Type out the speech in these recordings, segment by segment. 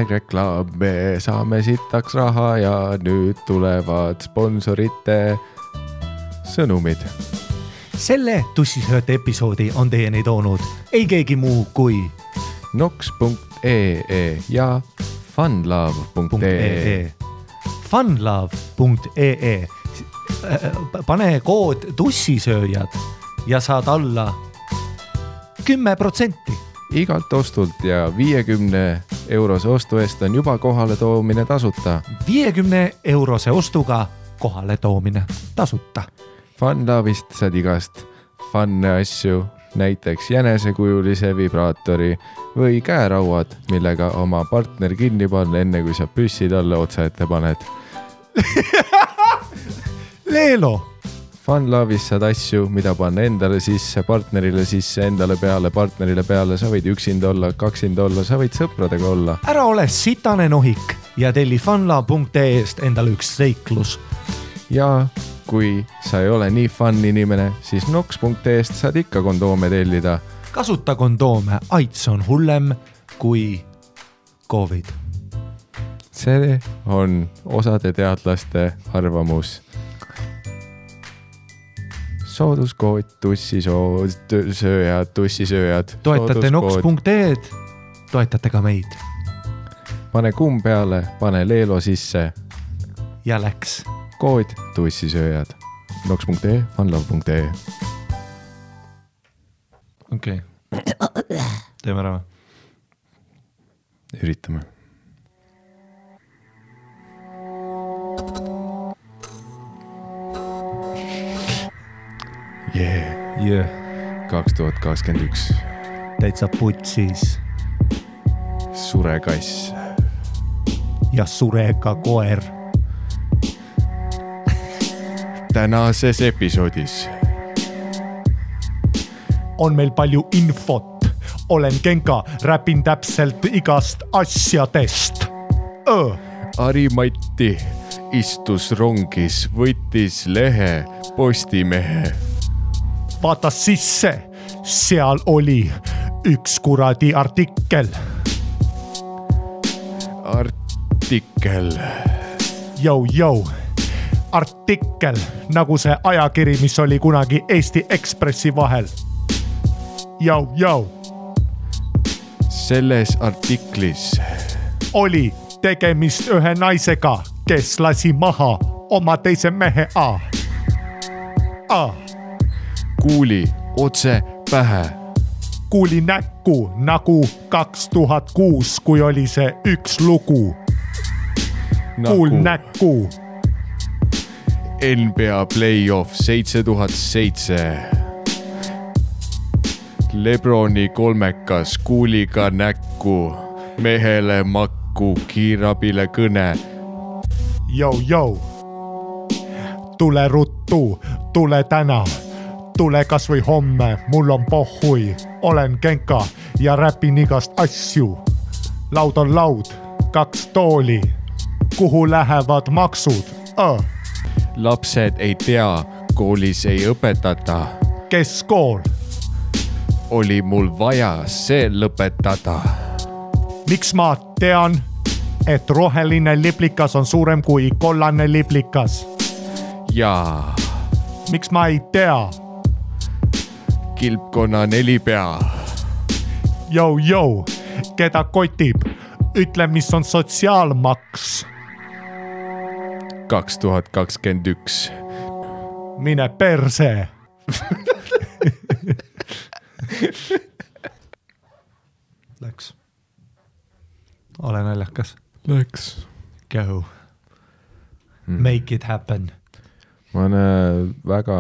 #reklaam, me saame sitaks raha ja nüüd tulevad sponsorite sõnumid. Selle tussisööte episoodi on teieni toonud ei keegi muu kui nox.ee ja funlove.ee. Funlove.ee. Pane kood tussisööjad ja saad alla 10%. Igalt ostult ja 50 eurose ostu eest on juba kohale toomine tasuta. 50 eurose ostuga kohale toomine tasuta. Funlove'ist saad igast funne asju, näiteks jänesekujulise vibraatori või käerauad, millega oma partner kinni panna enne kui sa püssi talle otsa ette paned. Leelo! Funlove'is saad asju, mida panna endale sisse, partnerile sisse, endale peale, partnerile peale. Sa võid üksinda olla, kaksinda olla, sa võid sõpradega olla. Ära ole sitane nohik ja telli funlove.ee-st endale üks seiklus. Ja kui sa ei ole nii fun inimene, siis nox.ee-st saad ikka kondoome tellida. Kasuta kondoome, AIDS on hullem kui COVID. See on osade teadlaste arvamus. Sooduskood tussisööjad. Toetate nox.ee-d, toetate ka meid. Pane kumm peale, pane Leelo sisse. Ja läks. Kood tussisööjad. nox.ee, funlove.ee. Okei. Teeme ära. Üritame. Yeah. 2021. Täitsa putsis. Sure kass. Ja surega koer. Tänases episoodis on meil palju infot. Olen Genka, räpin täpselt igast asjadest. Ari-Matti istus rongis, võttis lehe Postimehe. Vaata sisse, seal oli üks kuradi artikkel. Jou. Artikkel, nagu see ajakiri, mis oli kunagi Eesti Ekspressi vahel. Jou. Selles artiklis oli tegemist ühe naisega, kes lasi maha oma teise mehe kuuli otse pähe. Kuuli näkku nagu 2006, kui oli see üks lugu. Kuul näkku. NBA playoff 7007. Lebroni kolmekas kuuliga näkku. Mehele makku, kiirabile kõne. Jou. Tule ruttu, tule täna. Tule kas või homme, mul on pohhui. Olen Genka ja räpin igast asju. Laud on laud, 2 tooli. Kuhu lähevad maksud? Lapsed ei tea, koolis ei õpetata. Kes kool? Oli mul vaja see lõpetada. Miks ma tean, et roheline liplikas on suurem kui kollane liplikas? Jaa. Miks ma ei tea? Kilpkonna 4 pea. Jou, keda kotib? Ütle, mis on sotsiaalmaks. 2021. Mine perse. Läks. Ole naljakas. Läks. Go. Make it happen. Ma olen väga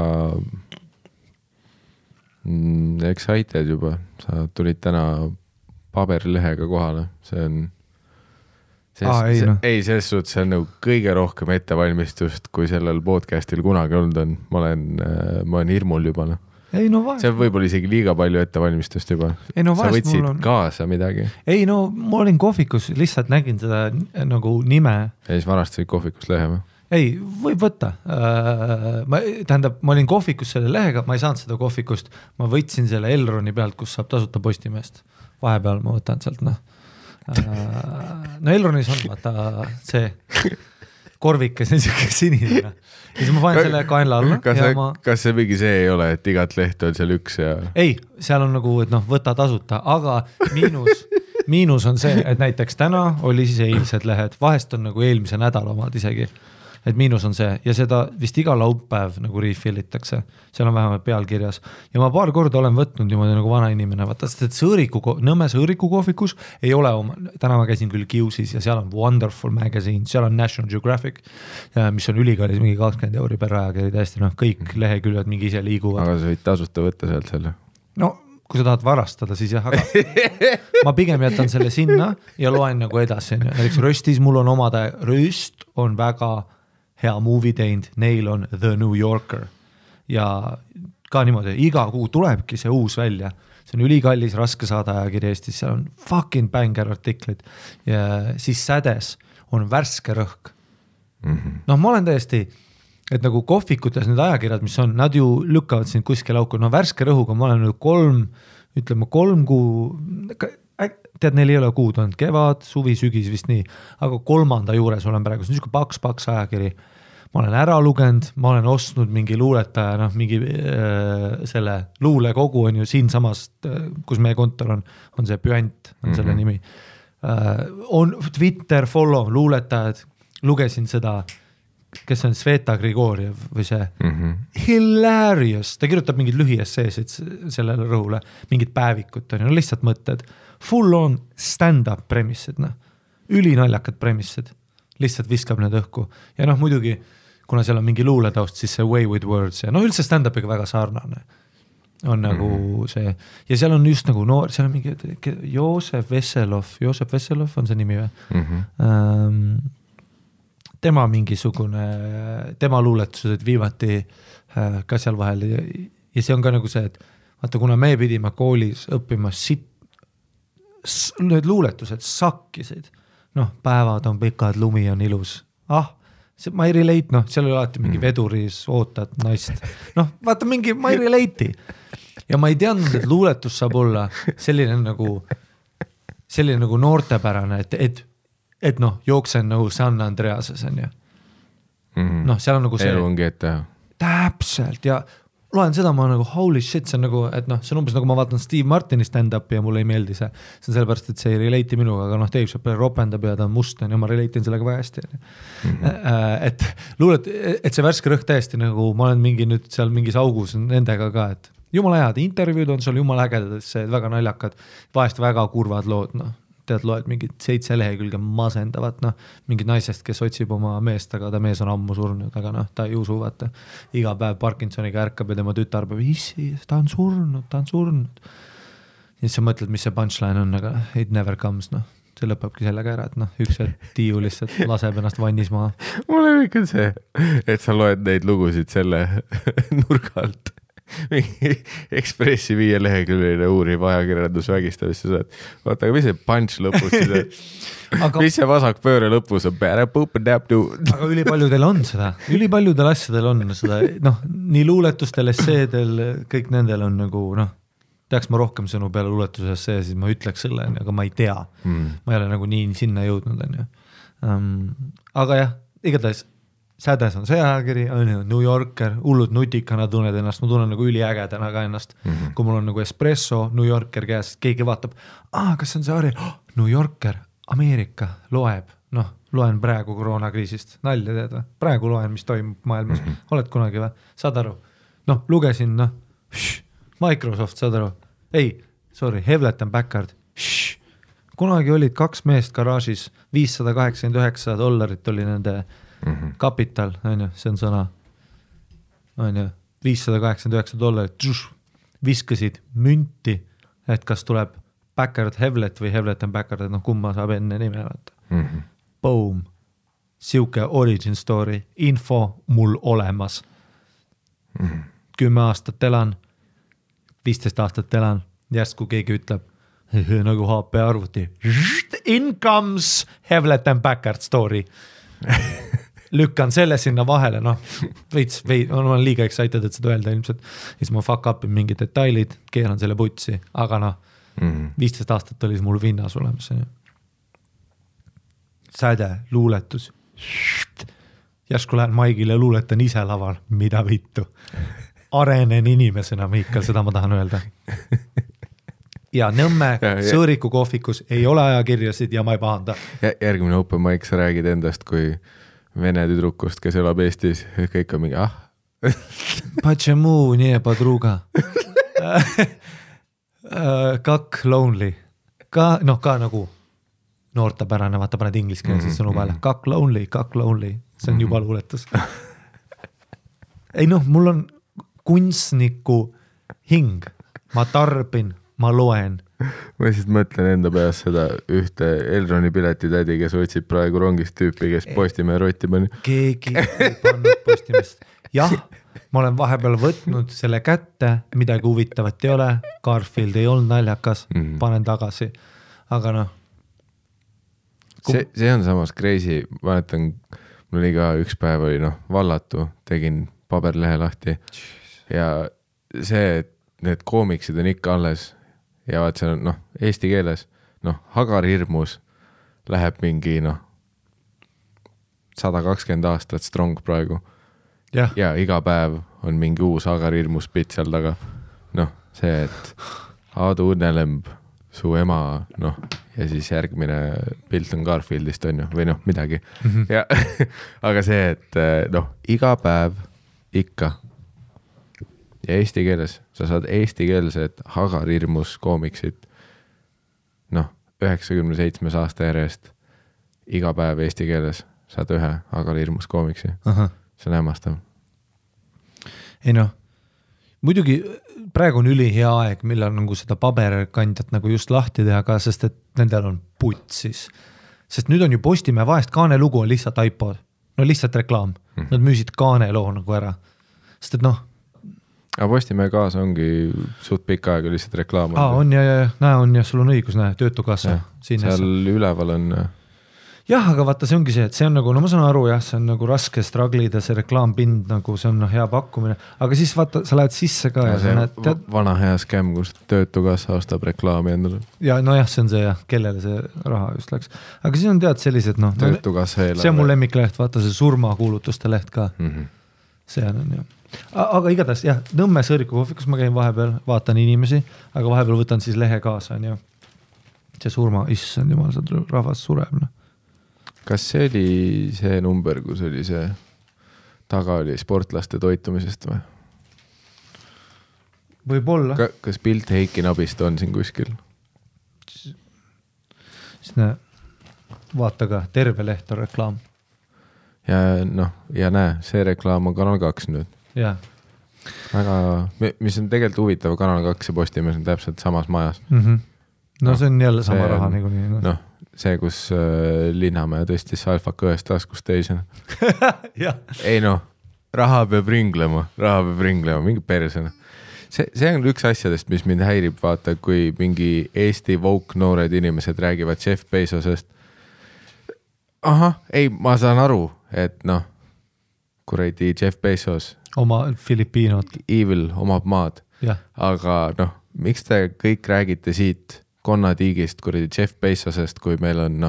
excited juba. Sa tulid täna paberilehega kohale. See on ei, selles suhtes see on nagu kõige rohkem ettevalmistust, kui sellel podcastil kunagi olnud on. Ma olen hirmul juba. Ei, no vahet. See on võib-olla isegi liiga palju ettevalmistust juba. Ei, no sa võtsid kaasa midagi. Ei, no ma olin kohvikus, lihtsalt nägin seda nagu nime. Ja siis varastasid kohvikust lehe või? Ei, võib võtta. Ma olin kohvikus selle lehega, ma ei saanud seda kohvikust. Ma võtsin selle Elroni pealt, kus saab tasuta Postimehest. Vahepeal ma võtan sealt, No Elronis on vaata see korvikes on siuke sinine ja siis ma panen selle kaenla alla. Kas see mingi see ei ole, et igat lehte on seal üks ja... Ei, seal on nagu, et noh, võta tasuta, aga miinus on see, et näiteks täna oli siis eilsed lehed, vahest on nagu eelmise nädala omad isegi. Et miinus on see ja seda vist iga laupäev nagu refillitakse, seal on vähemalt pealkirjas ja ma paar korda olen võtnud niimoodi nagu vana inimene, vaata, sest et Nõmme Sõõriku kohvikus ei ole oma, täna ma käisin küll Kiusis ja seal on Wonderful Magazine, seal on National Geographic, mis on ülikallis mingi 20 € per ajakiri, täiesti noh, kõik leheküljed mingi ise liiguvad. Aga sa võid tasuta võtta sealt selle? No, kui sa tahad varastada, siis jah, aga ma pigem jätan selle sinna ja loen nagu edasi. Näiteks Röstis mul on omade, Röst on väga hea movie teinud, neil on The New Yorker ja ka niimoodi, iga kuu tulebki see uus välja, see on ülikallis, raske saada ajakiri Eestis, seal on fucking banger artiklid ja siis Sädes on värske rõhk. Noh, ma olen täiesti, et nagu kohvikutes need ajakirjad, mis on, nad ju lükkavad sind kuskil auku, no värske rõhuga ma olen nüüd 3 kuu, tead, neil ei ole kuud olnud, kevad, suvi, sügis vist nii, aga 3. juures olen praegu, see on niisugune paks ajakiri, ma olen ära lugenud, ma olen ostnud mingi luuletaja, noh, mingi selle luulekogu on ju siin samast, kus meie kontor on see Püant, on selle nimi, on Twitter, follow, luuletajad, lugesin seda, kes on Sveta Grigorjev või see hilarious, ta kirjutab mingid lühiesseesid sellele rõhule, mingid päevikud, no lihtsalt mõtted, full on stand-up premissid, noh, ülinaljakad premissid, lihtsalt viskab need õhku ja noh, muidugi, kuna seal on mingi luuletaust, siis see way with words ja noh, üldse stand-upiga väga sarnane on nagu see ja seal on just nagu noor, seal on mingi Joosep Vesselov on see nimi või? Tema mingisugune, tema luuletused viimati ka seal vahel ja see on ka nagu see, et vaata, kuna me pidime koolis õppima need luuletused sakkisid, noh, päevad on pikad, lumi on ilus, ma ei relate, noh, seal oli alati mingi veduris ootad naist, noh, vaata mingi, ma ei relate'i ja ma ei teadnud, et luuletus saab olla selline nagu noortepärane, et noh, jooksen nagu San Andreases on ju. Noh, seal on nagu see. Elu ongi ette. Täpselt ja loen seda, ma nagu holy shit, see on nagu, et noh, see on umbes nagu ma vaatan Steve Martini stand-upi ja mulle ei meeldi see. See on sellepärast, et see ei relate'i minuga, aga noh, Dave Chappelle ropendab ja ta on must ja ma relate'in sellega väga hästi. Et luulet, et see värske rõhk täiesti nagu, ma olen mingi nüüd seal mingis augus nendega ka, et jumala head intervjuud on sul jumala ägedad, see väga naljakad, vahest väga kurvad lood, noh. Tead, loed mingid 7 lehekülge masendavat, noh, mingid naisest, kes otsib oma meest, aga ta mees on ammu surnud, aga noh, ta ei usu, vaata, iga päev Parkinsoniga ärkab ja tema tütar peab, issi, ta on surnud. Ja siis sa mõtled, mis see punchline on, aga it never comes, noh, see lõpebki sellega ära, et noh, üks tiiu lihtsalt laseb ennast vannis maha. Mulle ikka see, et sa loed neid lugusid selle nurga alt. Mingi Ekspressi 5 leheküljeline uuriv ajakirjandus vägistamist ja saad, vaata, aga mis see punch lõpus siis on? Mis see vasak pööre lõpus on? Aga ülipaljudel on seda, ülipaljudel asjadel on seda, noh, nii luuletustel, esseedel, kõik nendel on nagu, noh, teaks ma rohkem sõnu peale luuletuse essee, siis ma ütleks selle, aga ma ei tea. Ma ei ole nagu nii sinna jõudnud, on ju. Aga jah, igatahes Sädes on see ajakiri, New Yorker, hullud nutikana tunned ennast, ma tunnen nagu üliägedana ka ennast, kui mul on nagu espresso, New Yorker käes, keegi vaatab, kas see on see hari, New Yorker, Ameerika, loeb, noh, loen praegu koroonakriisist, nalja teed või, praegu loen, mis toimub maailmas, oled kunagi või, saad aru, noh, lugesin, noh, Microsoft, saad aru, Hewlett & Packard, kunagi olid 2 meest garaažis, $589 oli nende kapital, on ju, see on sõna, on ju, $589, viskasid münti, et kas tuleb Packard Hewlett või Hewlett & Packard, et noh, kumma saab enne nime vaata. Boom, siuke origin story, info mul olemas. 10 aastat elan, 15 aastat elan, järsku keegi ütleb, nagu HP arvuti, in comes Hewlett & Packard story. Lükkan selle sinna vahele, noh, ma olen liiga excited, et seda öelda ilmselt, siis ma fuck upin mingi detailid, keeran selle putsi, aga noh, 15 aastat oli mul vinnas olemas. säde, luuletus. Järsku lähen Maigile luuletan ise laval, mida vittu. Arenen inimesena, Miikal, seda ma tahan öelda. Ja Nõmme Sõõriku kohvikus ei ole ajakirjasid ja ma ei pahanda. Järgmine open mic, sa räägid endast kui vene tüdrukust, kes elab Eestis, kõik on mingi Почему не подруга? Как lonely? Ka nagu noortepärane, vaata paned ingliskeelses sõnu peale. Kak lonely. See on juba luuletus. Ei mul on kunstniku hing. Ma tarbin, ma loen. Ma siis mõtlen enda peas seda ühte Elroni piletitädi, kes otsib praegu rongist tüüpi, kes Postimehe rotti pani. Keegi ei pannud Postimest. Jah, ma olen vahepeal võtnud selle kätte, midagi huvitavat ei ole, Garfield ei olnud naljakas, panen tagasi, aga See on samas crazy, mäletan, mul oli ka üks päev oli vallatu, tegin paberlehe lahti ja see, et need koomiksid on ikka alles ja vaat see on eesti keeles, Hagar hirmus läheb mingi 120 aastat strong praegu ja iga päev on mingi uus Hagar hirmus pitt seal taga. See, et Aadu Õnnelemb, su ema, ja siis järgmine pilt on Garfieldist on ju, või midagi. Ja, aga see, et iga päev ikka ja eesti keeles, sa saad eestikeelsed Hagar hirmus koomiksid 97 aasta järjest iga päev eesti keeles saad ühe Hagar hirmus koomiksi. See on hämmastav. Ei muidugi praegu on üli hea aeg, millal seda paberkandjat just lahti teha ka, sest et nendel on putsis. Sest nüüd on ju Postimehe vahest Kaane lugu on lihtsalt iPod. Lihtsalt reklaam. Nad müüsid Kaane loo ära. Sest et Aga Postimehe kaasa ongi suht pikka aega lihtsalt reklaam. On ja sul on õigus, töötukassa. Seal üleval on... Jah, aga vaata, see ongi see, et see on ma saan aru, see on raske strugglida, see reklaampind, see on hea pakkumine, aga siis vaata, sa lähed sisse ka ja see vana hea skäm, kus töötukassa ostab reklaami endale. Ja see on see kellele see raha just läks. Aga siis on sellised, töötukassa eelarve. See on mul lemmikleht, vaata see surmakuulutuste leht ka. See on Aga igatahes, Nõmme Sõõriku kohvikus ma käin vahepeal, vaatan inimesi, aga vahepeal võtan siis lehe kaasa, on see surma, issand jumal, see rahvas sureb, Kas see oli see number, kus oli see taga oli sportlaste toitumisest või? Võib-olla. Kas pilt Heiki Nabist on siin kuskil? Siis vaata ka, terve leht on reklaam. Ja näe, see reklaam on Kanal 2 nüüd. Jah. Väga, mis on tegelikult huvitav, Kanal 2 ja Postimees on täpselt samas majas. See on jälle sama raha niikuinii. See, kus Linnamäe tõstis alfaka ühest taskust teisena. Ei raha peab ringlema, mingi persena. See on üks asjadest, mis mind häirib, vaata, kui mingi Eesti woke noored inimesed räägivad Jeff Bezosest. Ma saan aru, et kuradi Jeff Bezos. Oma Filipiinod. Evil omab maad. Aga miks te kõik räägite siit konnatiigist, kuradi Jeff Bezosest, kui meil on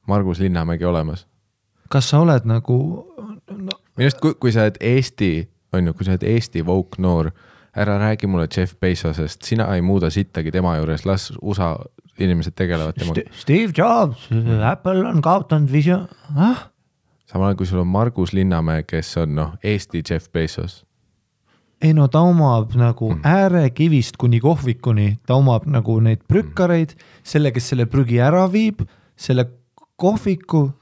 Margus Linnamägi olemas. Kas sa oled Minust, kui sa oled Eesti woke noor, ära räägi mulle Jeff Bezosest, sina ei muuda sittagi tema juures, las USA inimesed tegelevad temaga. Steve Jobs, Apple on kaotanud visioon. Samal ajal, kui sul on Margus Linnamäe, kes on Eesti Jeff Bezos. Ei ta omab äärekivist kuni kohvikuni, ta omab neid prükkareid, selle, kes selle prügi ära viib, selle kohviku,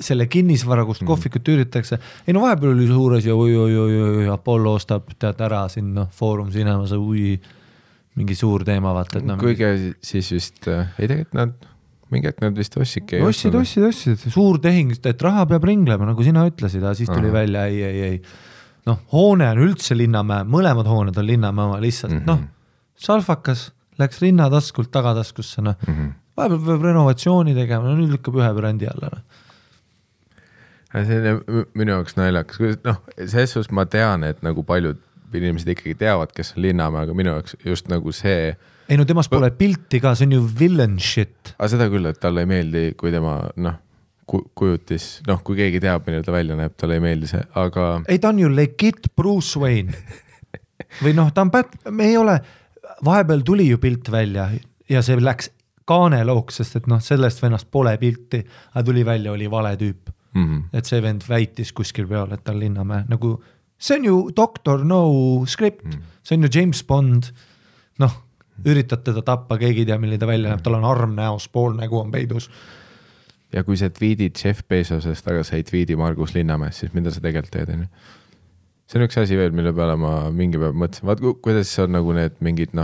selle kinnisvara, kust kohvikut üritatakse. Ei vahepeal oli suures ja Apollo ostab ära siin Foorum Cinemas, mingi suur teema, vaata. Kuigi siis vist, ei tegelikult mingi aeg nad vist ossidki. Ossid, suur tehing, et raha peab ringlema, nagu sina ütlesid, siis tuli välja, ei. Hoone on üldse Linnamäe, mõlemad hooned on Linnamäe oma lihtsalt, salfakas, läks rinnataskult tagataskusse, vahepeal peab renovatsiooni tegema, nüüd lükkab ühe brändi alla. See on minu jaoks naljakas, selles suhtes ma tean, et paljud inimesed ikkagi teavad, kes on Linnamäe, aga minu jaoks just nagu see. Ei no temast pole pilti ka, see on ju villain shit. Aga seda küll, et talle ei meeldi, kui tema kujutis, kui keegi teab, mille ta välja näeb, talle ei meeldi see, aga. Ei, ta on ju legit Bruce Wayne. Või ta on me ei ole, vahepeal tuli ju pilt välja ja see läks kaanelooks, sest et sellest vennast pole pilti, aga tuli välja, oli vale tüüp. Et see vend väitis kuskil peal, et ta on Linnamäe. Nagu, see on ju Dr. No script, see on ju James Bond, üritad teda tappa, keegi ei tea, milline ta välja näeb, tal on arm näos, pool nägu on peidus. Ja kui sa tweedid Jeff Bezosest, aga sa ei tweedi Margus Linnamäes, siis mida sa tegelikult teed? See on üks asi veel, mille peale ma mingi päev mõtlesin. Vaat kuidas on nagu need mingid,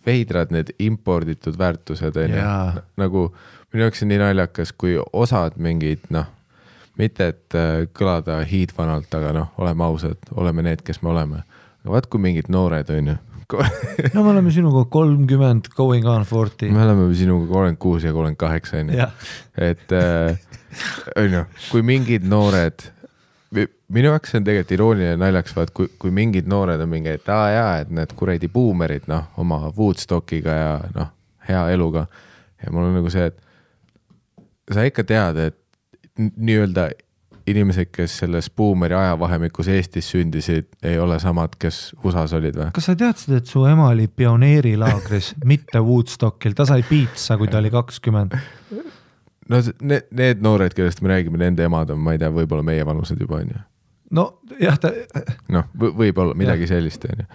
veidrad need imporditud väärtused. Nagu minu jaoks on nii naljakas, kui osad mingid, mitte et kõlada hiidvanalt, aga oleme ausad, oleme need, kes me oleme. Aga vaat kui mingid noored on ju. Me oleme sinuga 30, going on 40. Me oleme sinuga 36 ja 38 on ju. Et on ju, kui mingid noored, minu jaoks on tegelikult irooniline naljaks, vaat kui mingid noored on mingi, et et need kuredi buumerid oma Woodstockiga ja hea eluga. Ja mul on nagu see, et sa ikka tead, et nii-öelda inimesed, kes selles buumeri ajavahemikus Eestis sündisid, ei ole samad, kes USAs olid või? Kas sa teadsid, et su ema oli pioneerilaagris, mitte Woodstockil? Ta sai piitsa, kui ta oli 20. No need noored, kellest me räägime, nende emad on, ma ei tea, võib-olla meie vanused juba on ju. No jah, ta. Võib-olla midagi sellist on ju.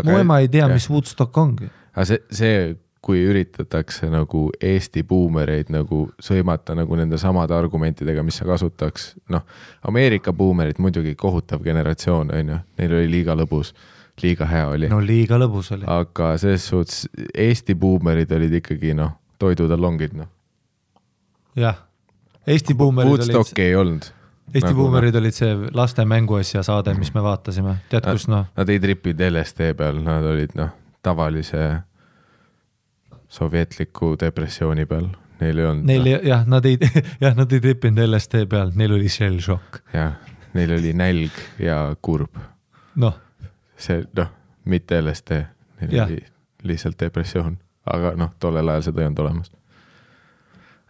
Mu ema ei tea, mis Woodstock ongi. Aga see kui üritatakse nagu Eesti buumereid nagu sõimata nagu nende samade argumentidega, mis sa kasutaks. Ameerika buumerid muidugi kohutav generatsioon, on ju. Neil oli liiga lõbus, liiga hea oli. No liiga lõbus oli. Aga selles suhtes Eesti buumerid olid ikkagi toidutallongid. Jah, Eesti buumerid Woodstocki ei olnud. Eesti buumerid olid see laste mänguasja saade, mis me vaatasime. Tead, kus Nad ei tripinud LSD peal, nad olid tavalise sovjetliku depressiooni peal. Neil ei olnud. Nad ei tripinud LSD peal, neil oli shell shock. Jah, neil oli nälg ja kurb. See, mitte LSD, neil oli lihtsalt depressioon. Aga tollel ajal seda ei olnud olemas.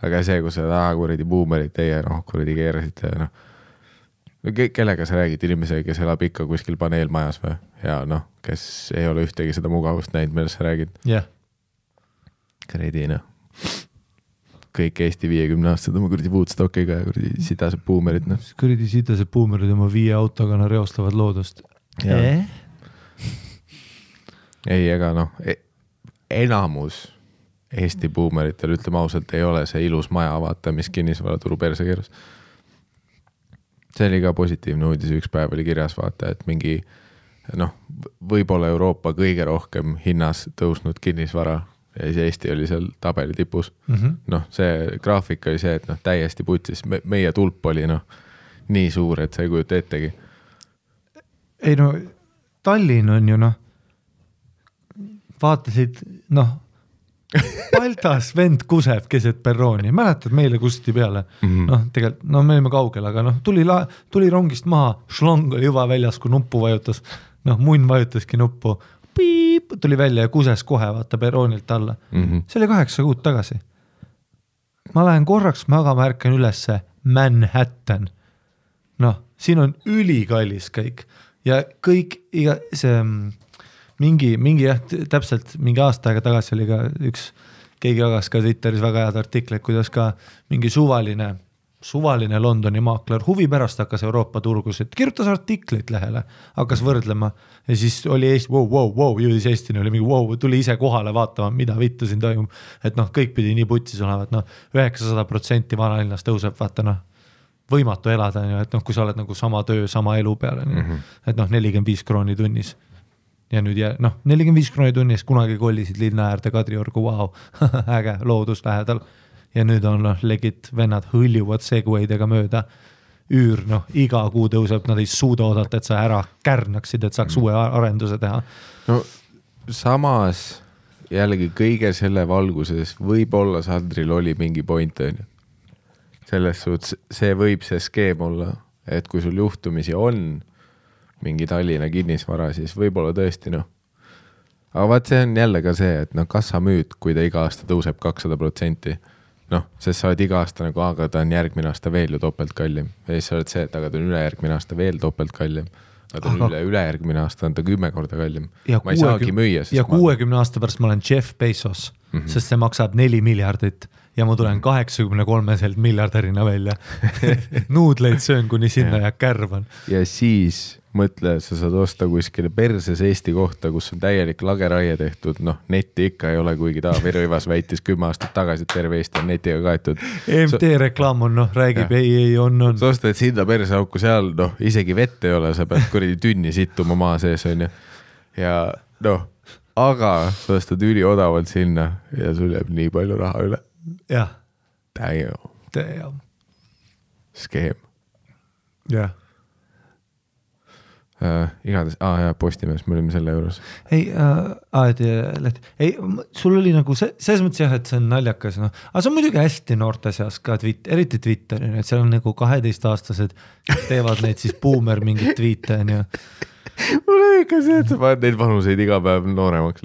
Aga see, kui sa kuradi buumerid teie kuradi keerasite, kellega sa räägid inimesega, kes elab ikka kuskil paneelmajas või? Ja kes ei ole ühtegi seda mugavust näinud, millest sa räägid. Jah. Kredi, kõik Eesti 50 aastad oma kuradi Woodstockiga ja kuradi sidased buumerid. Kuradi sidased buumerid oma 5 autoga reostavad loodust. Ei, ega enamus Eesti buumeritel, ütleme ausalt, ei ole see ilus maja vaata, mis kinnisvara turu perse keeras. See oli ka positiivne uudis, üks päev oli kirjas vaata, et mingi võib-olla Euroopa kõige rohkem hinnas tõusnud kinnisvara ja siis Eesti oli seal tabeli tipus. See graafik oli see, et täiesti putsis. Meie tulp oli nii suur, et sa ei kujuta ettegi. Ei Tallinn on ju vaatasid Paltas vend kuseb keset perrooni. Mäletad meile kusti peale? Tegelikult, me olime kaugel, aga tuli rongist maha, šlong oli juba väljas, kui nuppu vajutas. Munn vajutaski nuppu. Piip, tuli välja ja kuses kohe vaata perroonilt alla. See oli 8 kuud tagasi. Ma lähen korraks magama, ärkan ülesse Manhattan. Siin on ülikallis kõik. Ja kõik, see mingi täpselt mingi aasta aega tagasi oli ka keegi jagas ka Twitteris väga head artikleid, kuidas ka mingi suvaline Londoni maakler huvi pärast hakkas Euroopa turgusid, kirjutas artikleid lehele, hakkas võrdlema ja siis oli Eesti, jõudis Eestini, oli mingi tuli ise kohale vaatama, mida vittu siin toimub, et kõik pidi nii putsis olevat, 900% vanalinnas tõuseb, vaata võimatu elada, et kui sa oled nagu sama töö, sama elu peale, et 45 krooni tunnis. Ja nüüd 45 krooni tunnis kunagi kollisid linna äärde Kadriorgu, äge, loodus lähedal. Ja nüüd on legit vennad hõljuvad segwaydega mööda. Üür, iga kuu tõuseb, nad ei suuda oodata, et sa ära kärnaksid, et saaks uue arenduse teha. Samas jällegi kõige selle valguses võib-olla Sandril oli mingi point, on ju. Selles suhtes see võib see skeem olla, et kui sul juhtumisi on mingi Tallinna kinnisvara, siis võib-olla tõesti noh. Aga vaat see on jälle ka see, et noh, kas sa müüd, kui ta iga aasta tõuseb 200%, noh, sest sa oled iga aasta nagu, aga ta on järgmine aasta veel ju topelt kallim. Ja siis sa oled see, et aga ta on ülejärgmine aasta veel topelt kallim. Aga ta on ülejärgmine aasta on ta 10 korda kallim. Ma ei saagi müüa. Ja 60 aasta pärast ma olen Jeff Bezos, sest see maksab 4 miljardit ja ma tulen 83 miljardärina välja. Nuudleid söön, kuni sinna ja kärvan. Ja siis mõtle, sa saad osta kuskile perses Eesti kohta, kus on täielik lageraie tehtud, noh, netti ikka ei ole, kuigi Taavi Rõivas väitis 10 aastat tagasi, et terve Eesti on netiga kaetud. EMT reklaam on, noh, räägib, ei, on. Sa ostad sinna perseauku seal, noh, isegi vett ei ole, sa pead kuradi tünni sittuma maa sees, on ju. Ja noh, aga sa ostad üli odavalt sinna ja sul jääb nii palju raha üle. Jah. Damn. Skeem. Jah. Igatahes, Postimees, me olime selle juures. Ei, sul oli nagu selles mõttes jah, et see on naljakas, noh. Aga see on muidugi hästi noorte seas ka, eriti Twitteri, et seal on nagu 12-aastased, teevad neid siis boomer mingid tweete, on ju. Mul on ikka see, et sa paned neid vanuseid iga päev nooremaks.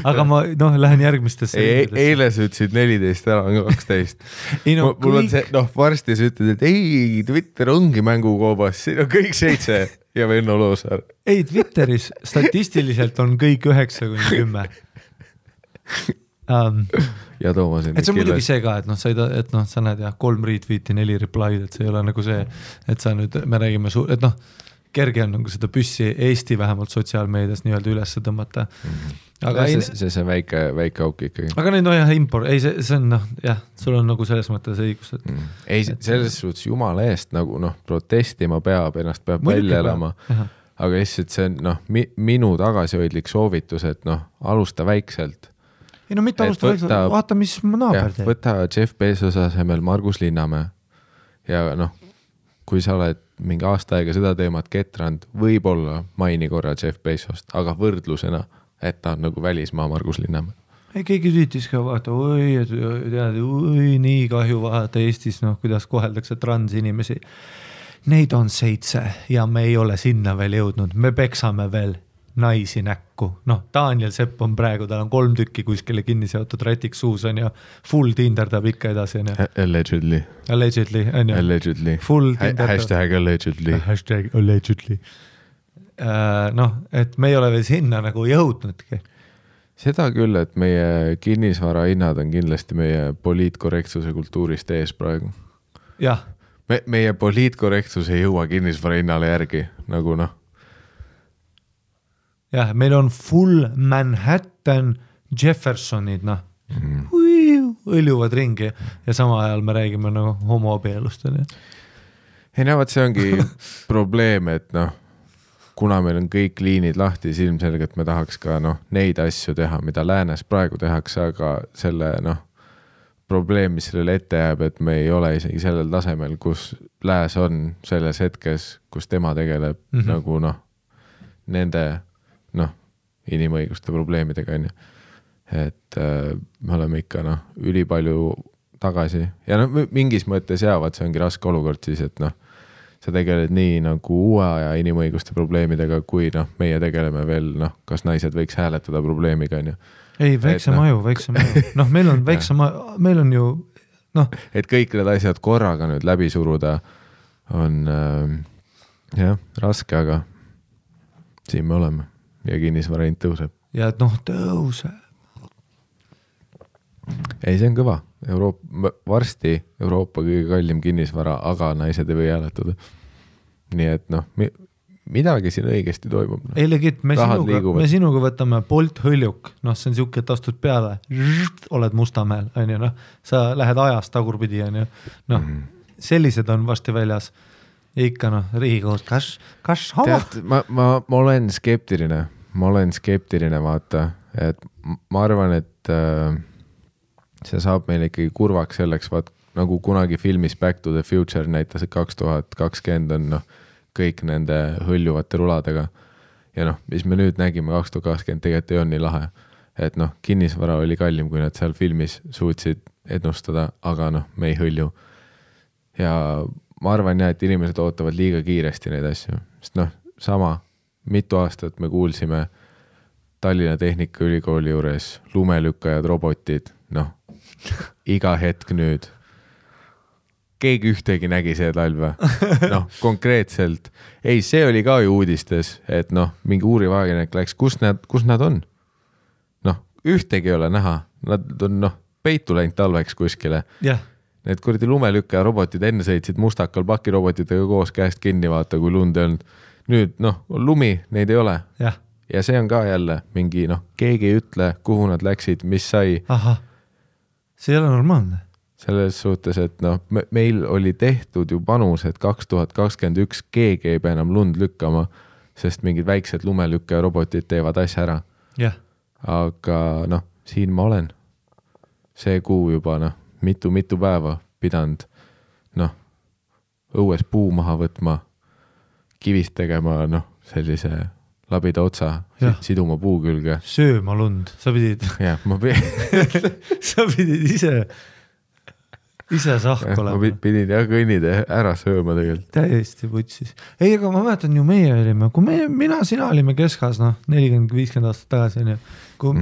Aga ma lähen järgmistesse. Eile sa ütlesid 14, ära on 12. Mul on see, varsti sa ütled, et ei, Twitter ongi mängukoobas, siin on kõik 7 ja Venno Loosaar. Ei, Twitteris statistiliselt on kõik 9-10. Ja Toomas on et see on muidugi see ka, et sa näed 3 retweeti, 4 reply'd, et see ei ole nagu see, et sa nüüd, me räägime et kerge on nagu seda püssi Eesti vähemalt sotsiaalmeedias nii-öelda üles tõmmata. Aga see on väike auk ikkagi. Aga neid see on sul on nagu selles mõttes õigus. Et... Ei, selles suhtes jumala eest nagu protestima peab, ennast peab välja elama. Aga lihtsalt see on minu tagasihoidlik soovitus, et alusta väikselt. Ei mitte alusta väikselt, vaata mis naaber teeb. Võta Jeff Bezos asemel Margus Linnamäe ja kui sa oled mingi aasta aega seda teemat ketrand, võib-olla maini korra Jeff Bezost, aga võrdlusena, et ta on nagu välismaa Margus Linnamäe. Ei, keegi tüütis ka vaata, nii kahju vaata Eestis, kuidas koheldakse transinimesi. Neid on 7 ja me ei ole sinna veel jõudnud, me peksame veel naisi näkku. Daniel Sepp on praegu, tal on 3 tükki kuskile kinni seotud rätiks suus on ja full tinderdab ikka edasi. Allegedly. On ju. Allegedly. Full tinderdab. Hashtag allegedly. Hashtag allegedly. Et me ei ole veel sinna nagu jõudnudki. Seda küll, et meie kinnisvara hinnad on kindlasti meie poliitkorrektsuse kultuurist ees praegu. Jah. Meie poliitkorrektsus ei jõua kinnisvara hinnale järgi, nagu Jah, meil on full Manhattan Jeffersonid, õljuvad ringi ja sama ajal me räägime homoabielust. Ei näevad, see ongi probleem, et kuna meil on kõik liinid lahti, siis ilmselgelt me tahaks ka neid asju teha, mida läänes praegu tehakse, aga selle probleem, mis sellele ette jääb, et me ei ole isegi sellel tasemel, kus lääs on selles hetkes, kus tema tegeleb nagu nende inimõiguste probleemidega on ju. Et me oleme ikka ülipalju tagasi ja mingis mõttes jäävad, see ongi raske olukord siis, et sa tegeled nii nagu uue aja inimõiguste probleemidega, kui meie tegeleme veel, kas naised võiks hääletada probleemiga on ju. Ei, väiksem aju. Meil on väiksem, meil on ju et kõik need asjad korraga nüüd läbi suruda on raske, aga siin me oleme. Ja kinnisvara hind tõuseb. Ja et tõuseb. Ei, see on kõva. Varsti Euroopa kõige kallim kinnisvara, aga naised ei või hääletada. Nii et midagi siin õigesti toimub. Ei legit, me sinuga võtame Bolt hõljuk. See on siuke, et astud peale, oled Mustamäel, on ju, sa lähed ajast tagurpidi, on ju. Sellised on varsti väljas. Ikka Riigikohus, kas homo? Ma olen skeptiline. Vaata, et ma arvan, et see saab meil ikkagi kurvaks selleks, nagu kunagi filmis Back to the Future näitas, et 2020 on kõik nende hõljuvate ruladega. Ja mis me nüüd nägime 2020 tegelikult ei on nii lahe. Et kinnisvara oli kallim, kui nad seal filmis suutsid ennustada, aga me ei hõlju. Ja ma arvan et inimesed ootavad liiga kiiresti neid asju. Sest sama, mitu aastat me kuulsime Tallinna Tehnikaülikooli juures lumelükkajad, robotid, noh, iga hetk nüüd. Keegi ühtegi nägi see talv või? Noh, konkreetselt. Ei, see oli ka ju uudistes, et noh, mingi uurivagenek läks, kus nad on? Noh, ühtegi ei ole näha. Nad on noh, peitu läinud talveks kuskile. Yeah. Need kuradi lumelükkaja robotid enne sõitsid mustakal pakirobotitega koos käest kinni vaata, kui lund ei olnud. Nüüd, noh, lumi, neid ei ole. Yeah. Ja see on ka jälle mingi, noh, keegi ei ütle, kuhu nad läksid, mis sai. Aha, see ei ole normaalne. Selles suhtes, et noh, meil oli tehtud ju panus, et 2021 keegi ei pea enam lund lükkama, sest mingid väiksed lumelükkaja robotid teevad asja ära. Yeah. Aga noh, siin ma olen. See kuu juba, noh, mitu päeva pidanud, noh, õues puu maha võtma, kivist tegema, noh, sellise labida otsa, siduma puu külge. Sööma lund, sa pidid. Jah, sa pidid ise sahk olema. Ma pidin jah kõnnida ära sööma tegelikult. Täiesti putsis. Ei, aga ma mäletan ju meie olime, kui sina olime keskas, noh, 40-50 aastat tagasi, on ju. Kui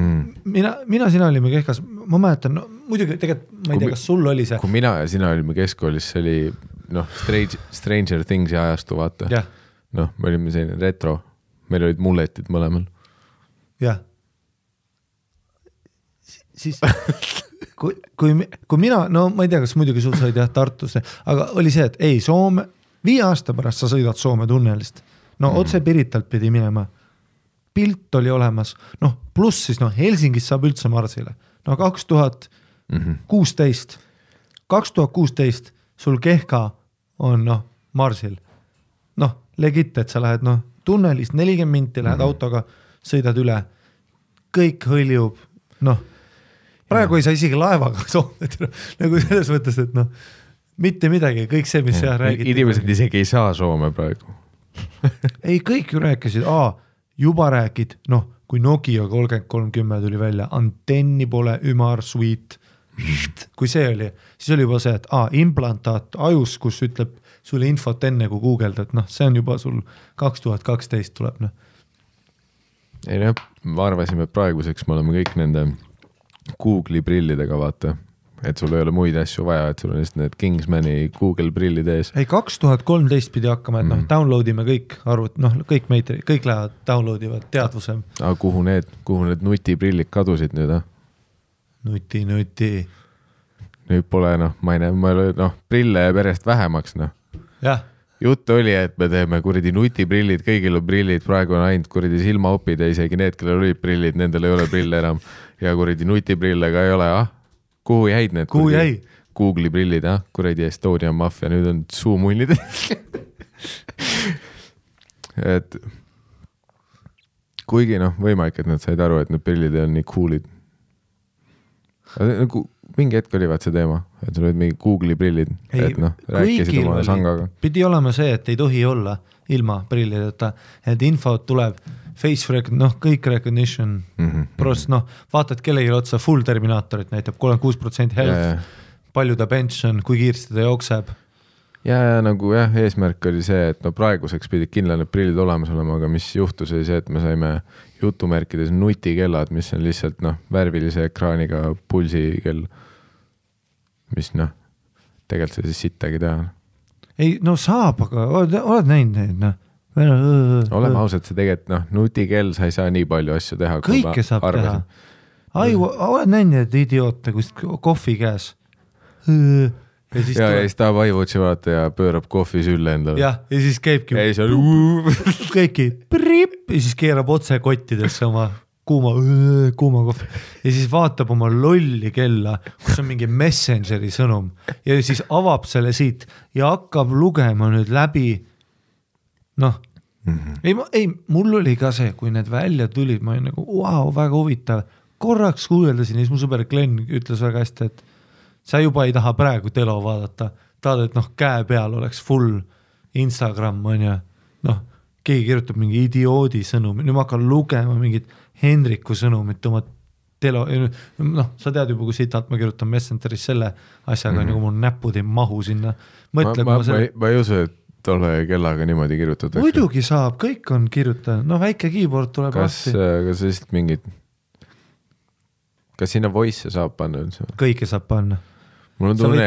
sina olime keskas, ma mäletan, no, muidugi tegelikult ma ei tea, kas sul oli see. Kui mina ja sina olime keskkoolis, see oli noh, Stranger Thingsi ajastu, vaata. Yeah. Noh, me olime selline retro, meil olid mulletid mõlemal. Jah. Siis, kui mina, no ma ei tea, kas muidugi sul said jah Tartusse, aga oli see, et ei, Soome, 5 aasta pärast sa sõidad Soome tunnelist. No otse Piritalt pidi minema. Pilt oli olemas. Noh, pluss siis, noh, Helsingis saab üldse Marsile. No 2016 sul Kehka on, noh, Marsil. Noh, legit, et sa lähed, noh, tunnelist 40 minti, lähed autoga, sõidad üle. Kõik hõljub, noh, praegu ei saa isegi laevaga Soome, nagu selles mõttes, et noh, mitte midagi, kõik see, mis seal räägiti. Inimesed isegi ei saa Soome praegu. Ei, kõik ju rääkisid, juba rääkid, noh, kui Nokia 3310 tuli välja, antenni pole, ümar, sweet, kui see oli, siis oli juba see, et implantaat ajus, kus ütleb sulle infot enne kui Googled, et noh, see on juba sul 2012 tuleb, noh. Ei noh, ma arvasime, et praeguseks me oleme kõik nende Google'i prillidega, vaata, et sul ei ole muid asju vaja, et sul on just need Kingsmani Google prillid ees. Ei, 2013 pidi hakkama, et noh, downloadime kõik arvut, noh, kõik lähevad downloadivad teadvuse. Aga kuhu need nutiprillid kadusid nüüd, Nuti. Nüüd pole, noh, ma ei näe, noh, prille jääb järjest vähemaks, noh. Jah. Jutt oli, et me teeme kuradi nutiprillid, kõigil on prillid, praegu on ainult kuradi silmaopid ja isegi need, kellel olid prillid, nendel ei ole prille enam ja kuradi nutiprillega ei ole, Kuhu jäid need? Kuhu jäi? Google'i prillid, kuradi Estonia Mafia, nüüd on suumunnid. Et kuigi noh, võimalik, et nad said aru, et need prillid on nii coolid. Mingi hetk oli vaat see teema, et sul olid mingi Google'i prillid, et noh, rääkisid oma sangaga. Pidi olema see, et ei tohi olla ilma prillideta, et info tuleb face recognition, noh, kõik recognition, prost, noh, vaatad kellegi otsa full Terminaatorit näitab 36% health, palju ta pension, kui kiirsti ta jookseb. Ja nagu jah, eesmärk oli see, et no praeguseks pidid kindla need prillid olemas olema, aga mis juhtus oli see, et me saime jutumärkides nutikellad, mis on lihtsalt noh, värvilise ekraaniga pulsikell, mis noh, tegelikult see siis sittagi teha. Ei, no saab, aga oled näinud neid, noh. Oleme ausad, see tegelikult, noh, nutikell sa ei saa nii palju asju teha. Kõike saab teha. Oled näinud need idioote, kus kohvi käes. Ja siis tahab iWatchi vaata ja pöörab kohvi sülle endale. Ja siis käibki. Kõiki prip ja siis keerab otse kottidesse oma kuuma kohvi. Ja siis vaatab oma lolli kella, kus on mingi Messengeri sõnum ja siis avab selle siit ja hakkab lugema nüüd läbi. Noh, ei, mul oli ka see, kui need välja tulid, ma olin nagu, wow, väga huvitav. Korraks kuueldasin ja siis mu sõber Glenn ütles väga hästi, et sa juba ei taha praegu telo vaadata. Tahad, et noh, käe peal oleks full Instagram, on ja noh, keegi kirjutab mingi idioodi sõnumi. Nüüd ma hakkan lugema mingit Henriku sõnumit oma telo. Noh, sa tead juba, kui sitalt ma kirjutan Messengeris selle asjaga, nagu mul näpud ei mahu sinna. Ma ei usu, et tolle kellaga niimoodi kirjutatakse? Muidugi saab, kõik on kirjutanud. No väike keyboard tuleb kas lihtsalt mingid... Kas sinna voice saab panna üldse? Kõike saab panna. Mul on tunne,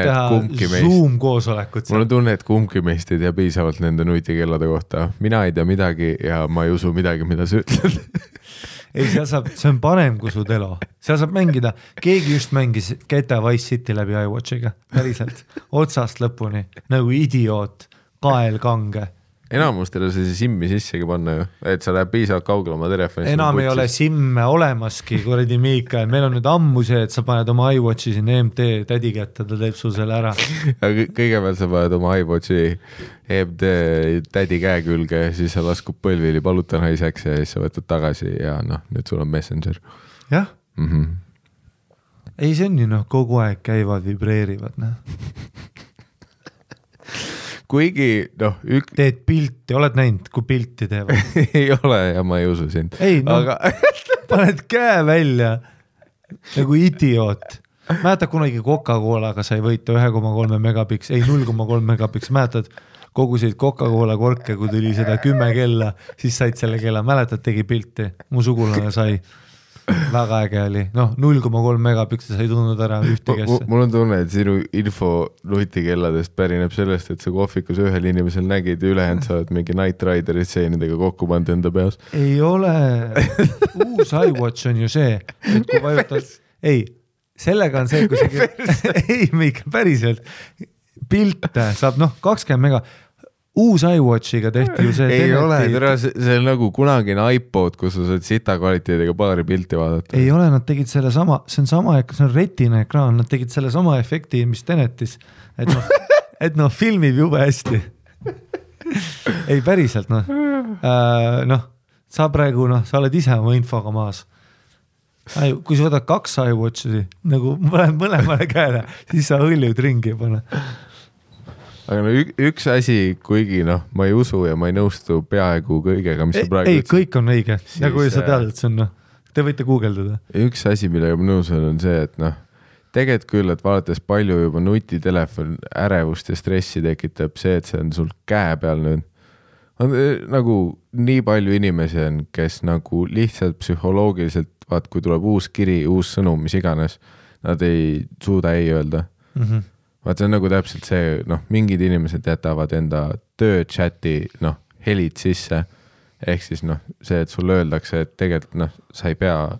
et kumbki meist ei tea piisavalt nende nutikellade kohta. Mina ei tea midagi ja ma ei usu midagi, mida sa ütled. Ei, see on parem kui su telo. Seal saab mängida. Keegi just mängis GTA Vice City läbi iWatchiga. Päriselt. Otsast lõpuni. Nagu idioot. Kael kange. Enamustele see simmi sissegi panna ju, et sa läheb piisavalt kaugele oma telefoni. Enam ei ole simme olemaski, kuradi Miikael. Meil on nüüd ammu see, et sa paned oma iWatchi siin EMT tädi kätte, ta teeb sul selle ära. Kõigepealt sa paned oma iWatchi EMT tädi käe külge, siis sa laskub põlvili paluta naiseks ja siis sa võtad tagasi ja nüüd sul on Messenger. Jah. Ei, see on ju kogu aeg käivad, vibreerivad. Kuigi, teed pilti, oled näinud, kui pilti teevad? Ei ole ja ma ei usu sind. Ei, aga... paned käe välja nagu idioot. Mäletad kunagi Coca-Colaga sai võita 1,3 megapiks, ei 0,3 megapiks, mäletad kogusid Coca-Cola korke, kui tuli seda 10 kella, siis said selle kella, mäletad, tegi pilti, mu sugulane sai. Väga äge oli. 0,3 megapiks sai tundnud ära ühtegesse. Mul on tunne, et sinu info nutikelladest pärineb sellest, et sa kohvikus ühel inimesel nägid ja ülejäänud saavad mingi Night Rideri stseenidega kokku pannud enda peas. Ei ole. Uus iWatch on ju see, et kui vajutad... Ei, sellega on see, kui see... Ei, Miika, päriselt. Pilte saab 20 mega... Uus iWatchiga tehti ju see... Ei ole, see on nagu kunagine iPod, kus sa saad sita kvaliteediga paari pilti vaadata. Ei ole, nad tegid selle sama, see on retina ekraan, nad tegid selle sama efekti, mis Tenetis, et filmib jube hästi. Ei, päriselt, sa praegu, sa oled ise oma infoga maas. Kui sa võtad 2 iWatchi, nagu mõlemale käele, siis sa hõljud ringi ja pane. Aga üks asi, kuigi ma ei usu ja ma ei nõustu peaaegu kõigega, mis sa praegu ütlesid. Ei, kõik on õige. Ja kui sa tead, et see on, te võite guugeldada. Üks asi, millega ma nõus on see, et tegelikult küll, et vaadates palju juba nutitelefon ärevust ja stressi tekitab see, et see on sul käe peal nüüd. On nagu nii palju inimesi on, kes nagu lihtsalt psühholoogiliselt, kui tuleb uus kiri, uus sõnum, mis iganes, nad ei suuda ei öelda. Vaat see on nagu täpselt see, mingid inimesed jätavad enda töö chati, helid sisse, ehk siis see, et sul öeldakse, et tegelikult sa ei pea,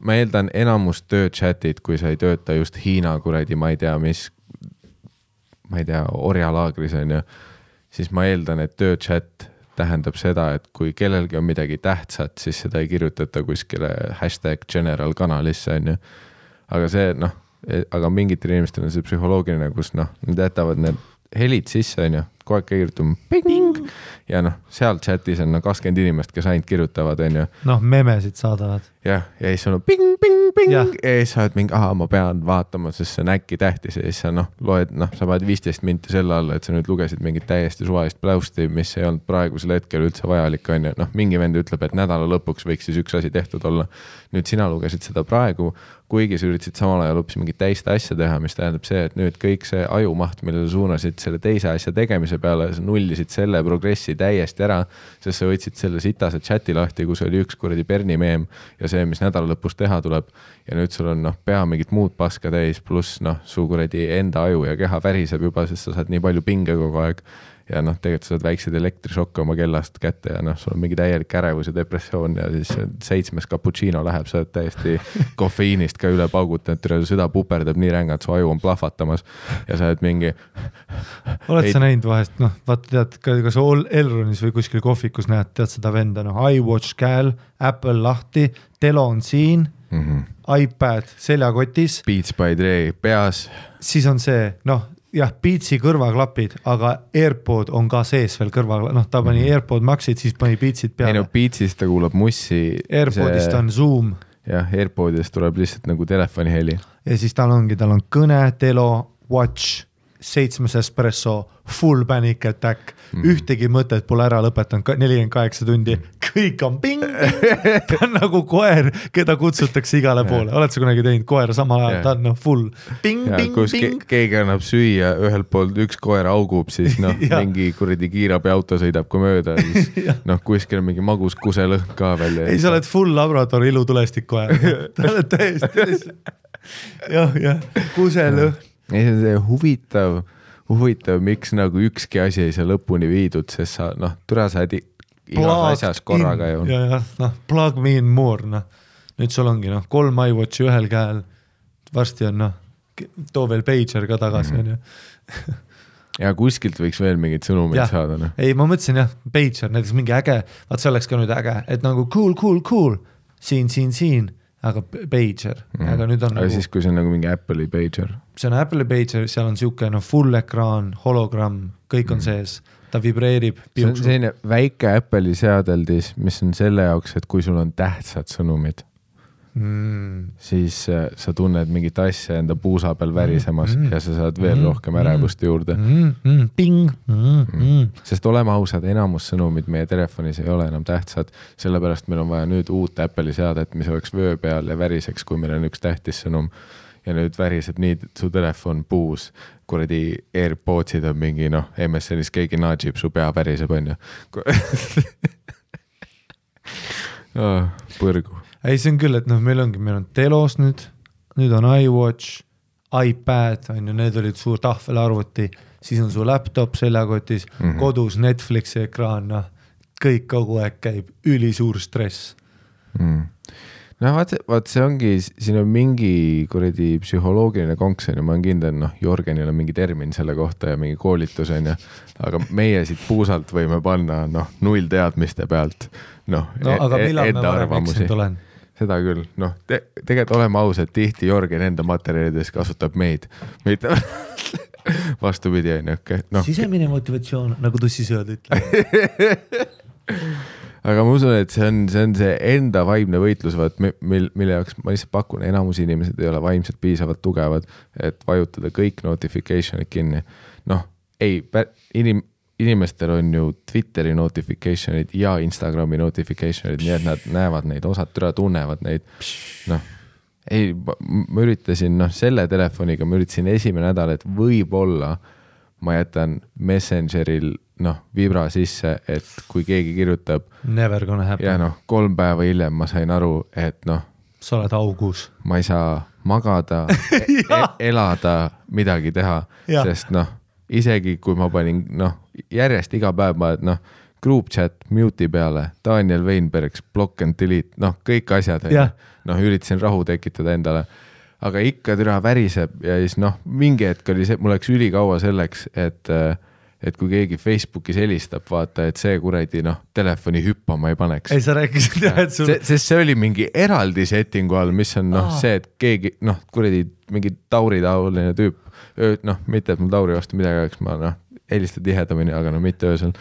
ma eeldan enamus töö chatid, kui sa ei tööta just Hiina kuradi, ma ei tea, orjalaagris on ju, siis ma eeldan, et töö chat tähendab seda, et kui kellelgi on midagi tähtsat, siis seda ei kirjutata kuskile #general kanalisse on ju, aga see, aga mingitel inimestel on see psühholoogiline, kus nad jätavad need helid sisse, on ju, kogu aeg kirjutama ping, ja seal chatis on 20 inimest, kes ainult kirjutavad, on ju. Memesid saadavad. Ja siis on ping, ja siis sa oled mingi, ma pean vaatama, sest see on äkki tähtis ja siis sa loed, sa paned 15 minti selle alla, et sa nüüd lugesid mingit täiesti suvalist pläusti, mis ei olnud praegusel hetkel üldse vajalik, on ju. Mingi vend ütleb, et nädala lõpuks võiks siis üks asi tehtud olla. Nüüd sina lugesid seda praegu, kuigi sa üritasid samal ajal hoopis mingit teist asja teha, mis tähendab see, et nüüd kõik see ajumaht, millele suunasid selle teise asja tegemise peale, sa nullisid selle progressi täiesti ära, sest sa võtsid selle sitase chati lahti, kus oli üks kuradi Berni meem ja see, mis nädala lõpus teha tuleb ja nüüd sul on pea mingit muud paska täis, pluss su kuradi enda aju ja keha väriseb juba, sest sa saad nii palju pinge kogu aeg ja tegelikult sa saad väiksed elektrišokke oma kellast kätte ja sul on mingi täielik ärevus ja depressioon ja siis 7. cappuccino läheb, sa oled täiesti kofeiinist ka üle paugutanud, su süda puperdab nii rängalt, su aju on plahvatamas ja sa oled mingi... Oled sa näinud vahest, vaata tead, kas Elronis või kuskil kohvikus näed, tead seda venda, iWatch käel, Apple lahti, telo on siin, iPad seljakotis. Beats by Dre peas. Siis on see, jah, Beatsi kõrvaklapid, aga AirPod on ka sees veel kõrvaklapid, ta pani AirPod Maxid, siis pani Beatsid peale. Ei Beatsist ta kuulab mussi. AirPodist on Zoom. Jah, AirPodist tuleb lihtsalt nagu telefoni heli. Ja siis tal on kõne, telo, watch, 7 espresso, full panic attack, ühtegi mõtet pole ära lõpetanud 48 tundi, kõik on ping, ta on nagu koer, keda kutsutakse igale poole, oled sa kunagi teinud koera sama ajal, ta on full ping, keegi annab süüa, ühelt poolt üks koer augub, siis mingi kuradi kiirabiauto sõidab kui mööda, siis kuskil on mingi magus kuselõhn ka välja. Ei, sa oled full labrador ilutulestik koer, ta oled täiesti jah, kuselõhn. Ei, see on see huvitav, miks nagu ükski asi ei saa lõpuni viidud, sest sa, türa sa igas asjas korraga ju. Plug me in more, nüüd sul ongi 3 iWatchi ühel käel, varsti on too veel pager ka tagasi. Ja kuskilt võiks veel mingid sõnumid saada. Ei, ma mõtlesin pager, näiteks mingi äge, vaat see oleks ka nüüd äge, et nagu cool, siin, aga pager, aga nüüd on aga siis, kui see on nagu mingi Apple'i pager. See on Apple'i pager, seal on siuke full ekraan, hologramm, kõik on sees, ta vibreerib. See on selline väike Apple'i seadeldis, mis on selle jaoks, et kui sul on tähtsad sõnumid, siis sa tunned mingit asja enda puusa peal värisemas ja sa saad veel rohkem ärevust juurde. Sest oleme ausad, enamus sõnumid meie telefonis ei ole enam tähtsad, sellepärast meil on vaja nüüd uut Apple'i seadet, mis oleks vöö peal ja väriseks, kui meil on üks tähtis sõnum ja nüüd väriseb nii su telefon puus, kuradi AirPodsid on mingi, MSN-is keegi naadžib, su pea väriseb, on ju. Põrgu. Ei, see on küll, et meil on telos nüüd on iWatch, iPad, on ju, need olid suur tahvelarvuti, siis on su laptop seljakotis, kodus Netflixi ekraan, kõik kogu aeg käib, ülisuur stress. Vaat see ongi, siin on mingi kuradi psühholoogiline konks, ma olen kindel, Jorgenil on mingi termin selle kohta ja mingi koolitus, aga meie siit puusalt võime panna 0 teadmiste pealt aga millal me varem eksinud olen? Seda küll, tegelikult oleme ausad, tihti Jorgen enda materjalides kasutab meid, mitte vastupidi, sisemine motivatsioon, nagu tussisööd ütleb. Aga ma usun, et see on see enda vaimne võitlus, mille jaoks ma lihtsalt pakun, enamus inimesed ei ole vaimselt piisavalt tugevad, et vajutada kõik notificationid kinni. Inimestel on ju Twitteri notificationid ja Instagrami notificationid, nii et nad näevad neid, osad tunnevad neid. Ma üritasin, selle telefoniga ma üritasin esimene nädal, et võib-olla ma jätan Messengeril vibra sisse, et kui keegi kirjutab never gonna happen. Ja 3 päeva hiljem ma sain aru, et sa oled augus. Ma ei saa magada, elada, midagi teha, sest isegi kui ma panin järjest iga päev ma group chat mute'i peale, Daniel Weinbergs, block and delete, kõik asjad, üritasin rahu tekitada endale, aga ikka türa väriseb ja siis mingi hetk oli see, mul läks ülikaua selleks, et kui keegi Facebookis helistab, vaata, et see kuradi telefoni hüppama ei paneks. Ei, sa rääkisid et sul... Sest see oli mingi eraldi settingu all, mis on see, et keegi, kuradi mingi tauritaoline tüüp, mitte et mul tauri vastu midagi oleks, ma helistan tihedamini, aga mitte öösel.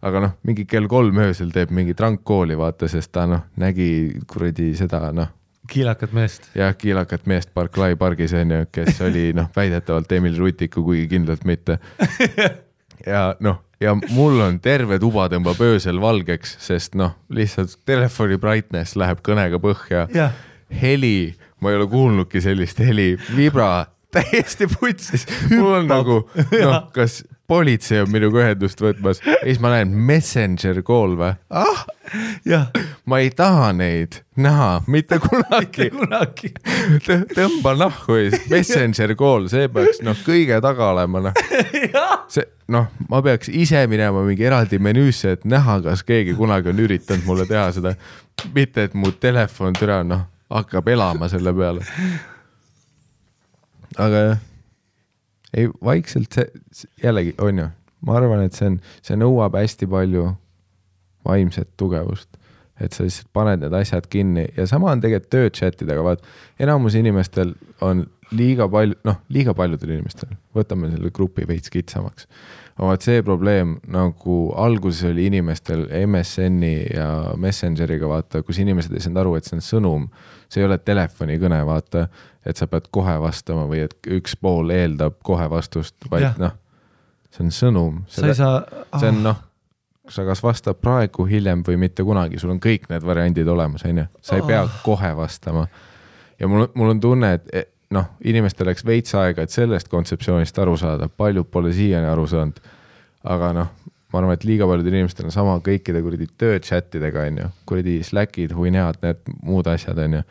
Aga mingi kell 3 öösel teeb mingi trankkooli, vaata, sest ta nägi kuradi seda, kiilakat meest. Jah, kiilakat meest Barclay pargis, kes oli väidetavalt Emil Rutiku, kuigi kindlalt mitte. Ja mul on terve tuba tõmbab öösel valgeks, sest lihtsalt telefoni brightness läheb kõnega põhja. Heli, ma ei ole kuulnudki sellist heli, vibra, täiesti putsis. Mul on nagu, kas politsei on minuga ühendust võtmas, ja siis ma näen Messenger call või? Ma ei taha neid näha, mitte kunagi. Tõmba nahku ees, Messenger call, see peaks kõige taga olema. Ma peaks ise minema mingi eraldi menüüsse, et näha, kas keegi kunagi on üritanud mulle teha seda, mitte et mu telefon türa hakkab elama selle peale. Aga ei, vaikselt see jällegi on ju, ma arvan, et see nõuab hästi palju vaimset tugevust, et sa lihtsalt paned need asjad kinni ja sama on tegelikult tööchatidega, vaat enamus inimestel on liiga paljudel inimestel, võtame selle grupi veits kitsamaks. Vaat see probleem, nagu alguses oli inimestel MSN-i ja Messengeriga, vaata, kus inimesed ei saanud aru, et see on sõnum, see ei ole telefonikõne, vaata, et sa pead kohe vastama või et üks pool eeldab kohe vastust, vaid noh, see on sõnum. See on sa kas vastab praegu, hiljem või mitte kunagi, sul on kõik need variandid olemas, on ju? Sa ei pea kohe vastama. Ja mul on tunne, et inimestel läks veits aega, et sellest kontseptsioonist aru saada, paljud pole siiani aru saanud, aga ma arvan, et liiga paljudel inimestel on sama kõikide kuradi tööchatidega, on ju, kuradi Slackid, huinead, need muud asjad, on ju,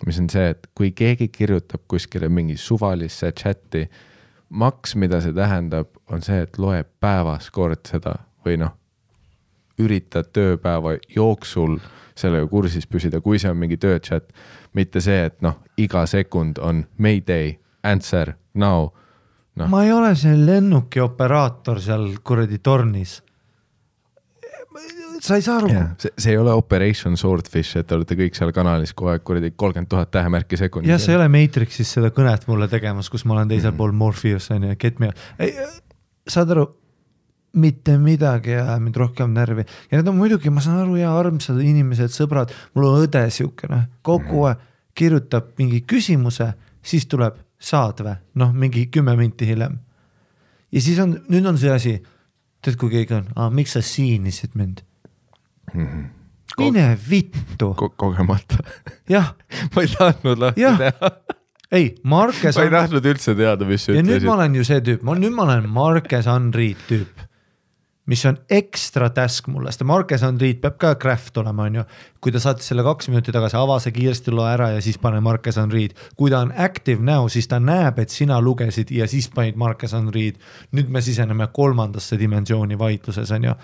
mis on see, et kui keegi kirjutab kuskile mingi suvalisse chati, maks, mida see tähendab, on see, et loeb päevas kord seda või üritad tööpäeva jooksul sellega kursis püsida, kui see on mingi tööchat, mitte see, et iga sekund on Mayday, answer, now. Ma ei ole see lennuki operaator seal kuradi tornis. Sa ei saa aru. See ei ole Operation Swordfish, et te olete kõik seal kanalis kogu aeg kuradi 30,000 tähemärki sekundis. Ja see ei ole Matrixis seda kõnet mulle tegemas, kus ma olen teisel pool Morpheus, on ju, get me. Saad aru, mitte midagi ja mind rohkem närvi. Ja need on muidugi, ma saan aru, ja armsad inimesed, sõbrad, mul on õde siukene, kogu aeg kirjutab mingi küsimuse, siis tuleb saadve, mingi 10 minti hiljem. Ja siis nüüd on see asi, tead kui keegi on, miks sa siinisid mind? Mine vittu. Kogemata. Jah. Ma ei tahtnud lahti teha. Ei, Marques ma ei tahtnud üldse teada, mis ja nüüd ma olen ju see tüüp, nüüd ma olen Marques Unread tüüp, mis on ekstra task mulle, sest Marques Unread peab ka craft olema, on ju. Kui ta saatis selle 2 minuti tagasi, avase kiiresti loe ära ja siis pane Marques Unread. Kui ta on active now, siis ta näeb, et sina lugesid ja siis panid Marques Unread. Nüüd me siseneme 3. dimensiooni vaidluses, on ju.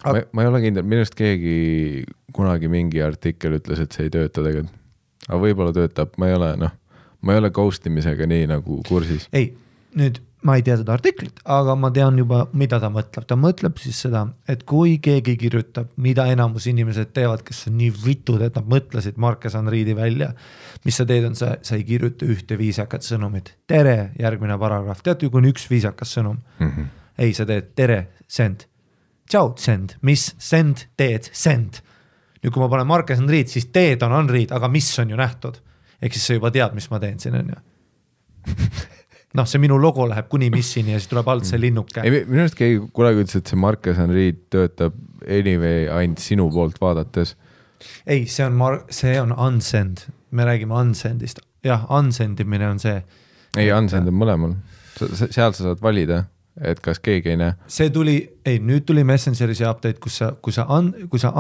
Ma ei ole kindel, minust keegi kunagi mingi artikkel ütles, et see ei tööta tegelikult. Aga võib-olla töötab, ma ei ole ghostimisega nii nagu kursis. Ei, nüüd ma ei tea seda artiklit, aga ma tean juba, mida ta mõtleb. Ta mõtleb siis seda, et kui keegi kirjutab, mida enamus inimesed teevad, kes on nii vitud, et nad mõtlesid Marques Unreadi välja, mis sa teed on, sa ei kirjuta ühte viisakat sõnumit. Tere, järgmine paragrahv. Tead ju, kui on üks viisakas sõnum? Ei, sa teed tere, send. Tšau, send. Mis? Send, teed, send. Nüüd kui ma panen Marques Unread, siis teed on Unread, aga mis on ju nähtud? Ehk siis sa juba tead, mis ma teen siin, on ju. See minu logo läheb kuni missini ja siis tuleb alt see linnuke. Minu arust keegi kunagi ütles, et see Marques Unread töötab anyway ainult sinu poolt vaadates. Ei, see on unsend. Me räägime unsendist. Jah, unsendimine on see. Ei, unsend on mõlemal. Seal sa saad valida, et kas keegi ei näe. See nüüd tuli Messengeri see update, kui sa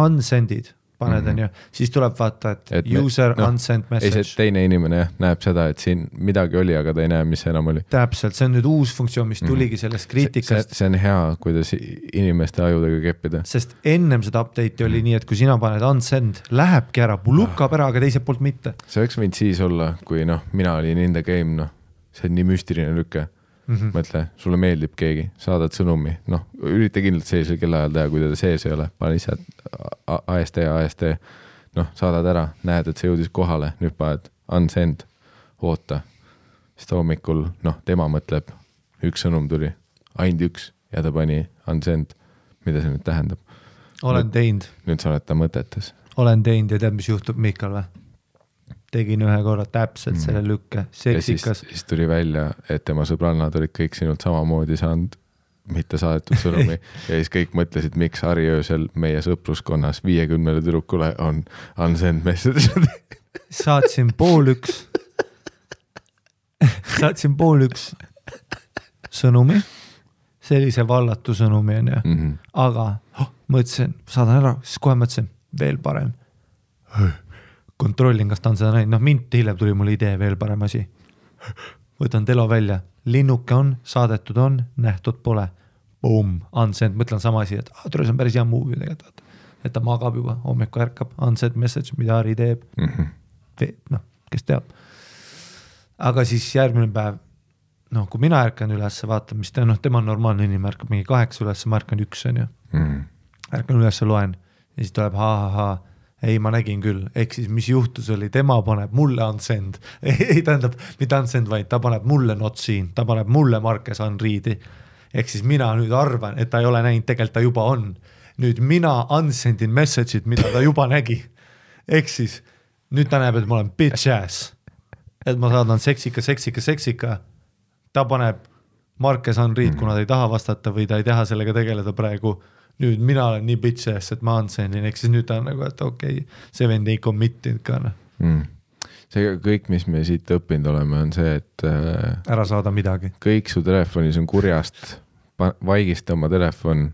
unsendid, paned on ju, siis tuleb vaata, et user unsend message. Ei, see teine inimene näeb seda, et siin midagi oli, aga ta ei näe, mis enam oli. Täpselt, see on nüüd uus funktsioon, mis tuligi sellest kriitikast. See on hea, kuidas inimeste ajudega keppida. Sest ennem seda update'i oli nii, et kui sina paned unsend, lähebki ära, lukkab ära, aga teiselt poolt mitte. See võiks võinud siis olla, kui mina olin in the game, see on nii müstiline lükke. Mõtle, sulle meeldib keegi, saadad sõnumi, ürita kindlalt sellisel kellaajal teha, kui teda sees ei ole, pane ise AST, saadad ära, näed, et see jõudis kohale, nüüd paned unsend, oota, siis ta hommikul, tema mõtleb, üks sõnum tuli, ainult üks ja ta pani unsend, mida see nüüd tähendab? Olen teinud. Nüüd sa oled ta mõtetes. Olen teinud ja tead, mis juhtub Mikal või? Tegin ühe korra täpselt selle lükke, seksikas. Ja siis tuli välja, et tema sõbrannad olid kõik sinult samamoodi saanud mitte saadetud sõnumi ja siis kõik mõtlesid, miks Harri öösel meie sõpruskonnas 50 tüdrukule on unsend message. Saatsin 12:30 sõnumi, sellise vallatu sõnumi on ju, aga mõtlesin, saadan ära, siis kohe mõtlesin, veel parem. Kontrollin, kas ta on seda näinud. Mint hiljem tuli mul idee, veel parem asi. Võtan telo välja. Linnuke on, saadetud on, nähtud pole. Boom, unsend. Mõtlen sama asi, et see on päris hea movie tegelikult. Et ta magab juba, hommiku ärkab. Unsend message, mida Harri teeb. Kes teab. Aga siis järgmine päev, kui mina ärkan üles, vaatan, mis tema on normaalne inimene, ärkab mingi 8 üles, ma ärkan 1 on ju. Ärkan üles, loen. ja siis tuleb ei, ma nägin küll, ehk siis mis juhtus oli, tema paneb mulle unsend, ei tähendab, mitte unsend, vaid ta paneb mulle not seen, ta paneb mulle Marques Henri'di, ehk siis mina nüüd arvan, et ta ei ole näinud, tegelikult ta juba on, nüüd mina unsendin message'id, mida ta juba nägi, ehk siis nüüd ta näeb, et ma olen bitch ass, et ma saadan seksika, ta paneb Marques Henri'd, kuna ta ei taha vastata või ta ei taha sellega tegeleda praegu, nüüd mina olen nii bitch ass, et ma unsendin, ehk siis nüüd ta on nagu, et okei, see vend ei commit'inud ka. See kõik, mis me siit õppinud oleme, on see, et ära saada midagi. Kõik su telefonis on kurjast, vaigista oma telefon,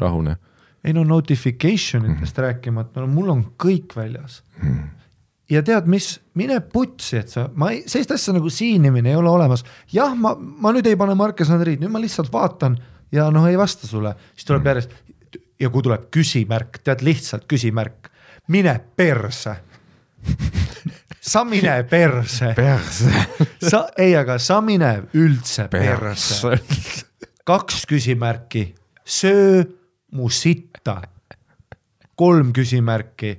rahune. Ei no notificationitest rääkimata, mul on kõik väljas. Ja tead mis, mine putsi, et sellist asja nagu siinimine ei ole olemas. Jah, ma nüüd ei pane Marques Henri'd, nüüd ma lihtsalt vaatan ja ei vasta sulle. Siis tuleb järjest, ja kui tuleb küsimärk, tead lihtsalt küsimärk, mine perse. Sa mine perse. Aga sa mine üldse perse. 2 küsimärki, söö mu sitta. 3 küsimärki,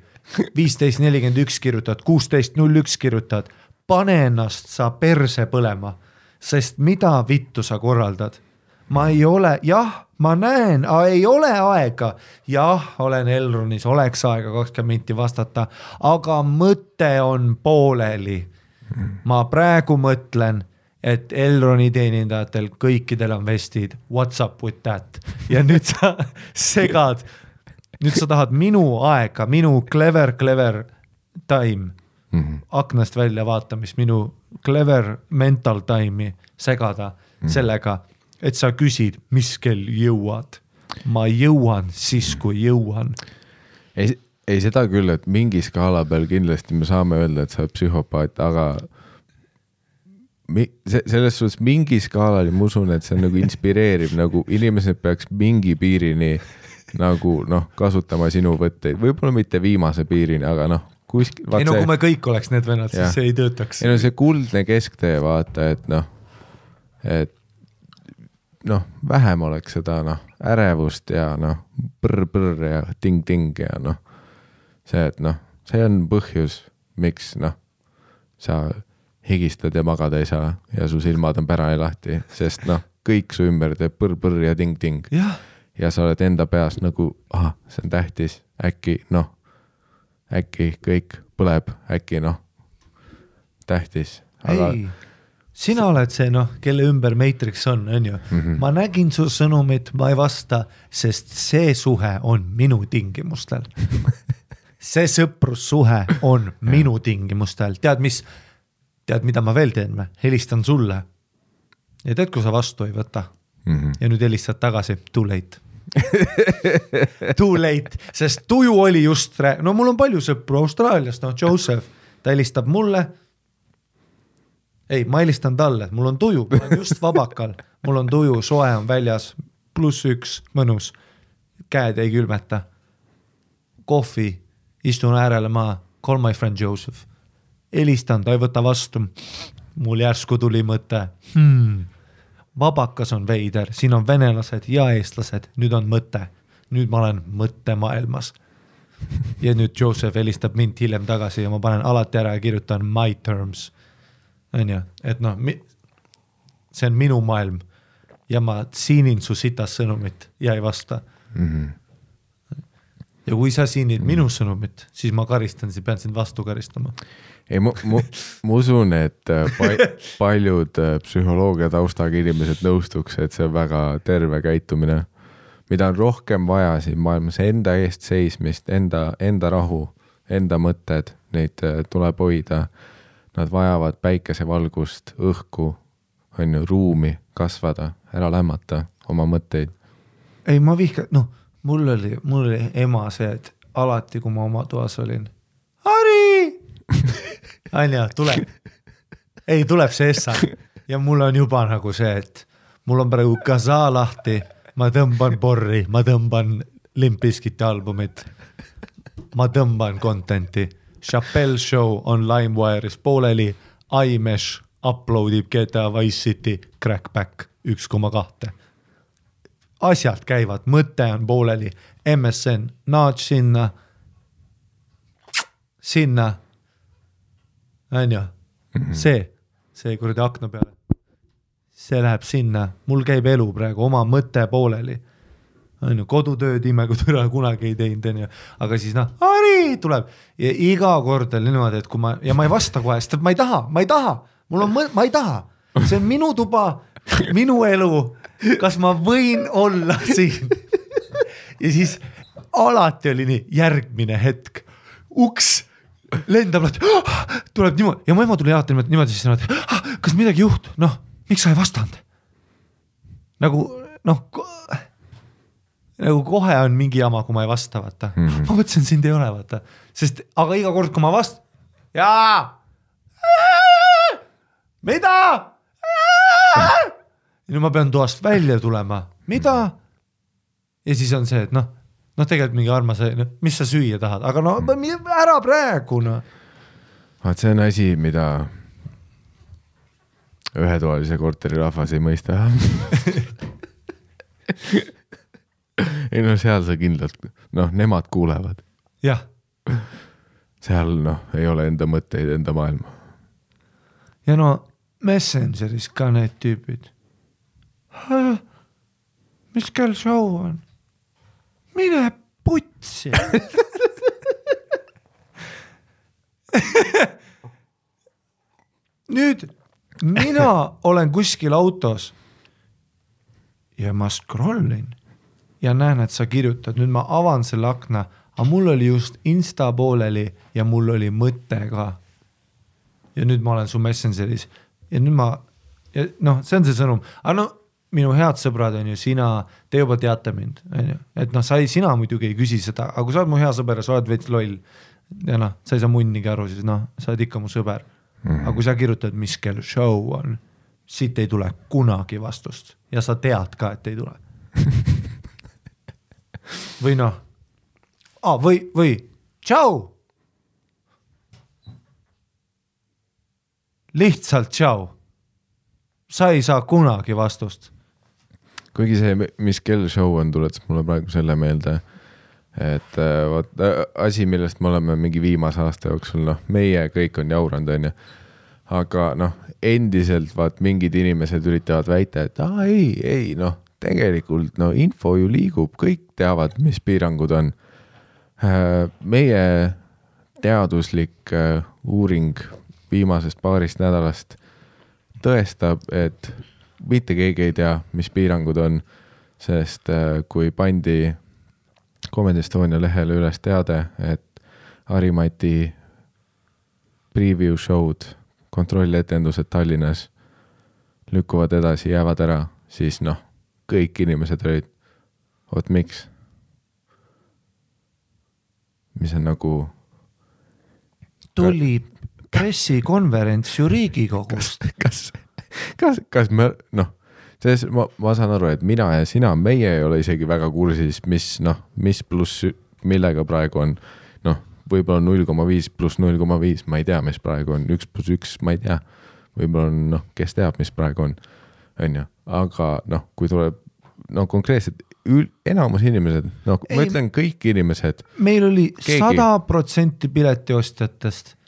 15.41 kirjutad, 16.01 kirjutad, pane ennast sa perse põlema, sest mida vittu sa korraldad? Ma ei ole, jah, ma näen, ei ole aega, jah, olen Elronis, oleks aega 20 minti vastata, aga mõte on pooleli. Ma praegu mõtlen, et Elroni teenindajatel kõikidel on vestid, what's up with that? Ja nüüd sa segad, nüüd sa tahad minu aega, minu clever time, aknast välja vaatamist, minu clever mental time'i segada sellega, et sa küsid, mis kell jõuad. Ma jõuan siis, kui jõuan. Ei seda küll, et mingi skaala peal kindlasti me saame öelda, et sa oled psühhopaat, aga selles suhtes mingi skaalal ma usun, et see nagu inspireerib, nagu inimesed peaks mingi piirini nagu kasutama sinu võtteid, võib-olla mitte viimase piirini, aga kuskil. Ei kui me kõik oleks need vennad, siis see ei töötaks. Ei see kuldne kesktee vaata, et vähem oleks seda ärevust ja põrr ja ting ja see, et see on põhjus, miks sa higistad ja magada ei saa ja su silmad on pärani lahti, sest kõik su ümber teeb põrr ja ting ja sa oled enda peas nagu, see on tähtis, äkki kõik põleb, äkki tähtis, aga ei. Sina oled see, kelle ümber Matrix on ju. Ma nägin su sõnumit, ma ei vasta, sest see suhe on minu tingimustel. See sõprussuhe on minu tingimustel. Tead, mida ma veel teen? Helistan sulle. Ja tead, kui sa vastu ei võta. Ja nüüd helistad tagasi. Too late. Too late, sest tuju oli just mul on palju sõpru Austraaliast, Joseph, ta helistab mulle. Ei, ma helistan talle, mul on tuju, ma olen just vabakal, mul on tuju, soe on väljas, +1, mõnus, käed ei külmeta, kohvi, istun äärele maa, call my friend Joseph, helistan, ta ei võta vastu, mul järsku tuli mõte, vabakas on veider, siin on venelased ja eestlased, nüüd on mõte, nüüd ma olen mõttemaailmas. Ja nüüd Joseph helistab mind hiljem tagasi ja ma panen alati ära ja kirjutan my terms. Et see on minu maailm ja ma siinin su sitas sõnumit ja ei vasta. Ja kui sa siinid minu sõnumit, siis ma karistan, siis pean sind vastu karistama. Ei, ma usun, et paljud psühholoogia taustaga inimesed nõustuks, et see on väga terve käitumine, mida on rohkem vaja siin maailmas, enda eest seismist, enda rahu, enda mõtted, neid tuleb hoida. Nad vajavad päikesevalgust, õhku, ruumi kasvada, ära lämmata oma mõtteid. Ei, ma mul oli ema see, et alati, kui ma oma toas olin, Harri! Anja, tuleb. Ei, tuleb see essa. Ja mul on juba nagu see, et mul on praegu kasa lahti, ma tõmban porri, ma tõmban Limp Bizkiti albumit, ma tõmban contenti. Chappelle Show on LimeWire'is pooleli, iMesh uploadib GTA Vice City Crackback 1,2. asjad käivad, mõte on pooleli, MSN, nudge sinna, on ju, see kuradi akna peale, see läheb sinna, mul käib elu praegu, oma mõte pooleli, on ju, kodutööd ime, kui türa kunagi ei teinud, on ju, aga siis Ari tuleb ja iga kord on niimoodi, et kui ma ei vasta kohe, sest ma ei taha, ma ei taha, see on minu tuba, minu elu, kas ma võin olla siin ja siis alati oli nii, järgmine hetk, uks lendab, tuleb niimoodi ja mu ema tuli alati niimoodi siis niimoodi, kas midagi juht, miks sa ei vastanud? Nagu kohe on mingi jama, kui ma ei vasta, vaata. Ma mõtlesin, sind ei ole, vaata. Sest, aga iga kord, kui ma vast... Mida? Ja nüüd ma pean toast välja tulema. Mida? Ja siis on see, et tegelikult mingi armas, mis sa süüa tahad? Aga ära praegu, Vaat see on asi, mida ühetoalise korteri rahvas ei mõista. Ei seal sa kindlalt, nemad kuulevad. Jah. Seal ei ole enda mõtteid, enda maailma. Ja Messengeris ka need tüübid. Mis kell show on? Mine putsi. Nüüd mina olen kuskil autos ja ma scrollin ja näen, et sa kirjutad. Nüüd ma avan selle akna, aga mul oli just Insta pooleli ja mul oli mõte ka. Ja nüüd ma olen su Messengeris ja nüüd see on see sõnum. Aga minu head sõbrad on ju sina, te juba teate mind, on ju. Et sina muidugi ei küsi seda, aga kui sa oled mu hea sõber ja sa oled veits loll ja sa ei saa munnigi aru, siis sa oled ikka mu sõber. Aga kui sa kirjutad, mis kell show on, siit ei tule kunagi vastust ja sa tead ka, et ei tule. Või tšau. Lihtsalt tšau. Sa ei saa kunagi vastust. Kuigi see, mis kell show on, tuletas mulle praegu selle meelde, et asi, millest me oleme mingi viimase aasta jooksul, meie kõik on jauranud, on ju. Aga endiselt mingid inimesed üritavad väita, et ei, tegelikult info ju liigub, kõik teavad, mis piirangud on. Meie teaduslik uuring viimasest paarist nädalast tõestab, et mitte keegi ei tea, mis piirangud on, sest kui pandi Comedy Estonia lehele üles teade, et Harimati preview show'd, kontrolletendused Tallinnas lükkuvad edasi, jäävad ära, siis kõik inimesed olid, miks? Mis on tuli pressikonverents ju Riigikogust. Kas me, ma saan aru, et mina ja sina, meie ei ole isegi väga kursis, mis pluss millega praegu on, võib-olla 0,5 pluss 0,5, ma ei tea, mis praegu on, 1 pluss 1, ma ei tea, võib-olla on, kes teab, mis praegu on, aga kui tuleb, konkreetselt enamus inimesed, ma ütlen kõik inimesed. Meil oli 100% piletiostjatest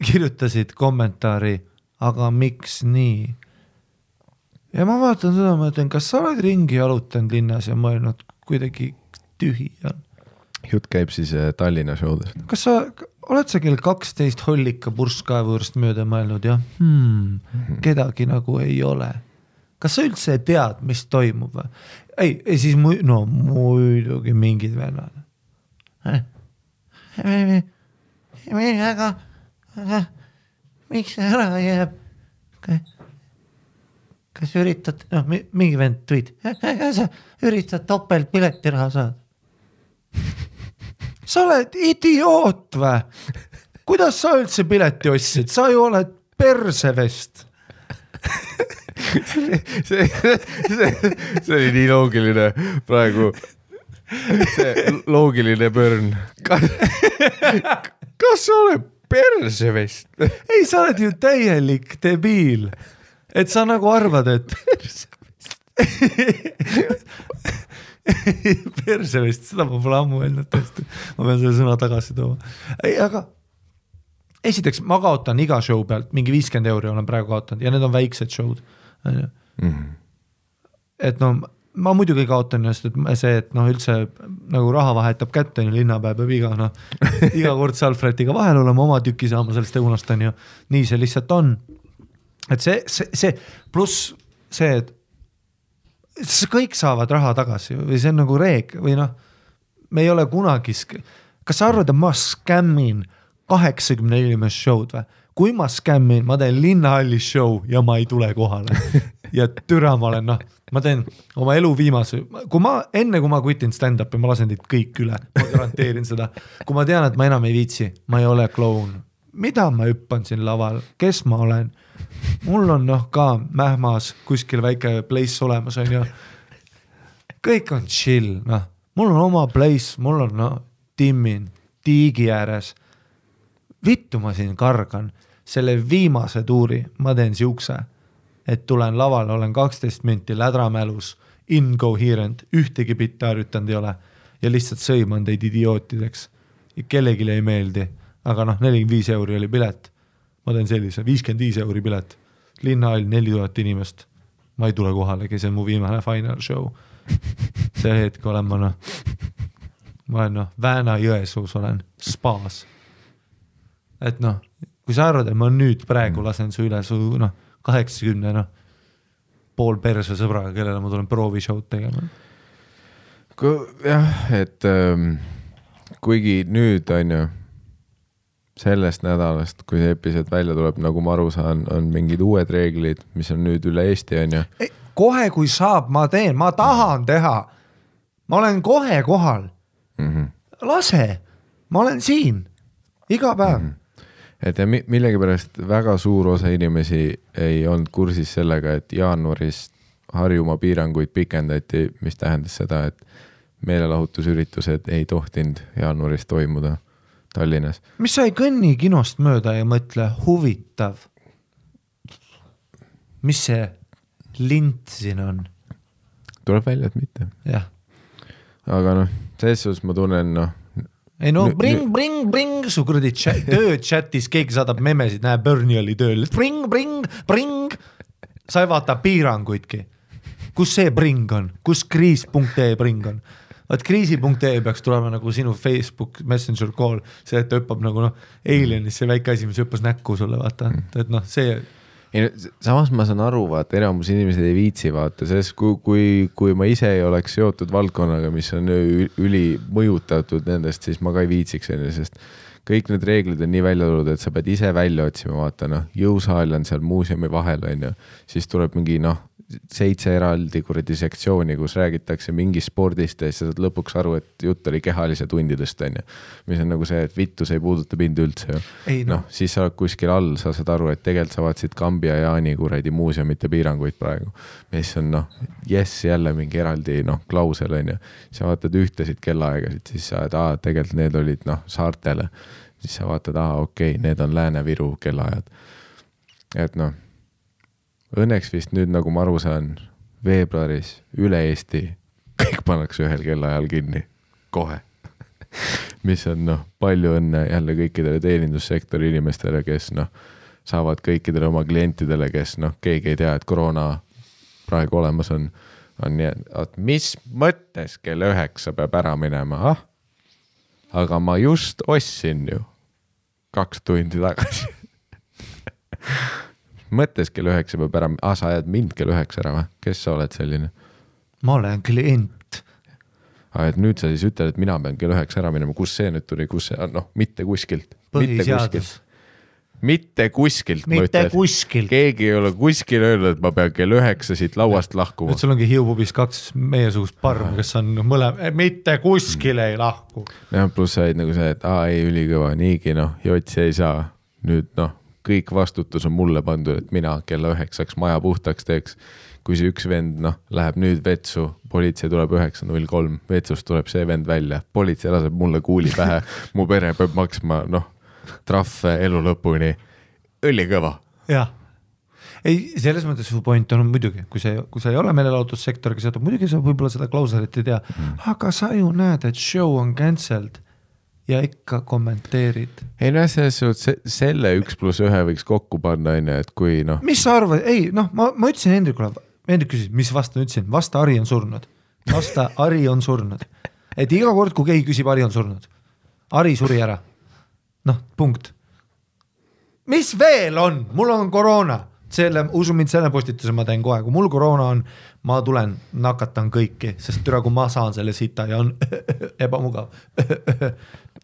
kirjutasid kommentaari, aga miks nii? Ja ma vaatan seda, ma ütlen, kas sa oled ringi jalutanud linnas ja mõelnud kuidagi tühi on? Jutt käib siis Tallinna showdest. Kas sa oled sa kell 12 hollika purskkaevu juurest mööda mõelnud ja kedagi ei ole? Kas sa üldse tead, mis toimub? Ei, siis muidugi mingid vennad. Aga miks ära jääb? Kas üritad, mingi vend tweet, sa üritad topelt piletiraha saada? Sa oled idioot või? Kuidas sa üldse pileti ostsid? Sa ju oled persevest. See oli nii loogiline praegu. See loogiline pörn. Kas sa oled persevest? Ei, sa oled ju täielik debiil. Et sa arvad, et perse vist, seda ma pole ammu öelnud tõesti. Ma pean selle sõna tagasi tooma. Ei, aga esiteks ma kaotan iga show pealt, mingi 50 € olen praegu kaotanud ja need on väiksed show'd. Et no ma muidugi kaotan just, et see, et noh üldse nagu raha vahetab kätte, linnapäev peab iga kord Salfretiga vahel olema, oma tüki saama sellest õunast on ju. Nii see lihtsalt on. Et see pluss see, et kõik saavad raha tagasi või see on nagu reeg või noh, me ei ole kunagi, kas sa arvad, et ma skämmin 80 inimest show'd või? Kui ma skämmin, ma teen linnahallis show ja ma ei tule kohale ja türa ma olen, noh, ma teen oma elu viimase, enne kui ma kutin stand-upi, ma lasen teid kõik üle, ma garanteerin seda. Kui ma tean, et ma enam ei viitsi, ma ei ole kloun. Mida ma hüppan siin laval? Kes ma olen? Mul on noh ka Mähmas kuskil väike place olemas on ju. Kõik on chill, noh. Mul on oma place, mul on noh, timmin, tiigi ääres. Vittu ma siin kargan. Selle viimase tuuri ma teen siukse, et tulen lavale, olen 12 minti lädramälus, incoherent, ühtegi bitti harjutanud ei ole ja lihtsalt sõiman teid idiootideks. Ja kellegile ei meeldi, aga noh, 45 € oli pilet. Ma teen sellise, 55 € pilet. Linnahall 4000 inimest. Ma ei tule kohalegi, see on mu viimane final show. See hetk olen ma noh, ma olen noh, Vääna-Jõesuus olen, spaas. Et noh, kui sa arvad, et ma nüüd praegu lasen su üle su noh, 80 noh, pool perse sõbraga, kellele ma tulen proovishow'd tegema. Jah, et kuigi nüüd on ju sellest nädalast, kui see episood välja tuleb, nagu ma aru saan, on mingid uued reeglid, mis on nüüd üle Eesti on ju. Kohe kui saab, ma teen, ma tahan teha. Ma olen kohe kohal. Lase, ma olen siin iga päev. Et ja millegipärast väga suur osa inimesi ei olnud kursis sellega, et jaanuaris Harjumaa piiranguid pikendati, mis tähendas seda, et meelelahutusüritused ei tohtinud jaanuaris toimuda Tallinnas. Mis sa ei kõnni kinost mööda ja mõtle, huvitav. Mis see lint siin on? Tuleb välja, et mitte. Jah. Aga noh, selles ma tunnen noh, ei no bring, su kuradi töö chatis, keegi saadab memesid, näe Bernie oli tööl, bring, sa ei vaata piiranguidki. Kus see bring on? Kus kriis.ee bring on? Vaat kriisi.ee peaks tulema nagu sinu Facebook Messenger call, see, et ta hüppab nagu noh, Alienis see väike asi, mis hüppas näkku sulle, vaata, et noh, see samas ma saan aru, vaata, enamus inimesed ei viitsi vaata, sest kui ma ise ei oleks seotud valdkonnaga, mis on üli mõjutatud nendest, siis ma ka ei viitsiks, sest kõik need reeglid on nii välja tulnud, et sa pead ise välja otsima, vaata noh, jõusaal on seal muuseumi vahel on ju, siis tuleb mingi noh, 7 eraldi kuradi sektsiooni, kus räägitakse mingi spordist ja siis sa saad lõpuks aru, et jutt oli kehalise tundidest on ju, mis on nagu see, et vittu see ei puuduta mind üldse ju. Noh, siis sa oled kuskil all, sa saad aru, et tegelikult sa vaatasid Kambi ja Jaani kuradi muuseumite piiranguid praegu, mis on noh, jälle mingi eraldi noh, klausel on ju, sa vaatad ühtesid kellaaegasid, siis sa oled, tegelikult need olid noh, saartele, siis sa vaatad, okei, need on Lääne-Viru kellaajad, et noh, õnneks vist nüüd, nagu ma aru saan, veebruaris üle Eesti kõik pannakse ühel kellaajal kinni, kohe. Mis on noh, palju õnne jälle kõikidele teenindussektori inimestele, kes noh, saavad kõikidele oma klientidele, kes noh, keegi ei tea, et koroona praegu olemas on nii, et mis mõttes kell 9 peab ära minema, aga ma just ostsin ju 2 tundi tagasi. Mõttes kell 9 peab ära, sa ajad mind kell 9 ära või? Kes sa oled selline? Ma olen klient. Et nüüd sa siis ütled, et mina pean kell 9 ära minema, kus see nüüd tuli, kus see, noh, mitte kuskilt. Põhiseadus. Mitte kuskilt. Mitte kuskilt. Keegi ei ole kuskil öelnud, et ma pean kell 9 siit lauast lahkuma. Et sul ongi Hiiupubis 2 meiesugust parm, kes on mitte kuskil ei lahku. Ja, pluss said nagu see, et ei ülikõva, niigi noh, jotsi ei saa. Nüüd noh, kõik vastutus on mulle pandud, et mina kella 9 maja puhtaks teeks. Kui see üks vend noh, läheb nüüd vetsu, politsei tuleb 9.03, vetsust tuleb see vend välja, politsei laseb mulle kuuli pähe, mu pere peab maksma noh, trahve elu lõpuni, ülikõva. Jah, ei, selles mõttes su point on muidugi, kui sa ei ole meelelahutussektoriga seotud, muidugi sa võib-olla seda klauselit ei tea, aga sa ju näed, et show on cancelled ja ikka kommenteerid. Ei no selles suhtes selle 1+1 võiks kokku panna, et kui noh. Mis sa arvad? Ei, noh, ma ütlesin Hendrikule, Hendrik küsis, mis vasta ütlesin? Vasta Ari on surnud. Vasta Ari on surnud. Et iga kord, kui keegi küsib, Ari on surnud. Ari suri ära. Noh, punkt. Mis veel on? Mul on koroona. Usu mind selle postituse ma teen kohe. Kui mul koroona on, ma tulen, nakatan kõiki, sest türa, kui ma saan selle sita ja on ebamugav.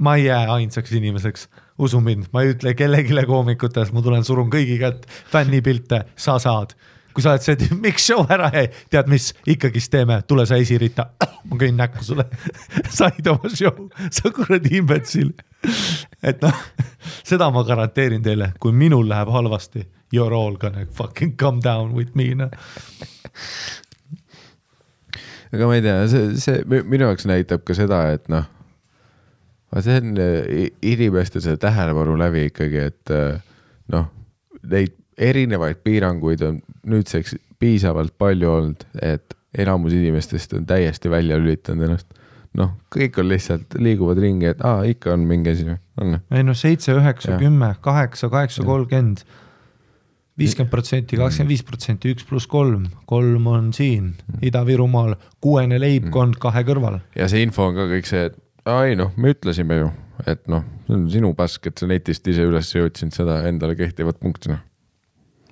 Ma ei jää ainsaks inimeseks. Usu mind, ma ei ütle kellegile koomikutes, ma tulen surun kõigi kätt, fännipilte, sa saad. Kui sa oled see, miks show ära jäi, tead mis, ikkagist teeme, tule sa esirita, ma kõin näkku sulle, said oma show, sa kuradi imbetsil. Et noh, seda ma garanteerin teile, kui minul läheb halvasti, you're all gonna fucking come down with me. No. Aga ma ei tea, see minu jaoks näitab ka seda, et noh, see on inimeste see tähelepanu läbi ikkagi, et noh, neid erinevaid piiranguid on nüüdseks piisavalt palju olnud, et enamus inimestest on täiesti välja lülitanud ennast. Noh, kõik on lihtsalt liiguvad ringi, et ikka on mingi asi. Ei no 7, 9, 10, 8, 8, 30, 50%, 25%, 1+3, 3 on siin, Ida-Virumaal, 6 leibkond 2 kõrval. Ja see info on ka kõik see, et me ütlesime ju, et noh, see on sinu pask, et sa netist ise üles jõudsid seda endale kehtivat punktina.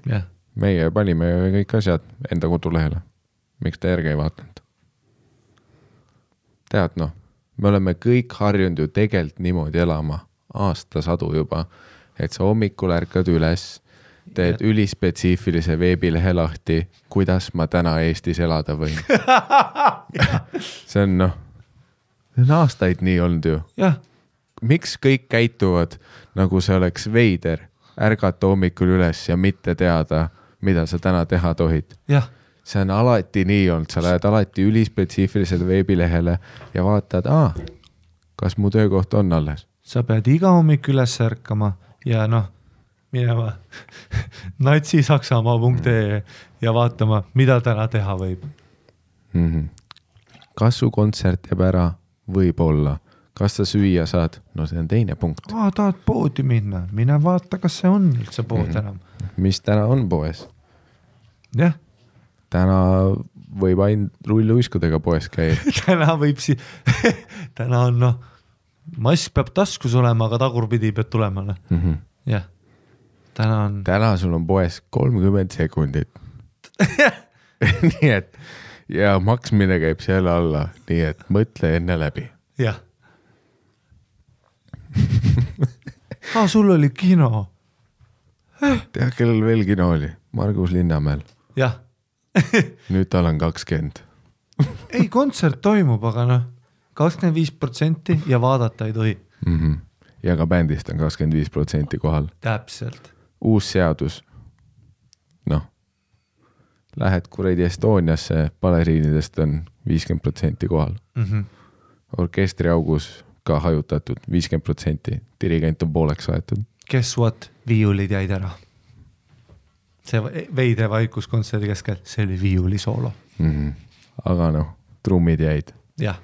Yeah. Meie panime kõik asjad enda kodulehele. Miks ta järgi ei vaatanud? Tead noh, me oleme kõik harjunud ju tegelt niimoodi elama aastasadu juba, et sa hommikul ärkad üles, teed ülispetsiifilise veebilehe lahti, kuidas ma täna Eestis elada võin. See on noh, see on aastaid nii olnud ju. Yeah. Miks kõik käituvad, nagu see oleks veider, ärgata hommikul üles ja mitte teada, mida sa täna teha tohid. Yeah. See on alati nii olnud, sa lähed alati ülispetsiifilisele veebilehele ja vaatad, kas mu töökoht on alles. Sa pead iga hommik üles ärkama ja noh, minema natsisaksamaa.ee ja vaatama, mida täna teha võib. Kas su kontsert jääb ära? Võib-olla. Kas sa süüa saad? No see on teine punkt. Tahad poodi minna? Mine vaata, kas see on üldse pood enam. Mis täna on poes? Jah. Täna võib ainult rulluiskudega poes käia. täna on noh, mask peab taskus olema, aga tagurpidi peab tulema. Jah. Täna sul on poes 30 sekundit. Nii et ja maksmine käib selle alla, nii et mõtle enne läbi. Jah. Sul oli kino. Tea, kellel veel kino oli? Margus Linnamäel. Jah. Nüüd tal on 20. Ei, kontsert toimub, aga noh, 25% ja vaadata ei tohi. Ja ka bändist on 25% kohal. Täpselt. Uus seadus. Noh, lähed kuradi Estoniasse, baleriinidest on 50% kohal. Orkestri augus ka hajutatud 50%, dirigent on pooleks aetud. Guess what? Viiulid jäid ära. See veide vaikus kontserdi keskel, see oli viiuli soolo. Aga noh, trummid jäid. Jah.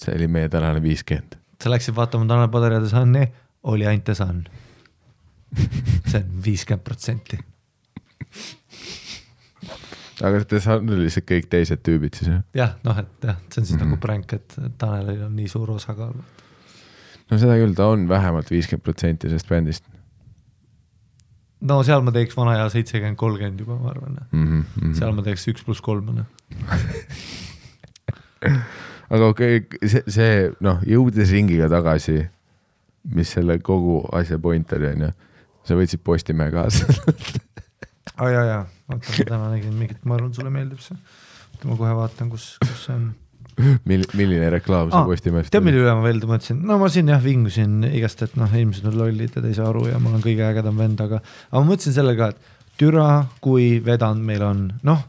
See oli meie tänane 50. Sa läksid vaatama Tanel Padar ja The Sunni, oli ainult The Sun. See on 50%. Aga The Sun oli see kõik teised tüübid siis? Jah, noh, et jah, see on siis nagu prank, et Tanelil on nii suur osakaal. No seda küll, ta on vähemalt 50% sellest bändist. No seal ma teeks vana ja 70-30 juba, ma arvan. Seal ma teeks 1+3. Aga okei, see noh, jõudes ringiga tagasi, mis selle kogu asja point oli, on ju, sa võtsid Postimehe kaasa. Jaa. Vaata, täna nägin mingit, ma arvan, sulle meeldib see. Ma kohe vaatan, kus see on. Milline reklaam see Postimehest? Tead, mille üle ma veel mõtlesin? No ma siin vingusin igast, et noh, inimesed on lollid ja ei saa aru ja mul on kõige ägedam vend, aga ma mõtlesin selle ka, et türa, kui vedanud meil on. Noh,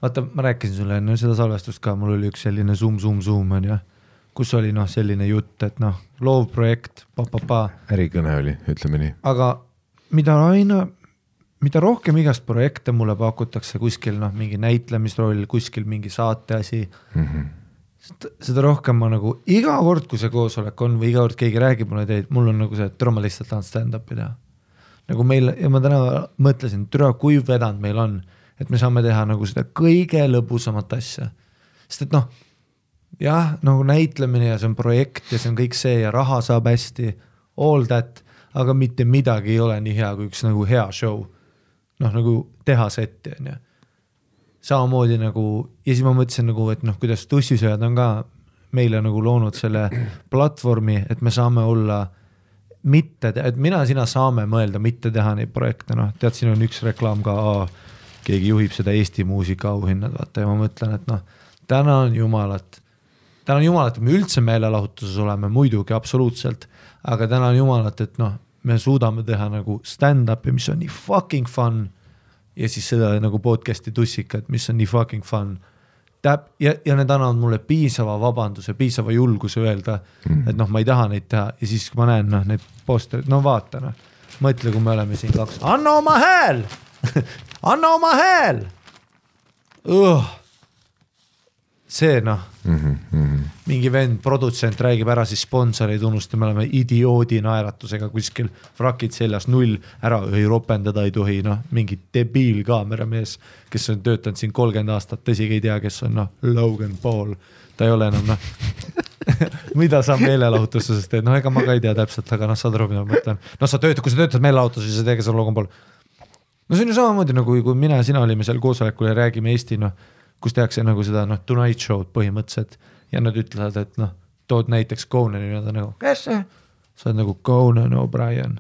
vaata, ma rääkisin sulle enne seda salvestust ka, mul oli üks selline zoom, on ju, kus oli noh, selline jutt, et noh, loov projekt, Ärikõne oli, ütleme nii. Aga mida aina mida rohkem igast projekte mulle pakutakse kuskil mingi näitlemisroll, kuskil mingi saateasi, seda rohkem ma nagu iga kord, kui see koosolek on või iga kord keegi räägib mulle teid, mul on nagu see, et ma lihtsalt tahan stand-up'i teha. Nagu meil, ja ma täna mõtlesin, kui vedanud meil on, et me saame teha nagu seda kõige lõbusamat asja. Sest et jah, nagu näitlemine ja see on projekt ja see on kõik see ja raha saab hästi, all that, aga mitte midagi ei ole nii hea kui üks nagu hea show. Nagu teha setti on ju. Samamoodi nagu, ja siis ma mõtlesin nagu, et kuidas tussisööjad on ka meile nagu loonud selle platvormi, et me saame olla mitte, et sina saame mõelda, mitte teha neid projekte, tead, siin on üks reklaam ka, keegi juhib seda Eesti muusika auhinnad, vaata, ja ma mõtlen, et tänan jumalat, et me üldse meelelahutuses oleme, muidugi absoluutselt, aga tänan jumalat, et me suudame teha nagu stand-up'i, mis on nii fucking fun, ja siis seda nagu podcasti tussikat, mis on nii fucking fun. Ja need annavad mulle piisava vabanduse, piisava julguse öelda, et ma ei taha neid teha ja siis kui ma näen neid posterid, vaata, mõtle, kui me oleme siin kaks, anna oma hääl, anna oma hääl, see mingi vend, produtsent räägib ära siis sponsoreid unusta, me oleme idioodi naeratusega kuskil frakid seljas 0, ära ei ropendada ei tohi, mingi debiil kaameramees, kes on töötanud siin 30 aastat, tõsigi ei tea, kes on Logan Paul, ta ei ole enam mida sa meelelahutuses teed, ega ma ka ei tea täpselt, aga saad aru, mida ma mõtlen, kui sa töötad meelelahutuses ja sa teed, kes on Logan Paul, see on ju samamoodi nagu kui mina ja sina olime seal koosolekul ja räägime Eesti, kus tehakse nagu seda Tonight Show'd põhimõtteliselt ja nad ütlevad, et tood näiteks Conani ja ta nagu, kes see? Sa oled nagu Conan O'Brien,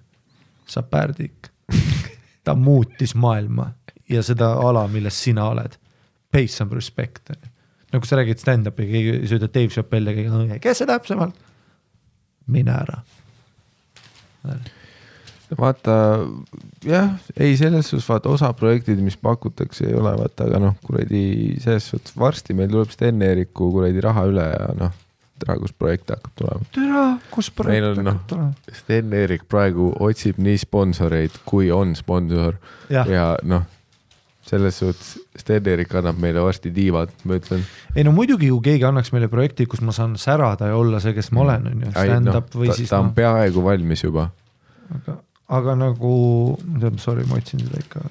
sa pärdik. Ta muutis maailma ja seda ala, milles sina oled. Pay some respect. Nagu sa räägid stand-up'i, keegi sööda Dave Chappelle ja keegi, kes see täpsemalt? Mine ära. Vaata, jah, ei selles suhtes, vaata osa projektid, mis pakutakse ei ole, vaata, aga kuradi selles suhtes varsti meil tuleb Sten-Eeriku kuradi raha üle ja tere, kus projekt hakkab tulema. Tere, kus projekt hakkab tulema. Sten-Eerik praegu otsib nii sponsoreid, kui on sponsor ja selles suhtes Sten-Eerik annab meile varsti tiivad, ma ütlen. Ei muidugi ju keegi annaks meile projekti, kus ma saan särada ja olla see, kes ma olen, on ju, stand-up või siis. Ta on peaaegu valmis juba. Aga nagu, sorry, ma otsin seda ikka,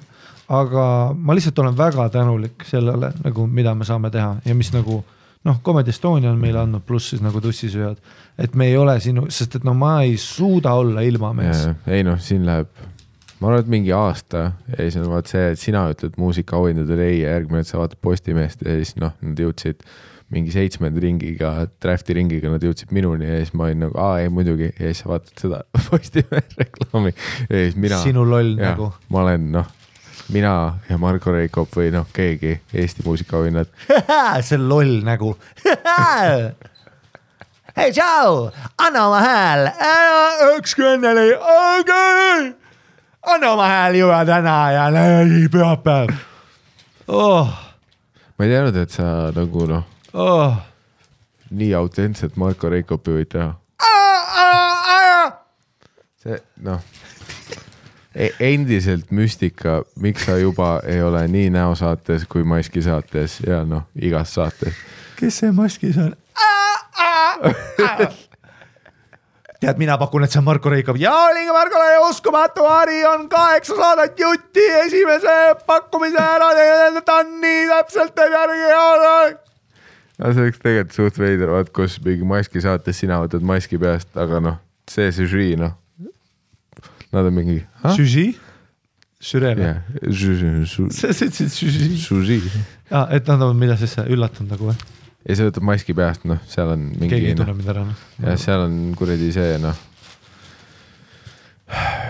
aga ma lihtsalt olen väga tänulik sellele, nagu, mida me saame teha ja mis nagu, Comedy Estonia on meile andnud, pluss siis nagu tussisööjad, et me ei ole sinu, sest et ma ei suuda olla ilma mees. Ei siin läheb, ma arvan, et mingi aasta ja siis on vaat see, et sina ütled muusika auhindadele ei ja järgmine, et sa vaatad Postimeest ja siis nad jõudsid mingi 7. ringiga, drafti ringiga nad jõudsid minuni ja siis ma olin nagu, ei muidugi ja siis sa vaatad seda Postimees reklaami ja siis mina. Sinu loll nagu. Ma olen mina ja Marko Reikop või keegi Eesti muusikaauhinnad. See loll nagu. Hei, tšau, anna oma hääl. Ükski õnneli, anna oma hääl juba täna ja pühapäev. Ma ei teadnud, et sa nagu nii autentselt Marko Reikopi võid teha. See, endiselt müstika, miks sa juba ei ole nii näosaates kui Maski saates ja igas saates. Kes see Maskis on? Tead, mina pakun, et see on Marko Reikop. Ja oligi Markole uskumatu, Ari on 8 saadet jutti esimese pakkumise ära, ta on nii täpselt järgi. See oleks tegelikult suht veider, vaat kus mingi Maski saates sina võtad maski peast, aga see žürii, nad on mingi... Žürii? Žürii? Jah, žürii. Et nad on mida siis üllatunud nagu või? Ja see võtab maski peast, seal on mingi... Keegi ei tunne mida ära. Ja seal on kuradi see,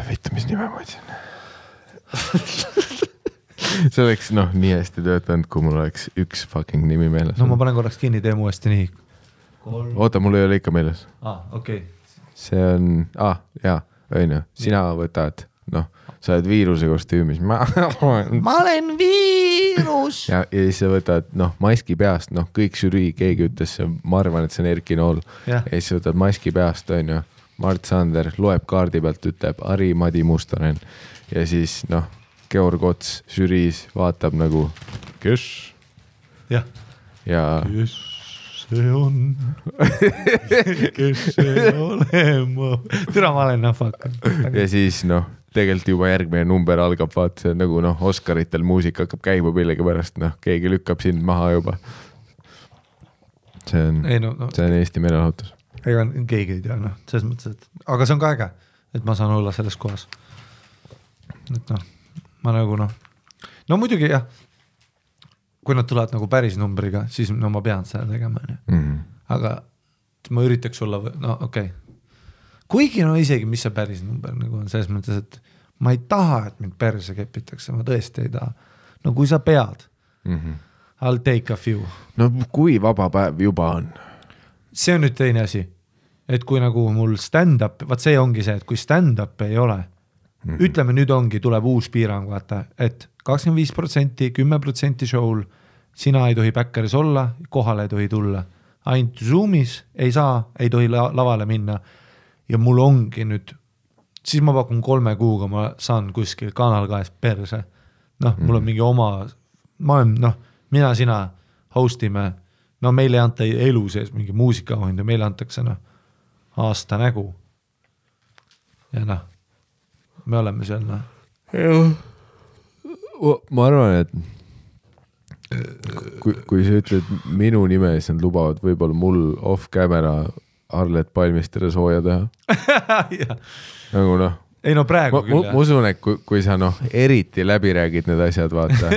Võita, mis nime ma ütlesin. See oleks nii hästi töötanud, kui mul oleks üks fucking nimi meeles. Ma panen korraks kinni, tee mu hästi nii. Oota, mul ei ole ikka meeles. Okei. See on... jaa, õinu. Sina võtad, sa oled viiruse kostüümis. Ma olen viirus! Ja siis sa võtad, maski peast, kõik žürii, keegi ütles, ma arvan, et see on Erki Nool. Ja siis võtad maski peast, on ju, Mart Sander loeb kaardi pealt, ütleb Ari Madi Mustonen. Ja siis, Georg Ots žüriis vaatab nagu, kes? jah. Ja kes see on? kes see olema? Türa ma olen nahvaka. Ja siis tegelikult juba järgmine number algab, vaat see nagu Oscaritel muusika hakkab käima millegi pärast, keegi lükkab sind maha juba. See on Eesti meelelahutus. Ega keegi ei tea, selles mõttes, et aga see on ka äge, et ma saan olla selles kohas. Et ma nagu muidugi jah, kui nad tulevad nagu päris numbriga, siis ma pean seda tegema. Aga ma üritaks olla, okei. Kuigi isegi, mis see päris number nagu on, selles mõttes, et ma ei taha, et mind perse kepitakse, ma tõesti ei taha. No kui sa pead, I'll take a few. No kui vaba päev juba on? See on nüüd teine asi, et kui nagu mul stand-up, vaat see ongi see, et kui stand-up ei ole, ütleme nüüd ongi, tuleb uus piirang, vaata, et 25%, 10% show'l, sina ei tohi backeris olla, kohale ei tohi tulla. Ainult Zoomis ei saa, ei tohi lavale minna. Ja mul ongi nüüd, siis ma pakun 3 kuuga, ma saan kuskil Kanal 2 perse. Mul on mingi oma, ma olen, mina, sina hostime, meil ei anta elu sees mingi muusikaauhindu, meile antakse aasta nägu. Ja me oleme seal. Ma arvan, et kui sa ütled minu nime, siis nad lubavad võib-olla mul off-camera Arlet Palmistele sooja teha. Nagu ei praegu küll. Ma usun, et kui sa eriti läbi räägid need asjad, vaata.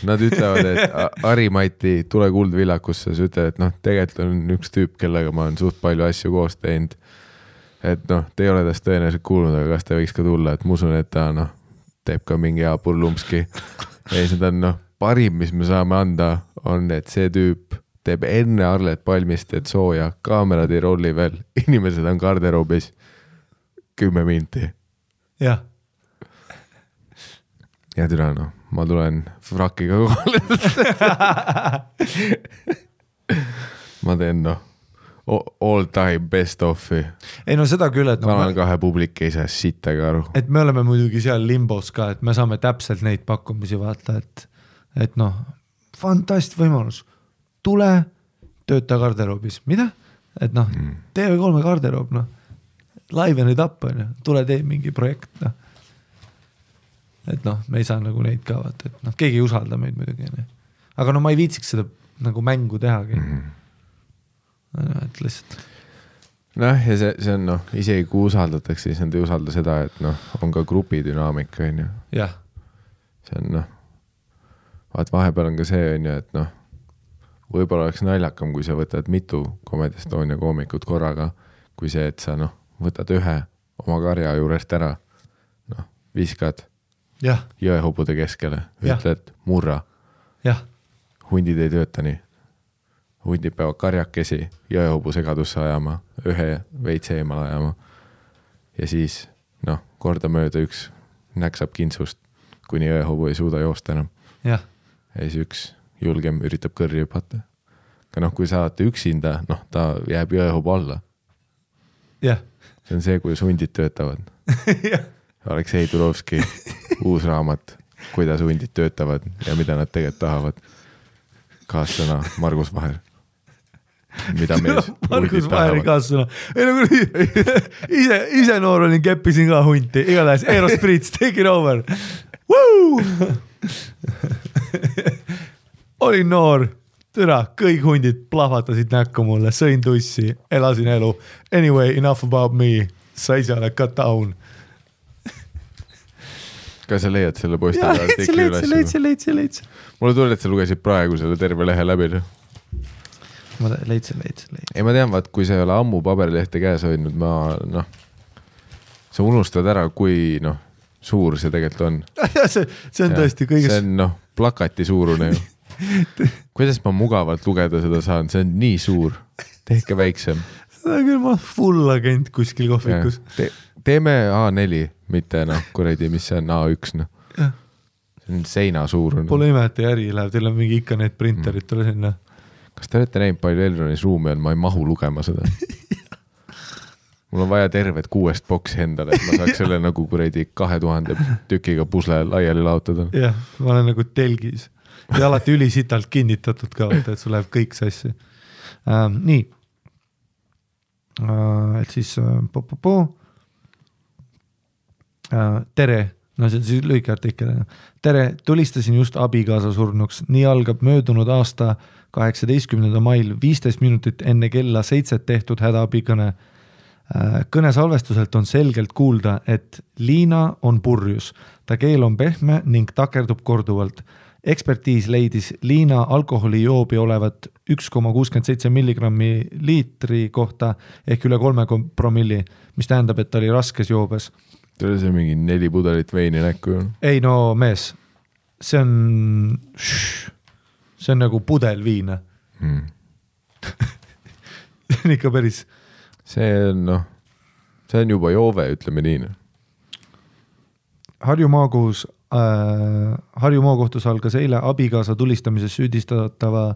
Nad ütlevad, et Ari-Mati, tule Kuldvillakusse, sa ütled, et tegelikult on üks tüüp, kellega ma olen suht palju asju koos teinud. Et te ei ole tast tõenäoliselt kuulnud, aga kas ta võiks ka tulla, et ma usun, et ta teeb ka mingi hea purlumpski. Ja siis on parim, mis me saame anda, on, et see tüüp teeb enne Arlet Palmistet sooja, kaamerad ei rolli veel, inimesed on garderoobis 10 minti. Jah. Ja türa, ma tulen frakiga kohale. Ma teen all time best offi. Ei seda küll, et Kanal 2 publik ei saa sittagi aru. Et me oleme muidugi seal limbos ka, et me saame täpselt neid pakkumisi vaata, et fantast võimalus. Tule, tööta garderoobis. Mida? Et TV3 garderoob, live and it up, tule tee mingi projekt. Et me ei saa nagu neid ka vaata, et keegi ei usalda meid muidugi. Aga ma ei viitsiks seda nagu mängu tehagi. Et lihtsalt. Ja see on isegi kui usaldatakse, siis nad ei usalda seda, et on ka grupi dünaamika, on ju. Jah. See on vaat vahepeal on ka see, on ju, et võib-olla oleks naljakam, kui sa võtad mitu Comedy Estonia koomikut korraga, kui see, et sa võtad ühe oma karja juurest ära, viskad jõehobude keskele, ütled murra. Hundid ei tööta nii. Hundid peavad karjakesi jõehobu segadusse ajama, ühe veits eemal ajama. Ja siis, kordamööda üks näksab kintsust, kuni jõehobu ei suuda joosta enam. Ja siis üks julgem üritab kõrri hüpata. Aga kui saate üksinda, ta jääb jõehobu alla. See on see, kuidas hundid töötavad. Aleksei Tulovski uus raamat, kuidas hundid töötavad ja mida nad tegelikult tahavad. Kaassõna Margus Vaher. Mida mees Margus Vaheri kaassõna. Ise noor olin, keppisin ka hunti. Igatahes Aerosprits, take it over. Woo! Olin noor, türa, kõik hundid plahvatasid näkku mulle, sõin tussi, elasin elu. Anyway, enough about me. Sa ise ole cut down. Kas sa leiad selle posti? Leidsin. Mulle tuli, et sa lugesid praegu selle terve lehe läbi. Ma leidsin. Ei, ma tean, vaat, kui sa ei ole ammu paberilehte käes hoidnud, sa unustad ära, kui suur see tegelikult on. See on tõesti kõigest. See on plakati suurune ju. Kuidas ma mugavalt lugeda seda saan? See on nii suur. Tehke väiksem. Seda küll ma full agent kuskil kohvikus. Teeme A4, mitte kuradi, mis see on A1. See on seina suurune. Pole ime, et äri läheb, teil on mingi ikka need printerid tule sinna. Kas te olete näinud palju Elronis ruumi on? Ma ei mahu lugema seda. mul on vaja tervet 6 boksi endale, et ma saaks selle nagu kuradi 2000 tükiga pusle laiali laotada. Jah, ma olen nagu telgis ja alati ülisitalt kinnitatud ka, et sul läheb kõik sassi. Nii. Et siis tere, no see on siis lühike artikkel. Tere, tulistasin just abikaasa surnuks. Nii algab möödunud aasta 18. mail 15 minutit enne kella 7 tehtud hädaabikõne. Kõne salvestuselt on selgelt kuulda, et Liina on purjus. Ta keel on pehme ning takerdub korduvalt. Ekspertiis leidis Liina alkoholijoobi olevat 1,67 milligrammi liitri kohta ehk üle 3 promilli, mis tähendab, et ta oli raskes joobes. Tule see mingi 4 pudelit veini näkku. Ei no mees, see on nagu pudel viina. See on ikka päris... See on juba joove, ütleme nii. Harju maakohtus algas eile abikaasa tulistamises süüdistatava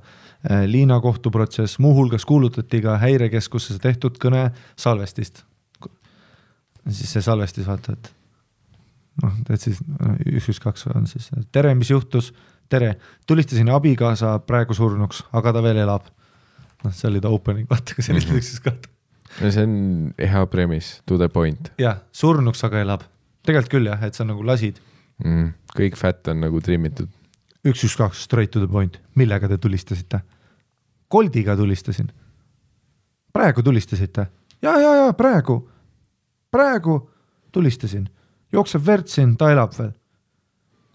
Liina kohtuprotsess, muuhulgas kuulutati ka häirekeskuses tehtud kõne salvestist. Siis see salvestis vaata, et siis 112 on siis. Tere, mis juhtus? Tere, tulistasin abikaasa praegu surnuks, aga ta veel elab. See oli ta opening, vaata, kui sellist üksis kahta. See on hea premise, to the point. Jah, surnuks aga elab. Tegelikult küll jah, et sa nagu lasid. Kõik fat on nagu trimmitud. 112, straight to the point. Millega te tulistasite? Koldiga tulistasin. Praegu tulistasite? Ja, praegu tulistasin. Jookseb vertsin, ta elab veel.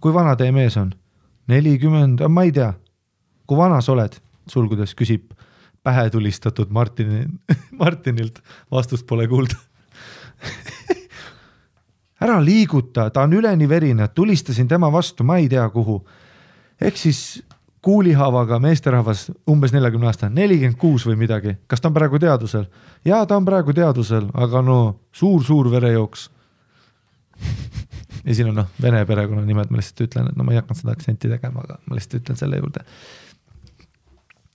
Kui vana teie mees on? 40, ma ei tea. Kui vana sa oled? Sulgudes küsib pähe tulistatud Martinilt. Vastust pole kuulda. Ära liiguta, ta on üleni verine, tulistasin tema vastu, ma ei tea kuhu. Ehk siis kuulihavaga meesterahvas umbes 40 aasta, 46 või midagi. Kas ta on praegu teadusel? Jaa, ta on praegu teadusel, aga suur verejooks. Ja siin on vene perekonna nimed, ma lihtsalt ütlen, et ma ei hakanud seda aktsenti tegema, aga ma lihtsalt ütlen selle juurde.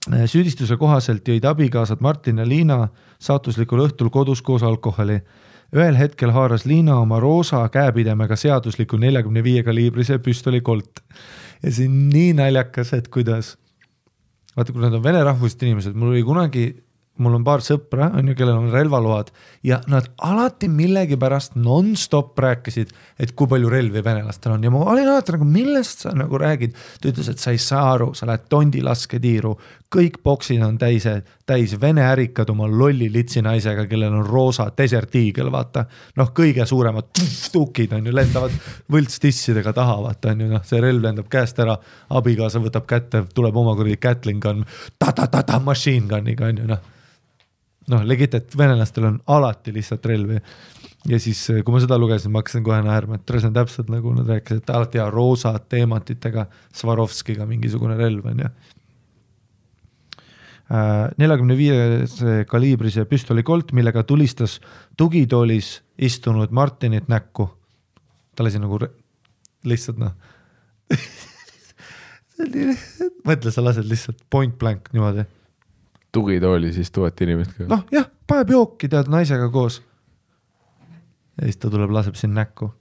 Süüdistuse kohaselt jõid abikaasad Martin ja Liina saatuslikul õhtul kodus koos alkoholi. Ühel hetkel haaras Liina oma roosa käepidemega seadusliku 45 kaliibrise püstoli kolt. Ja see on nii naljakas, et kuidas. Vaata, kui nad on vene rahvusest inimesed, mul on paar sõpra, kellel on relvaload ja nad alati millegipärast non-stop rääkisid, et kui palju relvi venelastel on. Ja ma olin alati nagu, millest sa nagu räägid? Ta ütles, et sa ei saa aru, sa lähed tondi lasketiiru, kõik boksid on täis vene ärikad oma lolli litsi naisega, kellel on roosa desert eagle, vaata. Kõige suuremad tukid on ju, lendavad võltstissidega taha, vaata on ju, see relv lendab käest ära, abikaasa võtab kätte, tuleb oma kuradi Gatling gun, machine gunniga on ju, legit, et venelastel on alati lihtsalt relvi. Ja siis, kui ma seda lugesin, ma hakkasin kohe naerma, et see on täpselt nagu nad rääkisid, et alati roosa teemantitega Swarovskiga mingisugune relv on ja. 45 kaliibrise püstoli kolt, millega tulistas tugitoolis istunud Martinit näkku. Ta lasi nagu lihtsalt mõtle, sa lased lihtsalt point blank niimoodi. Tugitooli siis 1000 inimest ka. Jah, paneb jooki tead naisega koos. Ja siis ta tuleb, laseb siin näkku.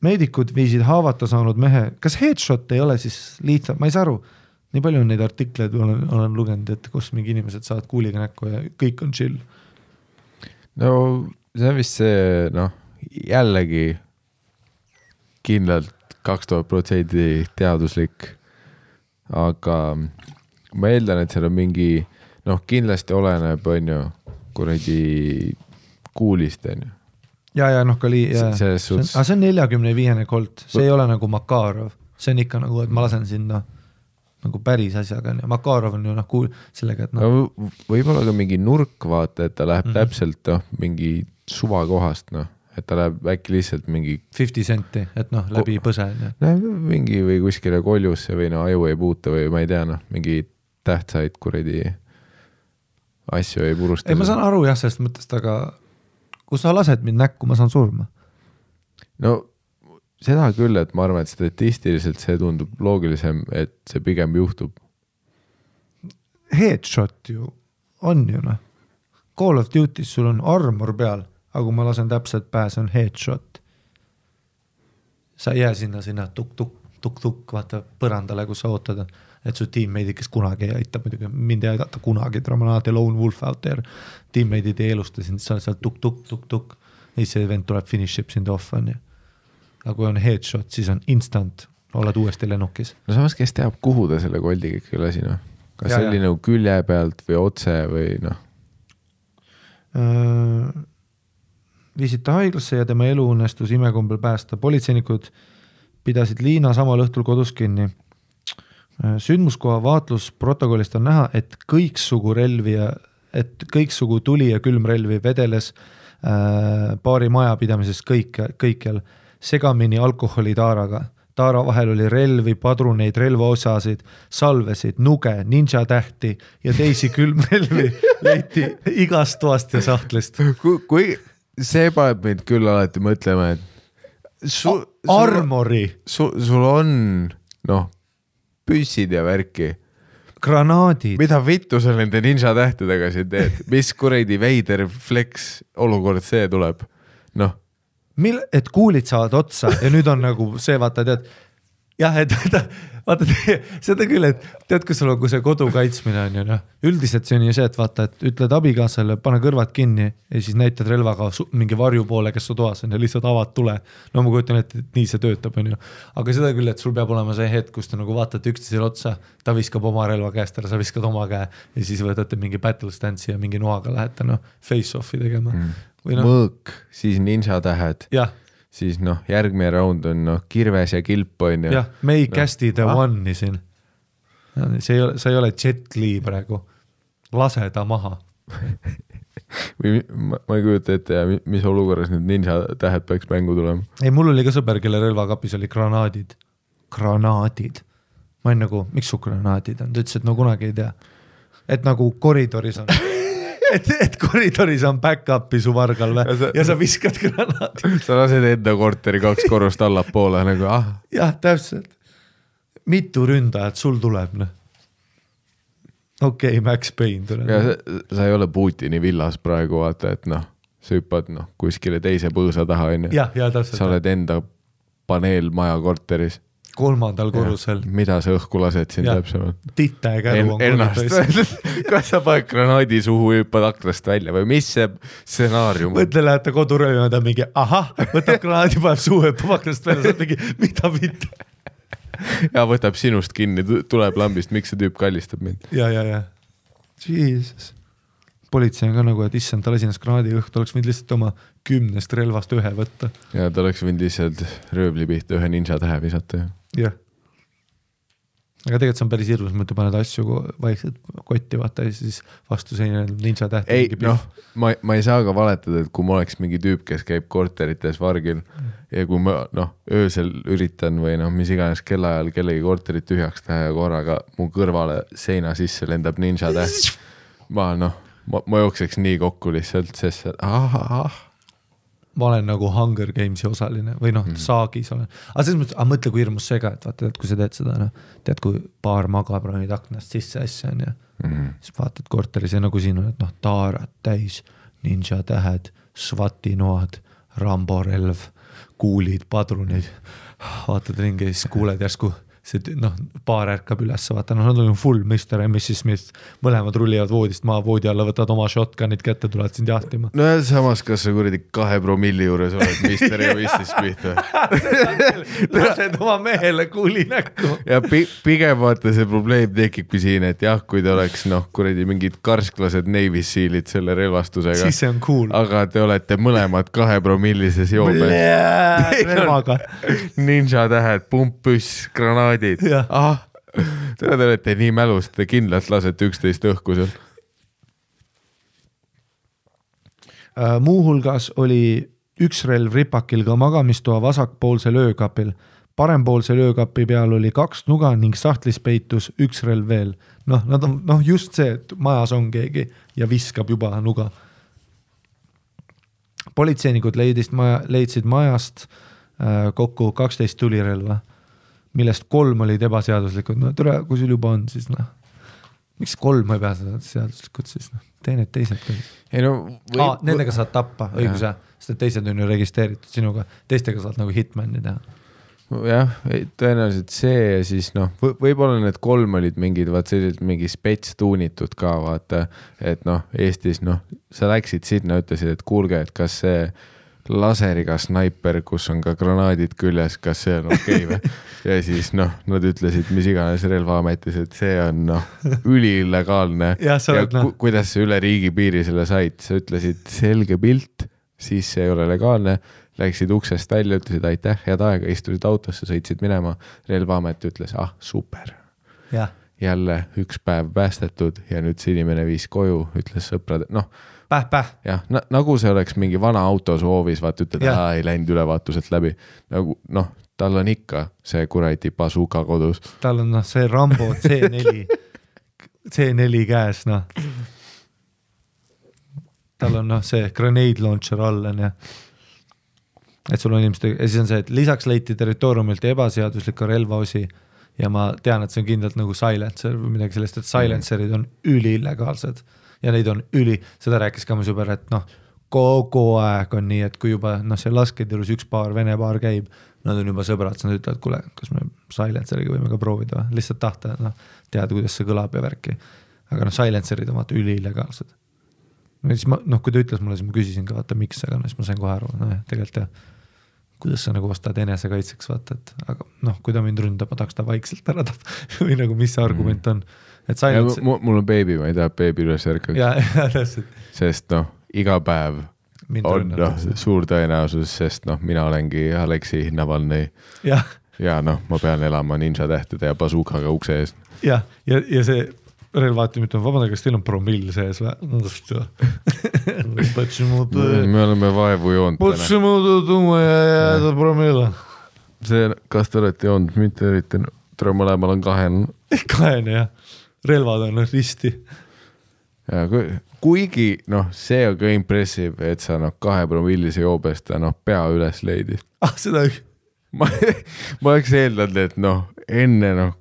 Meedikud viisid haavata saanud mehe. Kas headshot ei ole siis lihtsalt? Ma ei saa aru. Nii palju on neid artikleid, olen lugenud, et kus mingi inimesed saavad kuuliga näkku ja kõik on chill. No see on vist see, jällegi kindlalt 2000% teaduslik. Aga ma eeldan, et seal on mingi, kindlasti oleneb, on ju, kuradi kuulist, on ju. Ja, see on 45 kolt, see ei ole nagu Makarov, see on ikka nagu, et ma lasen sinna nagu päris asjaga, ja Makarov on ju sellega, et võib-olla ka mingi nurk, vaata, et ta läheb täpselt mingi suvakohast, et ta läheb äkki lihtsalt mingi 50 senti, et läbi põse. Mingi või kuskile koljusse või aju ei puuta või ma ei tea, mingi tähtsaid kuradi asju ei purusta. Ei, ma saan aru jah, sellest mõttest, aga kui sa lased mind näkku, ma saan surma. No seda küll, et ma arvan, et statistiliselt see tundub loogilisem, et see pigem juhtub. Headshot ju on ju noh. Call of Duty's sul on armor peal, aga kui ma lasen täpselt pähe, see on headshot. Sa ei jää sinna tuk-tuk, vaata põrandale, kus sa ootad, et su teammate'id, kes kunagi ei aita, muidugi mind ei aidata kunagi, Dramanati Lone Wolf out there, teammate'id ei elusta sind, sa oled seal tuk-tuk, ja see event tuleb finiship sind off, on ju. Aga kui on headshot, siis on instant, oled uuesti lennukis. No samas, kes teab, kuhu ta selle koldiga ikka lasi, noh? Kas see oli nagu külje pealt või otse või noh? Viisid ta haiglasse ja tema elu õnnestus imekombel päästa. Politseinikud pidasid Liina samal õhtul kodus kinni. Sündmuskoha vaatlusprotokollist on näha, et kõiksugu tuli ja külmrelvi vedeles paari majapidamises kõikjal segamini alkoholi taaraga. Taara vahel oli relvi, padruneid, relvaosasid, salvesid, nuge, ninja tähti ja teisi külmrelvi leiti igast toast ja sahtlist. Kui see paneb meid küll alati mõtlema, et armori. Sul on püssid ja värki. Granaadid. Mida vittu sa nende ninja tähtedega siin teed? Mis kuredi veider flex olukord see tuleb? Et kuulid saavad otsa ja nüüd on nagu see, vaata, tead, jah, et vaata, seda küll, et tead, kui sul on, kui see kodu kaitsmine on ju, üldiselt see on ju see, et vaata, et ütled abikaasale, pane kõrvad kinni ja siis näitad relvaga mingi varju poole, kes su toas on ja lihtsalt avad tule. No ma kujutan, et nii see töötab, on ju. Aga seda küll, et sul peab olema see hetk, kus te nagu vaatate üksteisele otsa, ta viskab oma relva käest ära, sa viskad oma käe ja siis võtate mingi battle stance'i ja mingi noaga lähete face-off'i tegema. Mõõk, siis ninja tähed, siis järgmine round on kirves ja kilp on ju. Jah, me ei kästi the one'i siin. Sa ei ole Jet Li praegu. Lase ta maha. Ma ei kujuta ette, mis olukorras need ninja tähed peaks mängu tulema. Ei, mul oli ka sõber, kelle relvakapis oli granaadid. Granaadid. Ma olen nagu, miks su granaadid on? Ta ütles, et kunagi ei tea. Et nagu koridoris on. Et koridoris on back-upi su vargal ja sa viskad granaadi. Sa lased enda korteri 2 korrust allapoole nagu, Jah, täpselt. Mitu ründajat sul tuleb, Okei, Max Payne tuleb. Ja sa ei ole Putini villas praegu, vaata, et sa hüppad kuskile teise põõsa taha, on ju. Ja, täpselt. Sa oled enda paneel maja korteris. 3. korrusel. Mida sa õhku lased siin täpsemalt? Tita ja käru on ennast. Kas sa paned granaadi suhu hüppad aknast välja või mis see stsenaarium? Mõtle, lähete kodurööma ja mingi, võtab granaadi, paneb suhu hüppab aknast välja, saad mingi, mida mitte? Ja võtab sinust kinni, tuleb lambist, miks see tüüp kallistab mind? Ja. Jesus. Politsei on ka nagu, et issand, ta lasi ennast granaadi õhtu, oleks võinud lihtsalt oma 10 relvast 1 võtta. Ja ta oleks võinud lihtsalt rööbli pihta 1 ninja tähe visata. Jah. Aga tegelikult see on päris hirmus, mõtle paned asju vaikselt kotti, vaata ja siis vastu seina ninja täht. Ei, ma ei saa ka valetada, et kui ma oleks mingi tüüp, kes käib korterites vargil ja kui ma öösel üritan või mis iganes kellaajal kellegi korterit tühjaks teha ja korraga mu kõrvale seina sisse lendab ninja täht. Ma jookseks nii kokku lihtsalt, sest ma olen nagu Hunger Gamesi osaline või saagis olen. Aga selles mõttes, mõtle kui hirmus see ka, et vaata, kui sa teed seda, tead, kui paar magab ronid aknast sisse asja on ja siis vaatad korteris ja nagu siin on, et taarad täis, ninja tähed, SWAT-i noad, Rambo relv, kuulid, padrunid, vaatad ringi ja siis kuuled järsku see paar ärkab üles, vaata, nad on full Mr. ja Mrs. Smith, mõlemad rullivad voodist maa, voodi alla, võtad oma shotgunid kätte, tulevad sind jahtima. No ja samas, kas sa kuradi 2 promilli juures oled Mr. ja Mrs. Smith või? Lased oma mehele kuuli näkku. Ja pigem vaata see probleem tekibki siin, et jah, kui te oleks kuradi mingid karsklased Navy Sealid selle relvastusega. Siis see on cool. Aga te olete mõlemad 2 promillises joobes. Relvaga. Ninja tähed, pumppüss, granaadid. Te olete nii mälust, te kindlalt lasete 11 õhku seal. Muuhulgas oli üks relv ripakil ka magamistoa vasakpoolsel öökapil. Parempoolsel öökapi peal oli 2 nuga ning sahtlis peitus üks relv veel. Nad on just see, et majas on keegi ja viskab juba nuga. Politseinikud leidsid majast kokku 12 tulirelva, millest 3 olid ebaseaduslikud. Tere, kui sul juba on, siis miks 3 ei pea seda seaduslikult siis, tee need teised ka. Ei no nendega saad tappa, õigus jah, sest teised on ju registreeritud sinuga, teistega saad nagu hitmani teha. Jah, tõenäoliselt see ja siis võib-olla need 3 olid mingid, vaat sellised mingi spets tuunitud ka, vaata, et Eestis, sa läksid sinna, ütlesid, et kuulge, et kas see laseriga snaiper, kus on ka granaadid küljes, kas see on okei või? Ja siis nad ütlesid, mis iganes relvaametis, et see on üliillegaalne ja kuidas sa üle riigipiiri selle said, sa ütlesid selge pilt, siis see ei ole legaalne, läksid uksest välja, ütlesid aitäh, head aega, istusid autosse, sõitsid minema, relvaamet ütles, super. Ja. Jälle üks päev päästetud ja nüüd see inimene viis koju, ütles sõprad, Päh. Jah, nagu see oleks mingi vana auto su hoovis, vaat ütled, ei läinud ülevaatuselt läbi. Nagu, tal on ikka see kuradi bazooka kodus. Tal on see Rambo C4 käes, Tal on see grenade launcher all on ja et sul on inimesed, ja siis on see, et lisaks leiti territooriumilt ebaseadusliku relvaosi ja ma tean, et see on kindlalt nagu silencer või midagi sellest, et silencerid on üliillegaalsed ja neid on seda rääkis ka mu sõber, et kogu aeg on nii, et kui juba see lasketirus üks paar, vene paar käib, nad on juba sõbrad, siis nad ütlevad, kuule, kas me silenceriga võime ka proovida või lihtsalt tahta, teada, kuidas see kõlab ja värki, aga silencerid on vaata üliillegaalsed. Siis ma, kui ta ütles mulle, siis ma küsisin ka, vaata miks, aga siis ma sain kohe aru, tegelikult jah, kuidas sa nagu ostad enesekaitseks, vaata, et aga kui ta mind ründab, ma tahaks ta vaikselt ära või nagu mis see argument on. Et silence... mul on beebi, ma ei taha beebi üles ärkaks. Ja, sest iga päev on suur tõenäosus, sest mina olengi Aleksi Navalnõi ja ma pean elama ninja tähtede ja bazookaga ukse ees. Ja see relvaatimit on vabandada, kas teil on promill sees või? Me oleme vaevu joonud. Почему tuuma ja jääda promilla? See, kas te olete joonud, mitte üritan, mõlemal on 2. Jah. Relvad on risti. Ja, kuigi, see on ka impressive, et sa 2 promillise joobest pea üles leidis. Seda ma oleks eeldanud, et enne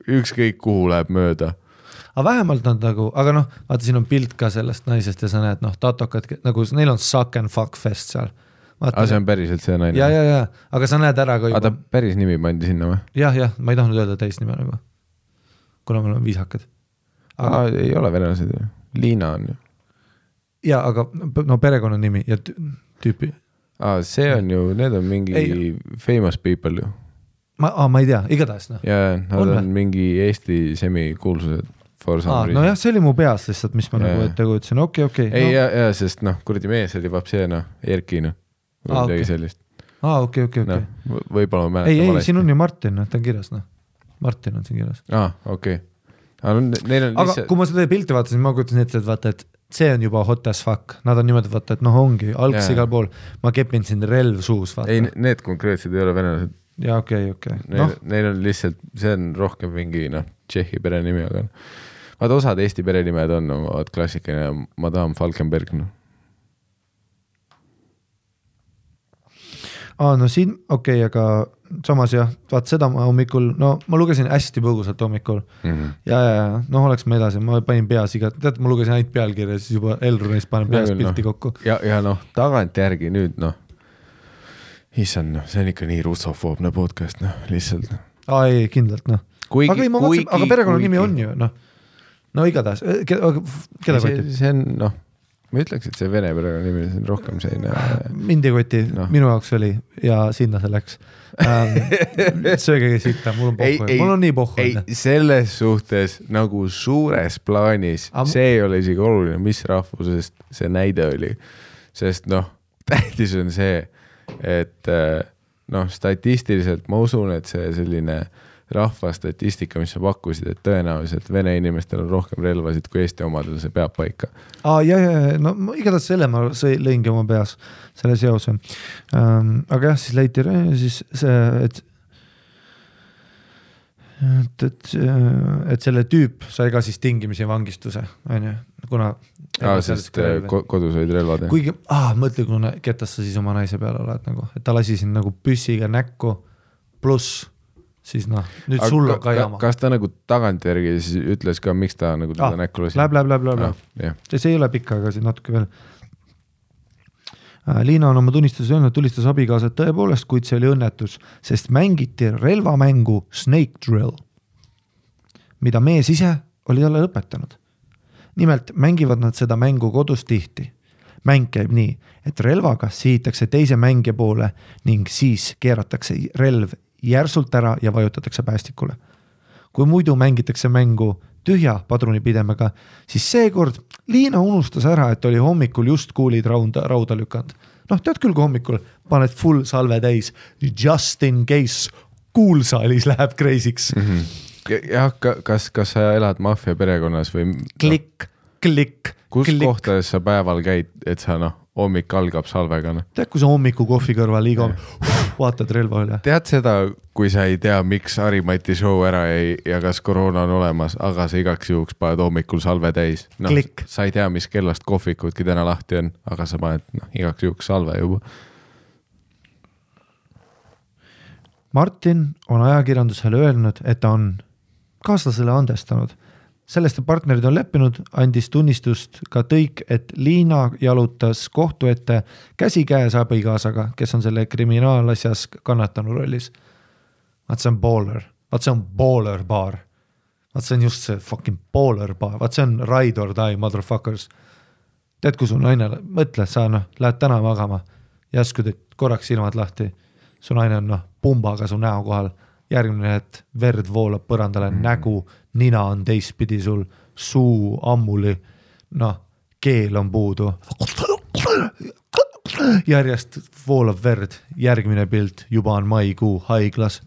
ükskõik kuhu läheb mööda. Aga vähemalt nad nagu, aga vaata siin on pilt ka sellest naisest ja sa näed, tatokad, nagu neil on suck and fuck fest seal. Aga see on päriselt see naine? Ja, aga sa näed ära ka juba. Aga ta päris nimi pandi sinna või? Jah, ma ei tahtnud öelda täisnime nagu, kuna me oleme viisakad. Ei ole venelased ju, Liina on ju. Ja, aga perekonna nimi ja tüüpi. See on ju, need on mingi famous people ju. Ma ei tea, igatahes. Ja, nad on mingi Eesti semikuulsused. jah, see oli mu peas lihtsalt, mis ma nagu ette kujutasin, okei. Ei, ja, sest kuradi mees oli vapseena, Erki, või midagi sellist. Okei. Võib-olla ma mäletan valesti. Ei, siin on ju Martin, ta on kirjas, Martin on siin kirjas. Okei. Aga kui ma seda pilti vaatasin, ma kujutasin ette, et vaata, et see on juba hot as fuck, nad on niimoodi vaata, et ongi, algs igal pool, ma kepin siin relv suus, vaata. Ei, need konkreetsed ei ole venelased. Ja, okei. Neil on lihtsalt, see on rohkem mingi, Tšehhi perenimi, aga vaata osad Eesti perenimed on, klassikaline Madame Falkenberg. Siin, okei, aga samas jah, vaat seda ma hommikul, ma lugesin hästi põgusalt hommikul ja, oleks ma edasi, ma panin peas tead, ma lugesin ainult pealkirja, siis juba Elrunis panen peas pilti kokku. Ja tagant järgi nüüd, issand, see on ikka nii russofoobne podcast, lihtsalt. Ei, kindlalt, aga perekonna nimi on ju, igatahes, keda kotib? See on, ma ütleks, et see vene perekonna nimi on rohkem selline... Mind ei koti, minu jaoks oli ja sinna see läks. Söögegi sitta, mul on pohhu, mul on nii pohhu. Ei, selles suhtes nagu suures plaanis, see ei ole isegi oluline, mis rahvusest see näide oli, sest tähtis on see, et statistiliselt ma usun, et see selline rahvastatistika, mis sa pakkusid, et tõenäoliselt vene inimestel on rohkem relvasid kui Eesti omadel, see peab paika. Ja, igatahes selle ma lõingi oma peas, selle seose. Aga jah, siis leiti siis see, et selle tüüp sai ka siis tingimisi vangistuse, on ju, kuna sest kodus olid relvad. Kuigi, mõtle, kuna ketas sa siis oma naise peale oled, et ta lasi siin nagu püssiga näkku pluss siis noh, nüüd sul on ka jama. Kas ta nagu tagantjärgi siis ütles ka, miks ta nagu teda näkku lasi? Läheb. See ei ole pikk, aga siin natuke veel. Liina on oma tunnistuses öelnud, tulistas abikaasad tõepoolest, kuid see oli õnnetus, sest mängiti relvamängu Snake Drill, mida mees ise oli talle lõpetanud. Nimelt mängivad nad seda mängu kodus tihti. Mäng käib nii, et relvaga sihitakse teise mängija poole ning siis keeratakse relv järsult ära ja vajutatakse päästikule. Kui muidu mängitakse mängu tühja padrunipidemega, siis seekord Liina unustas ära, et oli hommikul just kuulid rauda lükanud. Noh, tead küll, kui hommikul paned full salve täis, just in case kuulsaalis läheb kreisiks. Jah, kas sa elad maffia perekonnas või? Klikk. Kus kohtades sa päeval käid, et sa hommik algab salvega? Tead, kui sa hommiku kohvi kõrval liiga vaatad relva üle? Tead seda, kui sa ei tea, miks Harimati show ära jäi ja kas koroona on olemas, aga sa igaks juhuks paned hommikul salve täis. Sa ei tea, mis kellast kohvikudki täna lahti on, aga sa paned igaks juhuks salve juba. Martin on ajakirjandusele öelnud, et ta on kaaslasele andestanud. Sellest partnerid on leppinud, andis tunnistust ka Tõik, et Liina jalutas kohtu ette käsikäes abikaasaga, kes on selle kriminaalasjas kannatanu rollis. Vaat see on baller. Vaat see on baller baar. Vaat see on just see fucking baller baar. Vaat see on ride or die, motherfuckers. Tead, kui su naine, mõtle, sa lähed täna magama, järsku teed korraks silmad lahti. Su naine on pumbaga su näo kohal. Järgmine, et verd voolab põrandale, nägu, nina on teistpidi sul, suu ammuli, keel on puudu. Järjest voolab verd, järgmine pilt, juba on maikuu haiglas.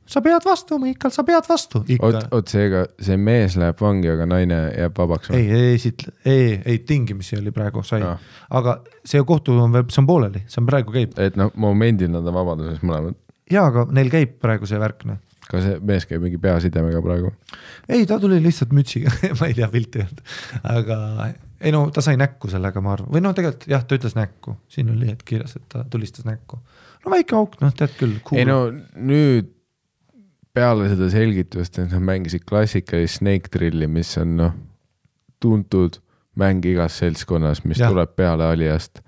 Sa pead vastu, Miikal, sa pead vastu. Oot seega, see mees läheb vangi, aga naine jääb vabaks? Ei, tingimisi oli praegu, sai. Aga see kohtu on pooleli, see on praegu käib. Et momendil nad on vabaduses mõlemad. Jaa, aga neil käib praegu see värkne. Kas see mees käib mingi peasidemega praegu? Ei, ta tuli lihtsalt mütsiga, ma ei tea pilti olnud. Aga ta sai näkku sellega, ma arvan. Või tegelikult, jah, ta ütles näkku. Siin oli hetk kirjas, et ta tulistas näkku. Väike auk, tead küll. Cool. Ei nüüd peale seda selgitust, et mängisid klassikalist Snake Drilli, mis on tuntud mäng igas seltskonnas, mis tuleb peale alijast.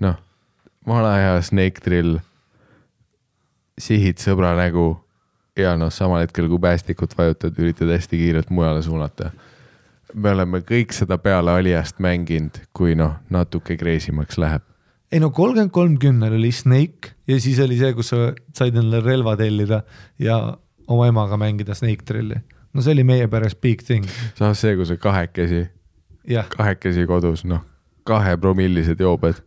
Vana hea Snake Drill sihid sõbra nägu ja samal hetkel, kui päästikut vajutad, üritad hästi kiirelt mujale suunata. Me oleme kõik seda peale alijast mänginud, kui natuke kreisimaks läheb. Ei 33-10 oli Snake ja siis oli see, kus sa said endale relva tellida ja oma emaga mängida Snake Drilli. See oli meie päres big thing. Saas see, kui sa kahekesi kodus, 2-promillised joobed.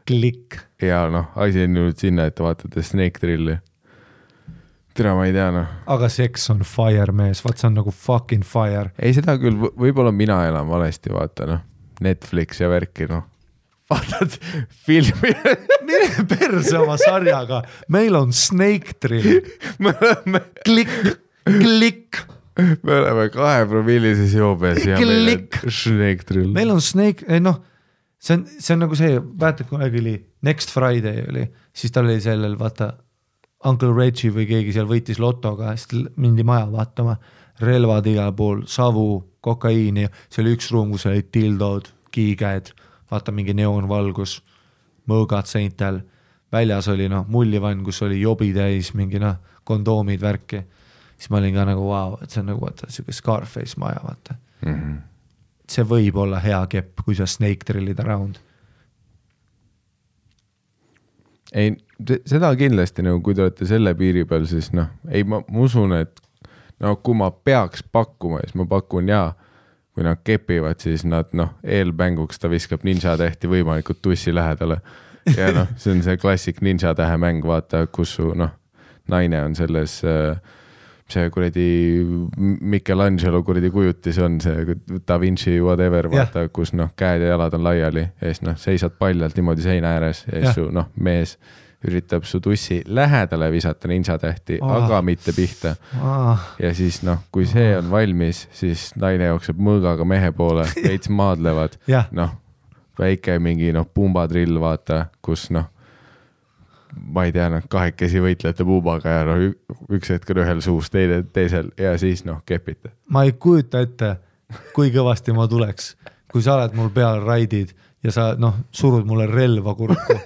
Klikk. Ja asi on nüüd sinna, et vaatate Snake Drilli. Tere, ma ei tea, Aga seks on fire, mees. Vaat see on nagu fucking fire. Ei, seda küll, võib-olla mina elan valesti, vaata, Netflix ja värki, Vaatad filmi. Mine perse oma sarjaga. Meil on Snake Drill. Klikk. Me oleme 2-promillises joobes ja meil on Snake Drill. Meil on Snake, see on nagu see, vaata, kui oli Next Friday oli, siis tal oli sellel, vaata, Uncle Reggie või keegi seal võitis lotoga, siis mindi maja vaatama, relvad igal pool, savu, kokaiini, see oli üks ruum, kus oli tildod, kiikäed, vaata mingi neoonvalgus, mõõgad seintel, väljas oli mullivann, kus oli jobi täis, mingi kondoomid, värki, siis ma olin ka nagu wow, et see on nagu vaata, siuke Scarface maja, vaata. See võib olla hea kepp, kui sa Snake Drillid around. Ei, seda kindlasti, kui te olete selle piiri peal, siis ei, ma usun, et kui ma peaks pakkuma, siis ma pakun kui nad kepivad, siis nad eelmänguks ta viskab ninja tähti võimalikult tussi lähedale. Ja see on see klassik ninja tähe mäng, vaata, kus su naine on selles see kuradi Michelangelo kuradi kujutis on see Da Vinci whatever, vaata, kus käed ja jalad on laiali ja siis seisad paljalt niimoodi seina ääres ja siis su mees üritab su tussi lähedale visata ninja tähti, aga mitte pihta. Ja siis kui see on valmis, siis naine jookseb mõõgaga mehe poole, veits maadlevad, väike mingi pumbadrill, vaata, kus ma ei tea, kahekesi võitlete puubaga ja üks hetk on ühel suus, teisel ja siis kepite. Ma ei kujuta ette, kui kõvasti ma tuleks, kui sa oled mul peal raidid ja sa surud mulle relva kurku.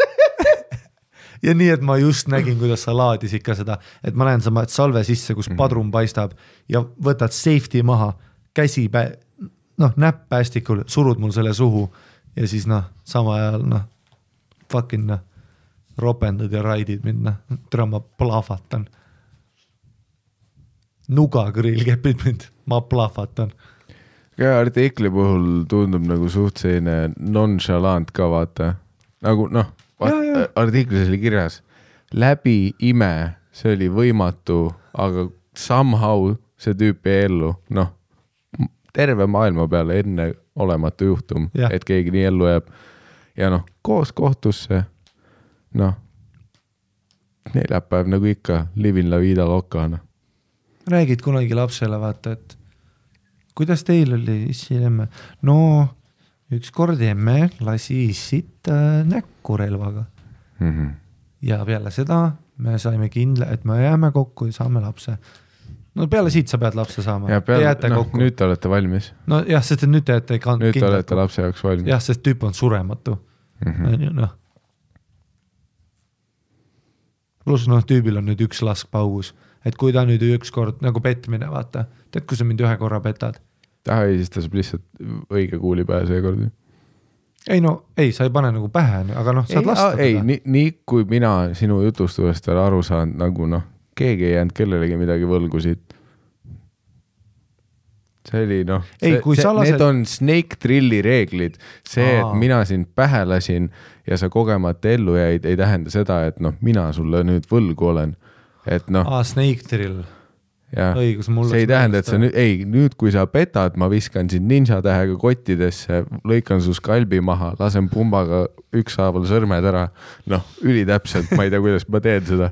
Ja nii, et ma just nägin, kuidas sa laadis ikka seda, et ma näen sama salve sisse, kus padrun paistab ja võtad safety maha, käsi näpp päästikul, surud mul selle suhu ja siis sama ajal fucking ropendad ja raidid mind, tere ma plahvatan. Nugagrill kepid mind, ma plahvatan. Ja artikli puhul tundub nagu suht selline nonchalant ka vaata, nagu artiklis oli kirjas läbi ime, see oli võimatu, aga somehow see tüüp jäi ellu, terve maailma peale enne olematu juhtum, et keegi nii ellu jääb ja koos kohtusse neljapäev nagu ikka livin la vida lokana. Räägid kunagi lapsele vaata, et kuidas teil oli issi emme? Üks kord emme lasi issit näkku relvaga. Ja peale seda me saime kindla, et me jääme kokku ja saame lapse. Peale siit sa pead lapse saama. Ja nüüd te olete valmis. Jah, sest nüüd te jääte kindlalt. Nüüd te olete lapse jaoks valmis. Jah, sest tüüp on surematu. Plus tüübil on nüüd üks lask paus. Et kui ta nüüd üks kord nagu petmine, vaata. Tead, kui sa mind ühe korra petad? Ei, siis ta saab lihtsalt õige kuuli pähe seekord. Ei, sa ei pane nagu pähe, aga saad lasta. Ei, nii kui mina sinu jutustuvast olen aru saanud, nagu keegi ei jäänud kellelegi midagi võlgusid. See oli need on Snake Drilli reeglid. See, et mina sind pähe lasin ja sa kogemata ellu jäid, ei tähenda seda, et mina sulle nüüd võlgu olen. Et Snake Drill. Õigus, see ei tähenda, et sa nüüd kui sa petad, ma viskan sind ninja tähega kottidesse, lõikan su skalbi maha, lasen pumbaga ükshaaval sõrmed ära. Ülitäpselt, ma ei tea, kuidas ma teen seda.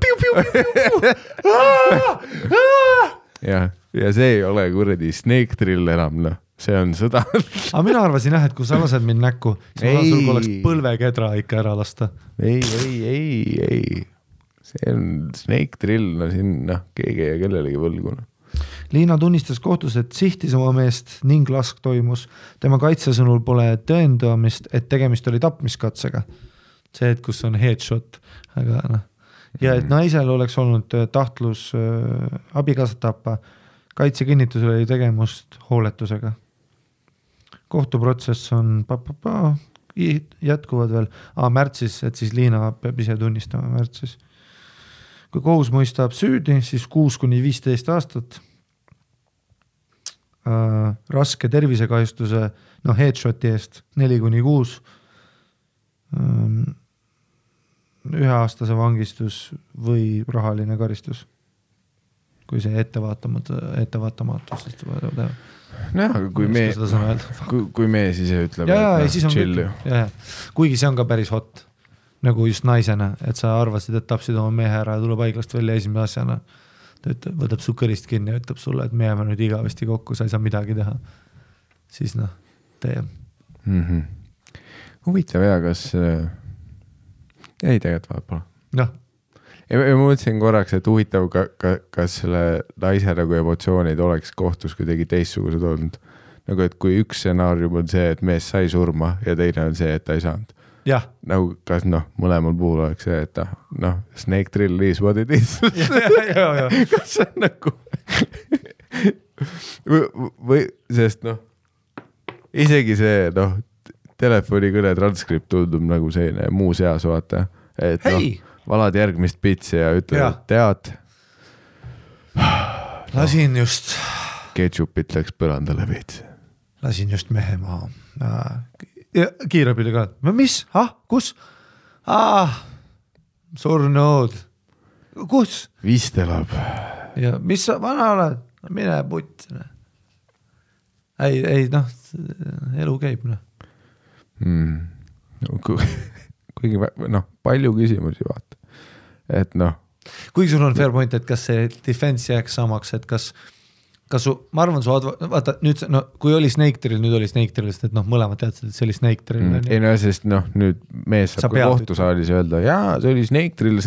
Ja see ei ole kuradi Snake Drill enam, see on sõda. Aga mina arvasin et kui sa lased mind näkku, siis sul oleks põlvekedra ikka ära lasta. Ei. See on Snake Drill, siin keegi ja kellelegi võlguna. Liina tunnistas kohtus, et sihtis oma meest ning lask toimus. Tema kaitsesõnul pole tõendamist, et tegemist oli tapmiskatsega. See, et kus on headshot. Aga ja et naisel oleks olnud tahtlus abikaasat tappa. Kaitsekinnitusel oli tegemust hooletusega. Kohtuprotsess on jätkuvad veel. Märtsis, et siis Liina peab ise tunnistama märtsis. Kui kohus mõistab süüdi, siis 6-15 aastat. Raske tervisekahjustuse headshoti eest 4-6. 1-aastase vangistus või rahaline karistus. Kui see ettevaatamatus. Kui me siis ütleme, chill. Kuigi see on ka päris hot. Nagu just naisena, et sa arvasid, et tapsid oma mehe ära ja tuleb haiglast välja esimene asjana. Ta võtab su kõrist kinni ja ütleb sulle, et me jääme nüüd igavesti kokku, sa ei saa midagi teha. Siis tee. Huvitav kas... Ei tegelikult vahepeal. Ja ma mõtlesin korraks, et huvitav, kas selle naise nagu emotsioonid oleks kohtus kuidagi teistsugused olnud. Nagu, et kui üks stsenaarium on see, et mees sai surma ja teine on see, et ta ei saanud. Jah. Nagu kas mõlemal puhul oleks see, et Snake Drill is what it is. Kas see on nagu või sest isegi see telefonikõne transkript tundub nagu selline muu seas vaata, et valad järgmist pitsi ja ütled, tead lasin just ketšupit läks põrandale veits. Lasin just mehe maha. Kiirabile ka. Mis? Kus? Surnud. Kus? Vist elab. Ja mis sa vana oled? Mine putt. Ei, elu käib. Kuigi palju küsimusi vaata. Et Kuigi sul on fair point, et kas see defense jääks samaks, et kas ma arvan, vaata nüüd, no kui oli Snake Drill, nüüd oli Snake Drill, sest et mõlemad teadsid, et see oli Snake Drill. Ei no, sest nüüd mees saab ka kohtusaalis öelda, jaa, see oli Snake Drill.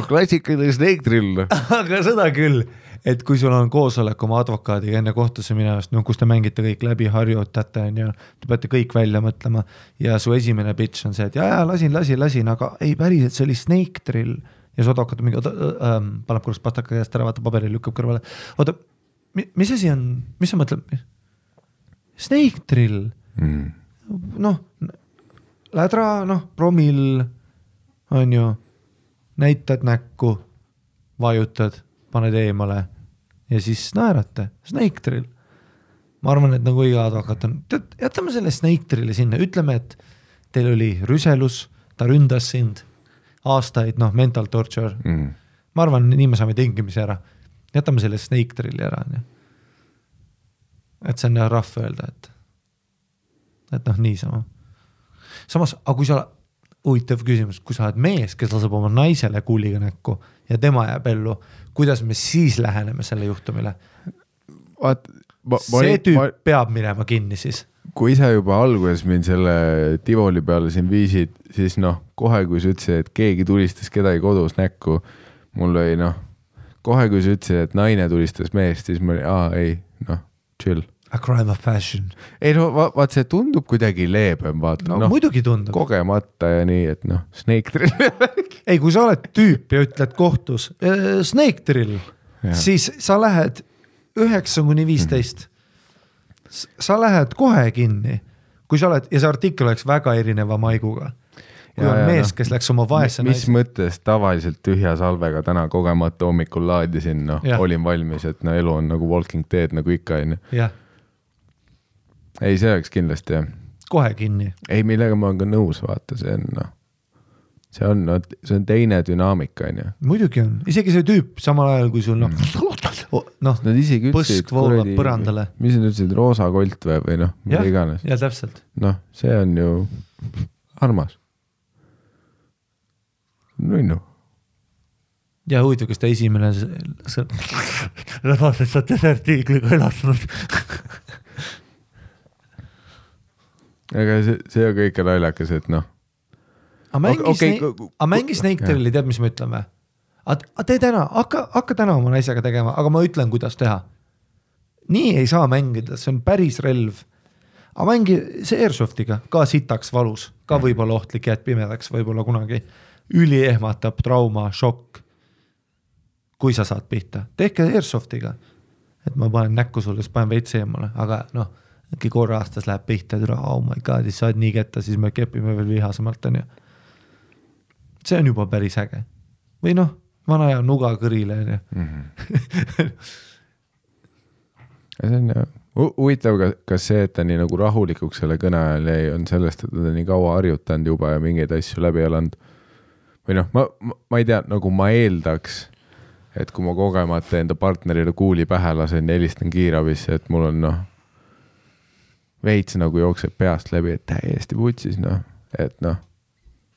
Klassikaline Snake Drill. Aga seda küll, et kui sul on koosolek oma advokaadiga enne kohtusse minevast, kus te mängite kõik läbi, harjutate, te peate kõik välja mõtlema ja su esimene pitch on see, et jaa, lasin, aga ei päriselt, see oli Snake Drill ja su advokaat mingi, paneb korraks pastaka käest ära, vaata paberi lükkab kõrvale. Oota, mis asi on, mis sa mõtled? Snake Drill. Lädra, promill, on ju, näitad näkku, vajutad, paned eemale ja siis naerate. Snake Drill. Ma arvan, et nagu iga advokaat on, jätame selle Snake Drilli sinna, ütleme, et teil oli rüselus, ta ründas sind aastaid, mental torture. Ma arvan, nii me saame tingimisi ära. Jätame selle Snake Drilli ära. Et see on rahv öelda, et niisama. Samas, aga kui sa, huvitav küsimus, kui sa oled mees, kes laseb oma naisele kuuliga näkku ja tema jääb ellu, kuidas me siis läheneme selle juhtumile? See tüüp peab minema kinni siis. Kui sa juba alguses mind selle Tivoli peale siin viisid, siis kohe kui sa ütlesid, et keegi tulistas kedagi kodus näkku, mul oli kohe kui sa ütlesid, et naine tulistas meest, siis ma oli, chill. A crime of passion. Ei vaat see tundub kuidagi leebem, vaata. Muidugi tundub. Kogemata ja nii, et Snake Drill. Ei, kui sa oled tüüp ja ütled kohtus Snake Drill, siis sa lähed 9-15. Sa lähed kohe kinni, kui sa oled, ja see artikkel oleks väga erineva maiguga. Kui on mees, kes läks oma vaese mis mõttes tavaliselt tühja salvega täna kogemata hommikul laadisin, olin valmis, et elu on nagu Walking Dead nagu ikka. Ei, see oleks kindlasti jah. Kohe kinni. Ei, millega ma olen ka nõus, vaata, see on teine dünaamika. Muidugi on, isegi see tüüp samal ajal, kui sul nad isegi põsk voolab põrandale. Mis nad ütlesid, roosa kolt või mida iganes. Ja täpselt. See on ju armas. Ja huvitav, kas ta esimene rebased sa desertiigliga elastanud. Aga see on kõik naljakas, et mängi Snake Drilli, tead, mis me ütleme? Tee täna, hakka täna oma naisega tegema, aga ma ütlen, kuidas teha. Nii ei saa mängida, see on päris relv. Aga mängi see Airsoftiga, ka sitaks valus, ka võib-olla ohtlik jääd pimedaks, võib-olla kunagi üli ehmatab, trauma, šokk. Kui sa saad pihta, tehke Airsoftiga, et ma panen näkku sulle, siis panen veits eemale, aga äkki korra aastas läheb pihta, oh my god, siis saad nii ketta, siis me kepime veel vihasemalt. See on juba päris äge. Või vana ja nuga kõrile. See on huvitav, kas see, et ta nii nagu rahulikuks selle kõne ajal jäi, on sellest, et ta nii kaua harjutanud juba ja mingeid asju läbi elanud. Või ma ei tea, nagu ma eeldaks, et kui ma kogemata enda partnerile kuuli pähe lasen ja helistan kiirabisse, et mul on veits nagu jookseb peast läbi, et täiesti putsis, et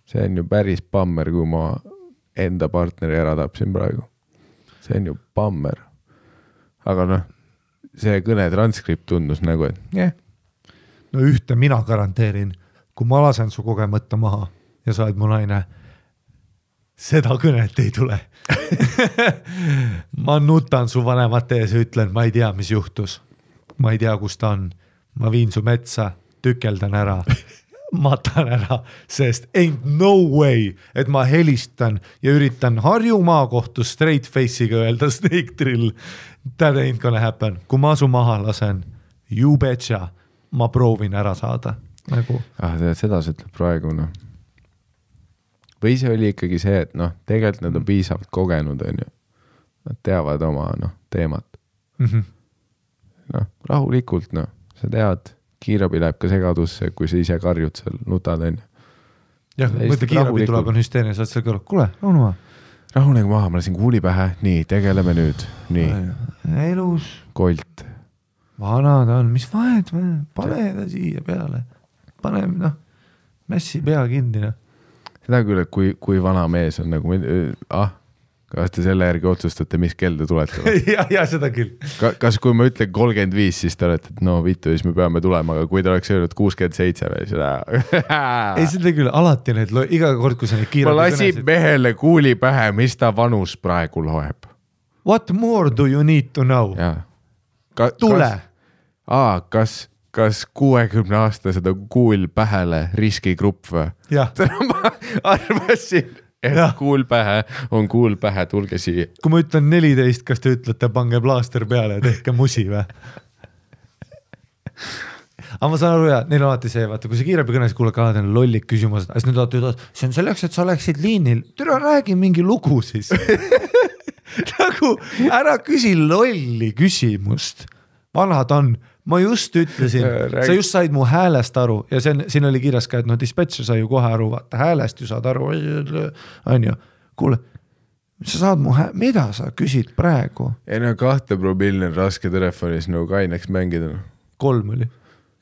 see on ju päris pammer, kui ma enda partneri ära tapsin praegu. See on ju pammer. Aga see kõne transkript tundus nagu, et ühte mina garanteerin, kui ma lasen su kogemata maha ja sa oled mu naine, seda kõnet ei tule. Ma nutan su vanemate ees ja ütlen, ma ei tea, mis juhtus. Ma ei tea, kus ta on. Ma viin su metsa, tükeldan ära, matan ära, sest ain't no way, et ma helistan ja üritan Harju maakohtus straight face'iga öelda Snake Drill. That ain't gonna happen. Kui ma su maha lasen, you betcha, ma proovin ära saada. Seda sa ütleb praegu, Või see oli ikkagi see, et tegelikult nad on piisavalt kogenud, nad teavad oma teemat. Rahulikult, sa tead, kiirabi läheb ka segadusse, kui sa ise karjud seal, nutad, Jah, mõtle kiirabi tuleb on hüsteeria, sa oled seal kõrval, kuule, rahunegu maha, ma lasin kuuli pähe, nii, tegeleme nüüd, nii. Elus. Kolt. Vana ta on, mis vahet, pane ta siia peale, pane, mässi pea kinni, Seda küll, et kui vana mees on nagu, Kas te selle järgi otsustate, mis kell te tulete? ja seda küll. Kas kui ma ütlen 35, siis te olete, et no vittu, siis me peame tulema, aga kui te oleks öelnud 67 või seda. Ei, seda küll, alati need, iga kord, kui sa neid kiirabi ma lasin mehele kuuli pähe, mis ta vanus praegu loeb. What more do you need to know? Tule! Kas 60-aastased on kuul pähele riskigrupp või? Ma arvasin, et kuul pähe on kuul pähe, tulge siia. Kui ma ütlen 14, kas te ütlete, pange plaaster peale ja tehke musi või? Aga ma saan aru, neil on alati see, vaata, kui see kiirabi kõnes kuuleb ka alati lollik küsimused, siis nüüd alati ütled, see on selleks, et sa oleksid liinil. Türa, räägi mingi lugu siis. Nagu ära küsi lolli küsimust. Vanad on. Ma just ütlesin, sa just said mu häälest aru ja siin oli kirjas ka, et no dispatcher sai ju kohe aru, vaata häälest ju saad aru, on ju, kuule, sa saad mu mida sa küsid praegu? Ei no 2 promilli on raske telefonis nagu kaineks mängida. 3 oli,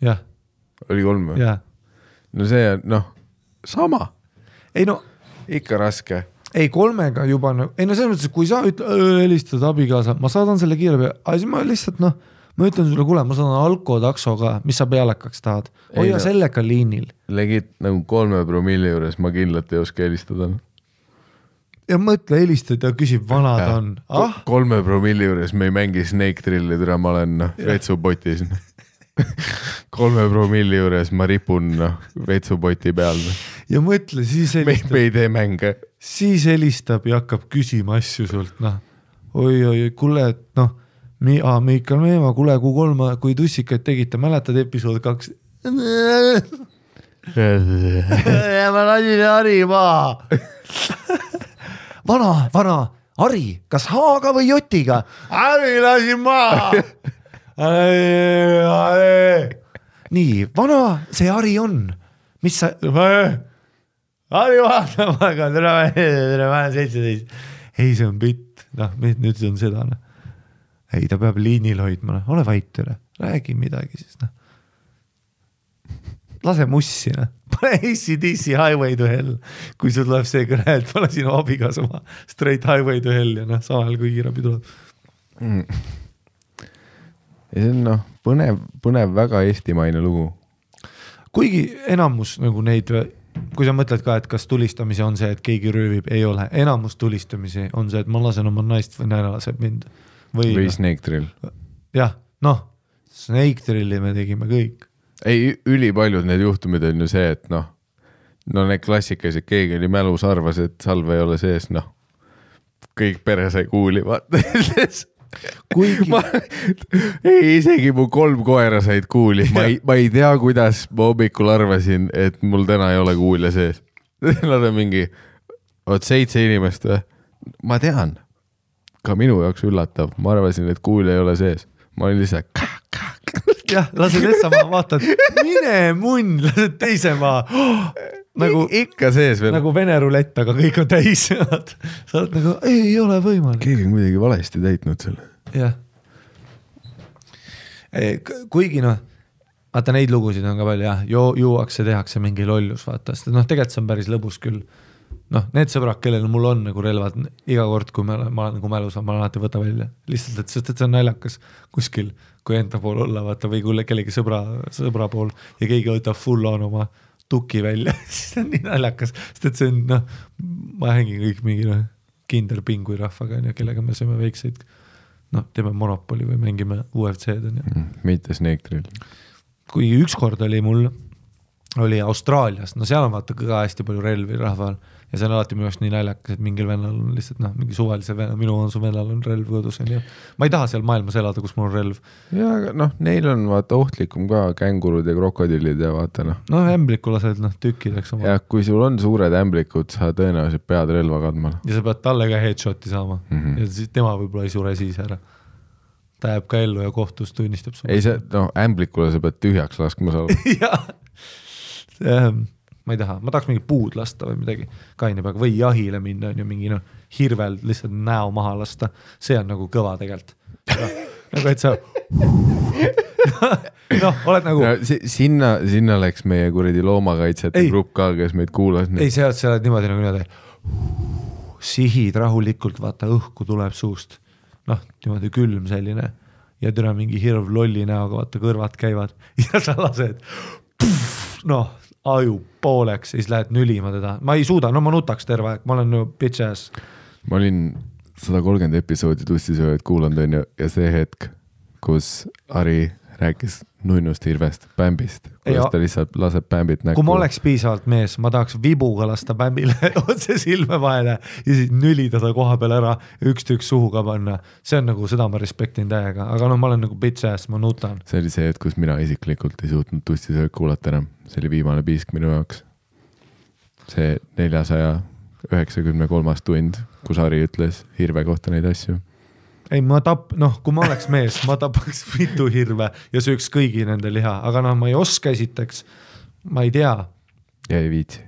jah. Oli 3 või? Jah. No see on, sama. Ei no. Ikka raske. Ei 3-ga juba, ei no selles mõttes, kui sa helistad abikaasa, ma saadan selle kiirabi, aga siis ma lihtsalt, ma ütlen sulle, kuule, ma saan alkotaksoga, mis sa pealekaks tahad. Hoia sellega liinil. Legit nagu 3 promilli juures ma kindlalt ei oska helistada. Ja mõtle helistad ja küsib, vanad on. 3 promilli juures me ei mängi Snake Trilli, türa ma olen vetsupotis. 3 promilli juures ma ripun vetsupoti peal. Ja mõtle, siis helistab. Me ei tee mänge. Siis helistab ja hakkab küsima asju sult. Oi, kuule, et Miikal Meemaa, kuule, kui tussikaid tegite, mäletad episood 2? Ma lasin Hari maa. Vana, Hari, kas H-ga või J-ga? Hari lasin maa. Nii, vana, see Hari on. Mis sa... Hari vaatamaga, tere, ma olen 17. Ei, see on bitt. Nüüd see on seda, Ei, ta peab liinil hoidma, ole vait üle, räägi midagi siis, Lase mussi, Pane ACDC Highway to Hell, kui sul tuleb see kõne, et pane sinu abigas oma Straight Highway to Hell ja samal kui kiirabi tuleb. Ja see on põnev väga eestimaine lugu. Kuigi enamus nagu neid, kui sa mõtled ka, et kas tulistamise on see, et keegi röövib, ei ole. Enamus tulistamisi on see, et ma lasen oma naist või naine laseb mind. Või Snake Drill. Jah, Snake Drilli me tegime kõik. Ei, ülipaljud need juhtumid on ju see, et need klassikalised, keegi oli mälus, arvas, et salve ei ole sees, kõik pere sai kuuli, vaata. Kuigi... isegi mu 3 koera said kuuli. Ma ei tea, kuidas ma hommikul arvasin, et mul täna ei ole kuulja sees. Nad on mingi 7 inimest. Ma tean. Ka minu jaoks üllatav. Ma arvasin, et kuulja ei ole sees. Ma olin lihtsalt jah, lased sama, vaatad, mine munn, lased teise maa. Nagu, ikka sees veel. Nagu Vene rulett, aga kõik on täis. Sa oled nagu, ei ole võimalik. Keegi on kuidagi valesti täitnud selle. Jah. Kuigi vaata neid lugusid on ka palju, juuakse, tehakse mingi lollus, vaata. Tegelikult see on päris lõbus küll. Need sõbrad, kellel mul on nagu relvad, iga kord, kui ma olen nagu mälus, ma alati võta välja. Lihtsalt, et see on naljakas kuskil, kui enda pool olla, vaata, või kui kellegi sõbra pool ja keegi võtab full on oma tuki välja, siis on nii naljakas, sest et see on, ma hängin kõik mingi kinderpingui rahvaga, kellega me sööme väikseid, teeme Monopoli või mängime UFC-d. Mitte Snake Drill. Kui ükskord oli mul, oli Austraalias, seal on vaata ka hästi palju relvi rahval ja see on alati minu jaoks nii naljakas, et mingil vennal on lihtsalt mingi suvalise venna, minu vennal on relv kodus. Ma ei taha seal maailmas elada, kus mul on relv. Ja neil on vaata ohtlikum ka kängurud ja krokodillid ja vaata ämbliku lased tükkideks oma. Ja kui sul on suured ämblikud, sa tõenäoliselt pead relva kandma. Ja sa pead talle ka headshoti saama ja siis tema võib-olla ei sure siis ära. Ta jääb ka ellu ja kohtus tunnistab. Ei see, ämblikule sa pead tühjaks laskma saada. Jah. Ma ei taha, ma tahaks mingi puud lasta või midagi kaine peaga või jahile minna on ju mingi hirvel lihtsalt näo maha lasta. See on nagu kõva tegelikult. Nagu et sa oled nagu sinna läks meie kuradi loomakaitsjate grupp ka, kes meid kuulas. Ei, see oled niimoodi nagu niimoodi sihid rahulikult, vaata õhku tuleb suust, noh, niimoodi külm selline ja türa mingi hirv lolli näoga, vaata kõrvad käivad ja sa lased, noh, aju pooleks ja siis lähed nülima teda, ma ei suuda, no ma nutaks terve aeg, ma olen ju bitch ass. Ma olin 130 episoodi tussisööjad kuulanud on ju ja see hetk, kus Ari rääkis nunnust hirvest, pämbist, kuidas ta lihtsalt laseb pämbit näkku. Kui ma oleks piisavalt mees, ma tahaks vibuga lasta pämbile otse silme vahele ja siis nülida ta koha peal ära ja üks tükk suhu ka panna. See on nagu, seda ma respektin täiega, aga no ma olen nagu bitch ass, ma nutan. See oli see hetk, kus mina isiklikult ei suutnud tussisööjad kuulata enam. See oli viimane piisk minu jaoks. See 493. tund, kus Ari ütles hirve kohta neid asju. Ei, kui ma oleks mees, ma tapaks mitu hirve ja sööks kõigi nende liha, aga noh, ma ei oska esiteks, ma ei tea. Ja ei viitsi.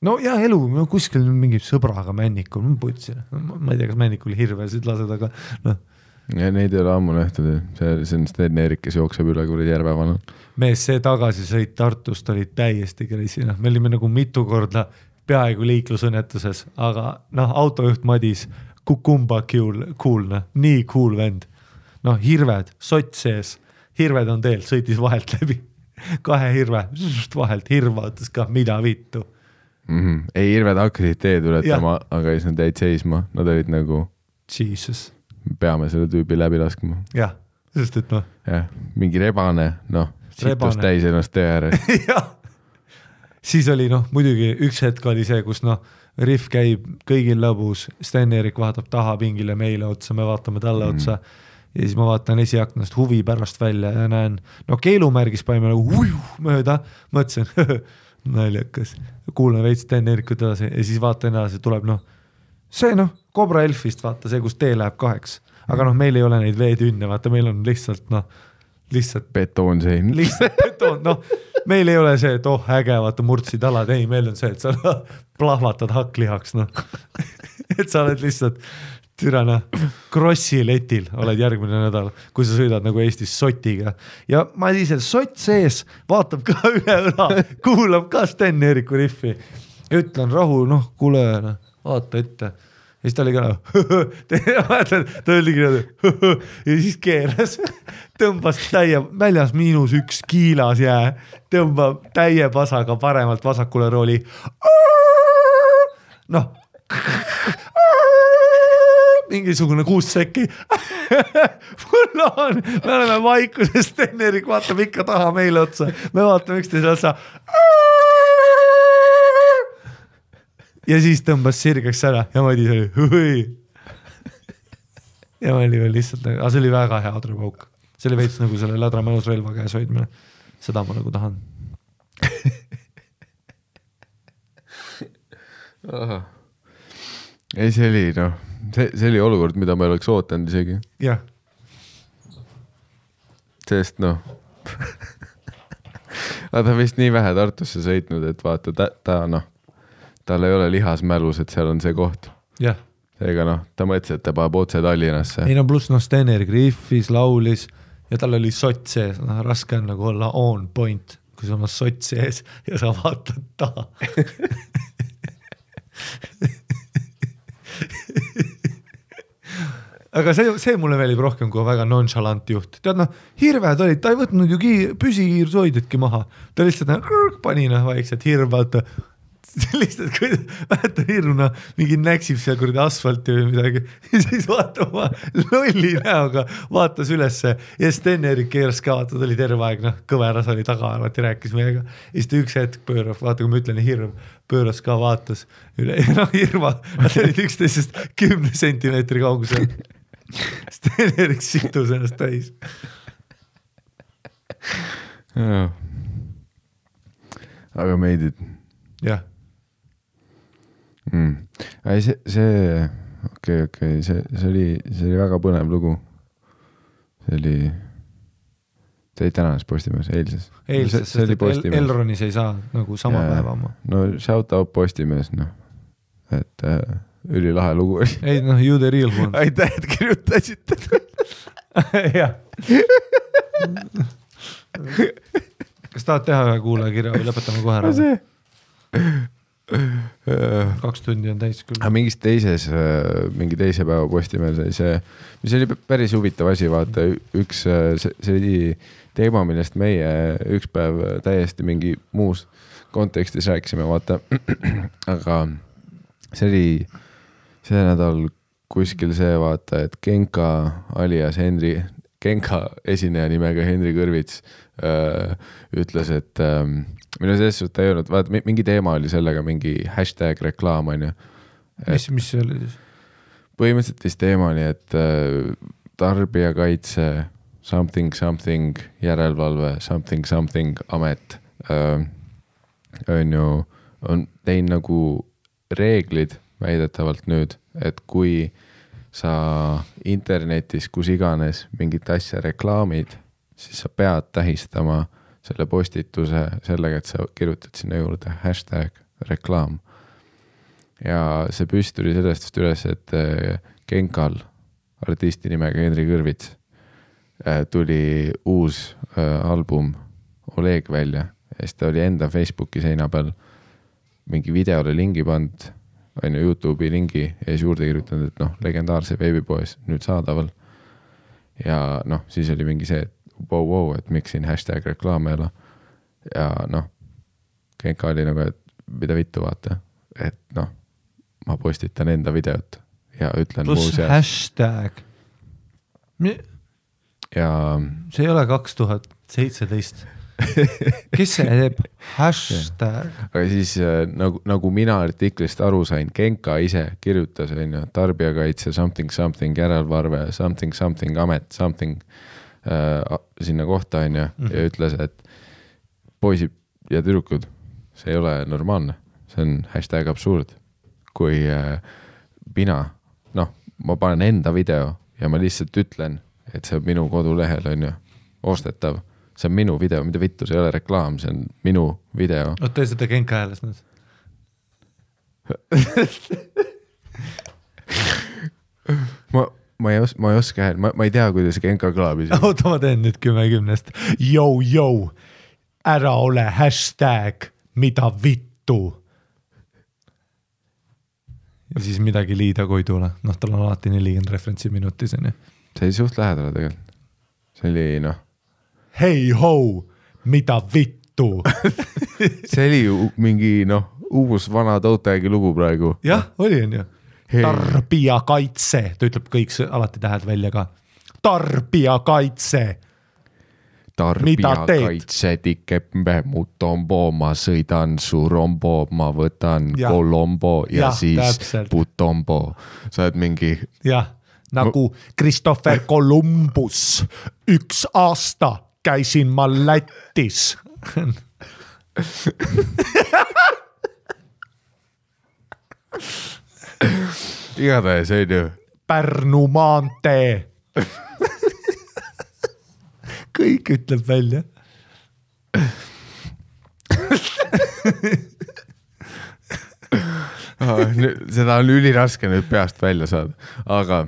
No ja elu, kuskil mingi sõbraga männikul, ma putsin, ma ei tea, kas männikul hirvesid lased, aga noh. Ja neid ei ole ammu nähtud, see on Sten-Erik, kes jookseb üle kuradi järvevana. Mees, see tagasisõit Tartust oli täiesti kreisina, me olime nagu mitu korda peaaegu liiklusõnnetuses, aga noh, autojuht Madis kukumba cool, nii cool vend. Noh, hirved, sott sees, hirved on teel, sõitis vahelt läbi. 2 hirve, vahelt hirva, ütles ka, mida vittu. Ei, hirved hakkasid teed ületama, aga siis nad jäid seisma, nad olid nagu Jesus. Peame selle tüübi läbi laskma. Jah, sest et noh. Jah, mingi rebane, noh, situs täis ennast tee ääres. Jah, siis oli noh, muidugi üks hetk oli see, kus noh, Riff käib kõigil lõbus, Sten-Erik vaatab taha pingile meile otsa, me vaatame talle otsa ja siis ma vaatan esiaknast huvi pärast välja ja näen, no keelumärgis paime nagu mööda, mõtlesin, naljakas, kuulen veits Sten-Erikut edasi ja siis vaatan edasi, tuleb noh, see noh, Cobra Elfist vaata see, kus tee läheb 2, aga noh, meil ei ole neid veetünne, vaata meil on lihtsalt noh, betoonsein. Lihtsalt betoon, noh, meil ei ole see, et äge, vaata murdsid alad, ei, meil on see, et sa plahvatad hakklihaks, noh. Et sa oled lihtsalt türana krossi letil, oled järgmine nädal, kui sa sõidad nagu Eestis sotiga. Ja ma ise sott sees, vaatab ka üle õla, kuulab ka Sten-Eriku Riffi. Ütlen rahu, noh, kuule, vaata ette. Ja siis ta oli ka ta oligi ja siis keeras, tõmbas väljas -1 kiilas jää, tõmbab täie pasaga paremalt vasakule rooli. Noh, mingisugune 6 sekki. Me oleme vaikuses, Sten-Erik vaatab ikka taha meile otsa, me vaatame üksteise otsa. Ja siis tõmbas sirgeks ära ja Madis oli hui. Ja ma oli veel lihtsalt, aga see oli väga hea adrapauk. See oli veits nagu selle ladra mälus relva käes hoidmine. Seda ma nagu tahan. Ei, see oli, noh, see oli olukord, mida ma ei oleks ootanud isegi. Jah. Sest, noh, ta vist nii vähe Tartusse sõitnud, et vaata, ta noh, tal ei ole lihas mälus, et seal on see koht. Jah. Seega noh, ta mõtles, et ta paneb otse Tallinnasse. Ei no pluss noh, Sten-Erik riffis, laulis ja tal oli sott sees. No, raske on nagu olla on point, kui sa oma sott sees ja sa vaatad taha. Aga see mulle meelib rohkem kui väga nonchalant juht. Tead noh, hirved olid, ta ei võtnud ju püsikiirsoidjatki maha. Ta lihtsalt pani vaikselt hirvad. Lihtsalt, kui väheta hirmuna mingi näksib seal kuradi asfalti või midagi ja siis vaatab ma lolli näoga, vaatas ülesse ja Sten-Erik keeras ka, vaata, ta oli terve aeg, noh, kõveras oli taga, alati rääkis meiega ja siis ta üks hetk pöörab, vaata, kui ma ütlen hirm, pööras ka, vaatas üle ja noh, hirma, nad olid üksteisest 10 sentimeetri kaugusel. Sten-Erik situs ennast täis. Aga meidid. Jah. Ei, see okei, see oli väga põnev lugu. See oli tänases Postimees, eilses. See oli Postimees. Elronis ei saa nagu sama päeva oma. No shout out Postimees, noh. Et ülilahe lugu oli. Ei, noh, you the real one. Aitäh, et kirjutasite. Jah. Kas tahad teha ühe kuulaja kirja või lõpetame kohe ära? 2 tundi on täis küll. Mingis teises, mingi teise päeva Postimehel sai see, mis oli päris huvitav asi, vaata üks, see oli teema, millest meie üks päev täiesti mingi muus kontekstis rääkisime, vaata, aga see oli see nädal kuskil see, vaata, et Genka alias Genka esineja nimega Henri Kõrvits ütles, et minu selles suhtes ta ei olnud, vaata, mingi teema oli sellega, mingi hashtag reklaam, on ju. Mis see oli siis? Põhimõtteliselt vist teema oli, et tarbijakaitse something järelevalve something amet on ju, on teinud nagu reeglid väidetavalt nüüd, et kui sa internetis, kus iganes mingit asja reklaamid, siis sa pead tähistama selle postituse sellega, et sa kirjutad sinna juurde hashtag reklaam. Ja see püst tuli sellest üles, et Genkal, artisti nimega Henri Kõrvits, tuli uus album Oleg välja ja siis ta oli enda Facebooki seina peal mingi videole lingi pand, on ju YouTube'i lingi ja siis juurde kirjutanud, et noh, legendaarse veebipoes nüüd saadaval. Ja noh, siis oli mingi see, et wow, et miks siin hashtag reklaam ei ole. Ja noh, Genka oli nagu, et mida vittu vaata, et noh, ma postitan enda videot ja ütlen plus muuseas. Hashtag. Ja see ei ole 2017. Kes see teeb? Hashtag. Aga siis nagu mina artiklist aru sain, Genka ise kirjutas tarbijakaitse something järelevalve something amet something sinna kohta on ja ütles, et poisid ja tüdrukud, see ei ole normaalne, see on hashtag absurd. Kui mina, noh, ma panen enda video ja ma lihtsalt ütlen, et see on minu kodulehel on ju ostetav, see on minu video, mida vittu, see ei ole reklaam, see on minu video. Tee seda Genka hääles nüüd. Ma ei oska hääl, ma ei tea, kuidas Genka kõlab. Oota, ma teen nüüd 10-10. Yo, ära ole hashtag, mida vittu. Ja siis midagi liida koidule. Noh, tal on alati 40 referentsi minutis. See oli suht lähedale tegelikult. See oli noh. Hei ho, mida vittu. See oli ju mingi noh, uus vana Toutagi lugu praegu. Jah, oli on ju. Tarbijakaitse, ta ütleb kõik alati tähed välja ka. Tarbijakaitse. Tarbijakaitse tikembe mu tombo, ma sõidan su rombo, ma võtan kolombo ja siis täpselt. putombo. Sa oled mingi... Jah, nagu Christopher Columbus. 1 aasta käisin ma Lätis. Igatahes see on ju Pärnu maantee. Kõik ütleb välja. Seda on üliraske nüüd peast välja saada, aga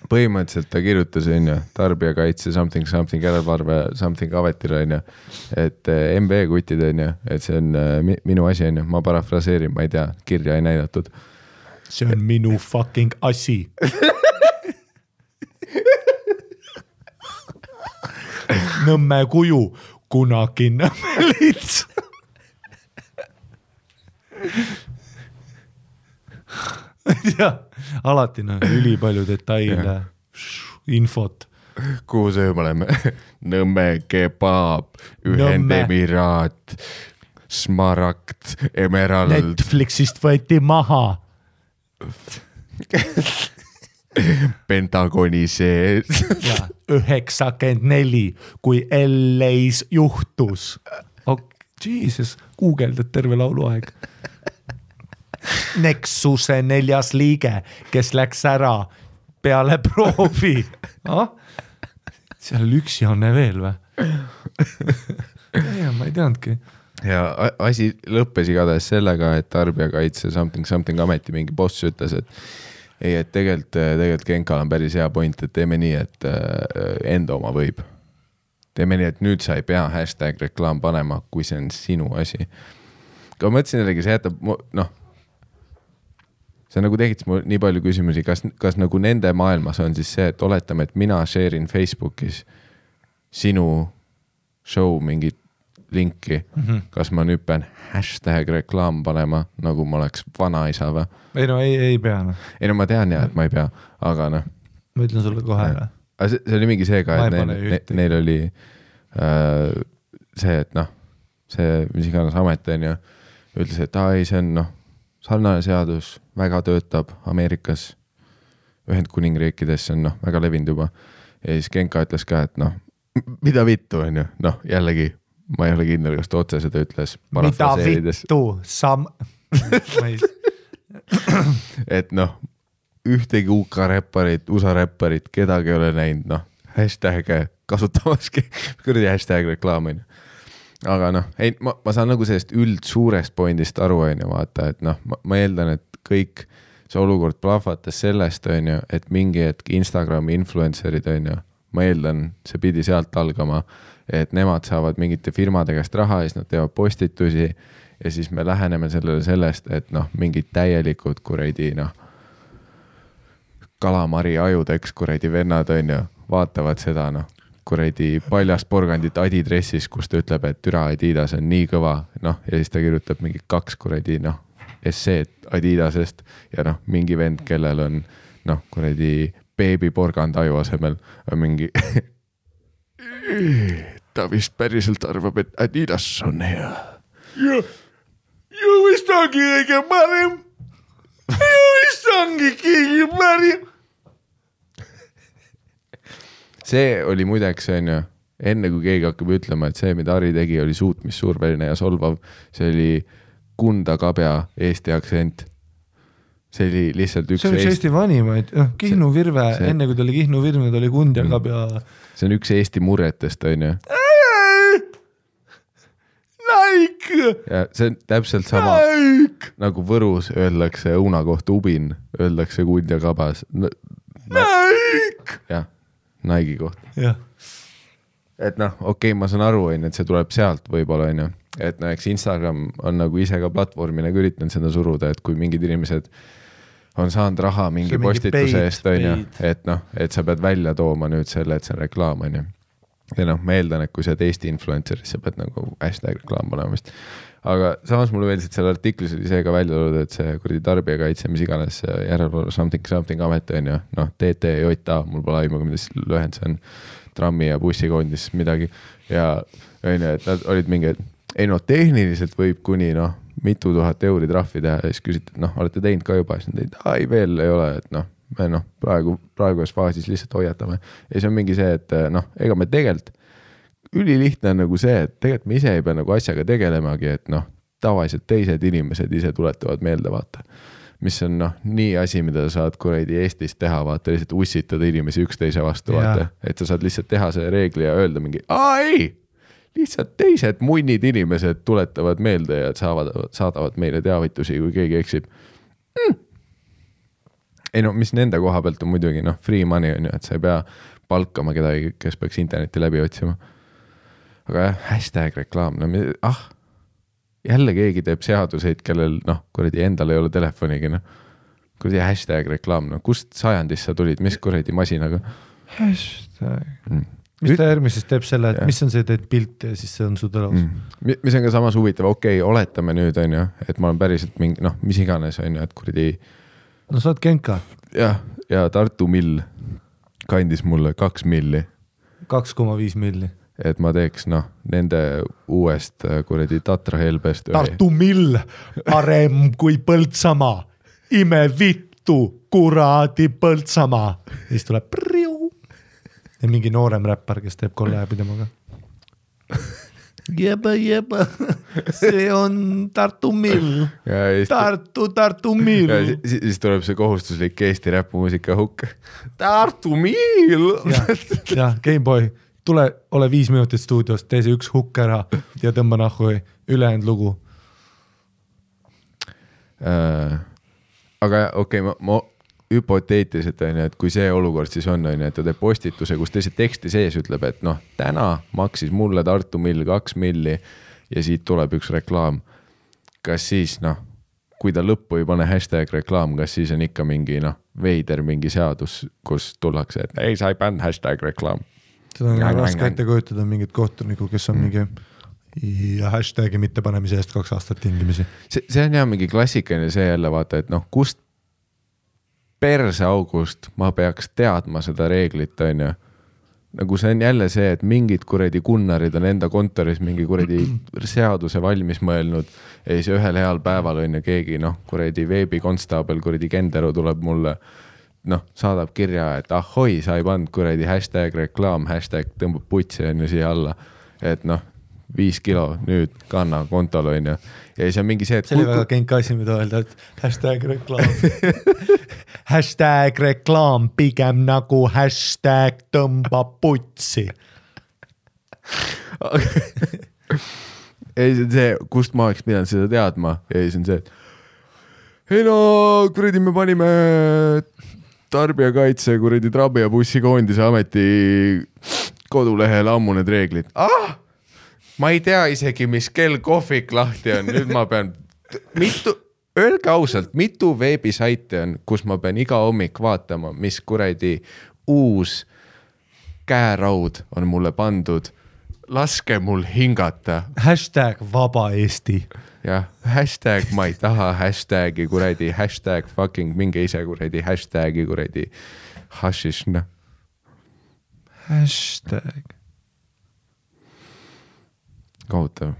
põhimõtteliselt ta kirjutas tarbijakaitse something järelevalve something ametile et MB kutid et see on minu asi ma parafraseerin, ma ei tea, kirja ei näidatud. See on minu fucking asi. Nõmme kuju, kunagi Nõmme lits. Ja, alati üli palju detaile, infot. Kuhu see me oleme? Nõmme kebab, Ühendemiraat, Smaragd, Emerald. Netflixist võeti maha. Pentagoni sees. 94, kui LA-s juhtus. Jesus, guugeldad terve lauluaeg. Nexuse 4. liige, kes läks ära peale proovi. Seal üksi on veel või? Ma ei teadnudki. Ja asi lõppes igatahes sellega, et tarbijakaitse something ameti mingi boss ütles, et tegelikult Genkal on päris hea point, et teeme nii, et enda oma võib. Teeme nii, et nüüd sa ei pea hashtag reklaam panema, kui see on sinu asi. ma mõtlesin jällegi, see jätab, noh, see nagu tekitas mul nii palju küsimusi, kas nagu nende maailmas on siis see, et oletame, et mina share in Facebookis sinu show mingit linki, kas ma nüüd pean #reklaam panema, nagu ma oleks vanaisa või? Ei no ei pea. No. Ei no ma tean jah, et ma ei pea, aga noh. Ma ütlen sulle kohe. See oli mingi see ka, et neil oli see, et noh, see mis iganes amet on ja ütles, et ei, see on noh, sarnane seadus, väga töötab Ameerikas, Ühendkuningriikides, see on noh, väga levinud juba. Ja siis Genka ütles ka, et noh, mida vittu on ju, noh, jällegi ma ei ole kindel, kas ta otse seda ütles. Mida vittu, et noh, ühtegi UK räpparit, USA räpparit, kedagi ei ole näinud, noh, hashtag'e kasutamaski, kuradi hashtag reklaam on ju. Aga noh, ei, ma saan nagu sellest suurest pointist aru on ju, vaata, et noh, ma eeldan, et kõik see olukord plahvatas sellest on ju, et mingi hetk Instagrami influencerid on ju, ma eeldan, see pidi sealt algama, et nemad saavad mingite firmade käest raha ja siis nad teevad postitusi ja siis me läheneme sellele sellest, et noh, mingid täielikud kuradi noh, kalamari ajudeks kuradi vennad on ju, vaatavad seda noh, kuradi paljast porgandit Adidressis, kus ta ütleb, et türa Adidas on nii kõva, noh, ja siis ta kirjutab mingi 2 kuradi noh, esseed Adidasest ja noh, mingi vend, kellel on noh, kuradi beebiporgand aju asemel on mingi ta vist päriselt arvab, et Adidas on hea. Ja vist ongi kõige parem. Ja vist ongi kõige parem. See oli muideks on ju, enne kui keegi hakkab ütlema, et see, mida Ari tegi, oli suutmissuurveline ja solvav. See oli Kunda Kabja eesti aktsent. See oli lihtsalt üks... See oli Eesti vanimaid. Kihnu Virve, enne kui ta oli Kihnu Virve, ta oli Kunda Kabja. See on üks Eesti murretest on ju. Like! Ja see on täpselt sama nagu Võrus öeldakse õuna kohta ubin, öeldakse Kunda Kabas. Like! Jah. Naigi kohta. Ja. Et noh, okei, ma saan aru, et see tuleb sealt võib-olla, on ju. Et no, eks Instagram on nagu ise ka platvormina üritanud seda suruda, et kui mingid inimesed on saanud raha mingi postituse eest, on ju, et noh, et sa pead välja tooma nüüd selle, et see on reklaam, on ju. Ja noh, ma eeldan, et kui sa oled Eesti influenceris, sa pead nagu hashtag reklaam panema vist. Aga samas mulle veeldisid selle artiklis oli see ka välja tulnud, et see kuradi tarbijakaitse, mis iganes järelevalve something amet on ju, noh, TTJA, mul pole aimu, mida siis lühend see on, trammi ja bussikoondis midagi ja on ju, et nad olid mingi, ei no tehniliselt võib kuni noh, mitu tuhat euri trahvi teha ja siis küsiti, et noh, olete teinud ka juba, siis nad teid, ei veel ei ole, et noh, me noh, praeguses faasis lihtsalt hoiatame ja siis on mingi see, et noh, ega me tegelikult ülilihtne on nagu see, et tegelikult me ise ei pea nagu asjaga tegelemagi, et noh, tavaliselt teised inimesed ise tuletavad meelde vaata, mis on noh, nii asi, mida sa saad kuradi Eestis teha, vaata, lihtsalt ussitada inimesi üksteise vastu, vaata, et sa saad lihtsalt teha see reegli ja öelda mingi, ei, lihtsalt teised munnid inimesed tuletavad meelde ja saadavad meile teavitusi, kui keegi eksib. Ei no, mis nende koha pealt on muidugi, noh, free money on ju, et sa ei pea palkama kedagi, kes peaks interneti läbi otsima. Aga jah, hashtag reklaam, no jälle keegi teeb seaduseid, kellel noh, kuradi endal ei ole telefonigi, noh. Kuradi hashtag reklaam, no kust sajandist sa tulid, mis kuradi masinaga? Hashtag. Mis ta järgmises teeb selle, et mis on see, teed pilt ja siis see on su tõlaus? Mis on ka samas huvitav, okei, oletame nüüd on ju, et ma olen päriselt mingi, noh, mis iganes on ju, et kuradi... No sa oled Genka. Ja Tartu Mill kandis mulle 2 milli. 2,5 milli. Et ma teeks, noh, nende uuest kuradi Tatra Helbest. Tartu Mill, parem kui Põltsamaa. Ime vittu, kuradi Põltsamaa. Siis tuleb priu. Ja mingi noorem räppar, kes teeb kolläbi temaga. Jeba. See on Tartu Mill. Tartu Mill. Siis tuleb see kohustuslik Eesti räpumuusika hukk. Tartu Mill. Ja, Gameboy. Tule, ole 5 minutit stuudios, tee see 1 hukk ära ja tõmba nahku ülejäänud lugu. Aga okei, ma hüpoteetiliselt on, et kui see olukord siis on, et ta teeb postituse, kus teise teksti sees ütleb, et noh, täna maksis mulle Tartu Mill 2 milli ja siit tuleb 1 reklaam. kas siis kui ta lõppu ei pane hashtag reklaam, kas siis on ikka mingi veider mingi seadus, kus tullakse, et ei, sa ei pannud hashtag reklaam. Seda on raske ette kujutada mingit kohtuniku, kes on mingi ja hashtagi mitte panemise eest 2 aastat tingimisi. See on jah mingi klassikaline see jälle vaata, et kust perseaugust ma peaks teadma seda reeglit, on ju. Nagu see on jälle see, et mingid kuradi kunnarid on enda kontoris mingi kuradi seaduse valmis mõelnud ja siis ühel heal päeval on ju keegi kuradi veebikonstaabel, kuradi Kendero tuleb mulle saadab kirja, et ahoi, sa ei pannud kuradi hashtag reklaam, hashtag tõmbab putsi on ju siia alla, et 5 kilo nüüd kanna kontol on ju. Ja siis on mingi see, et see oli väga kenka asi, mida öelda, et hashtag reklaam hashtag reklaam pigem nagu hashtag tõmbab putsi ei, see on see, kust ma oleks pidanud seda teadma ja siis on see, et ei kuradi me panime tarbijakaitse kuradi Trabi ja bussikoondise ameti kodulehele ammu need reeglid. Ma ei tea isegi, mis kell kohvik lahti on, nüüd ma pean öelge ausalt, mitu veebisaiti on, kus ma pean iga hommik vaatama, mis kuradi uus käeraud on mulle pandud. Laske mul hingata. Hashtag vaba Eesti. Jah, hashtag ma ei taha hashtagi kuradi, hashtag fucking minge ise kuradi, hashtagi kuradi hashish. Hashtag. Kohutav.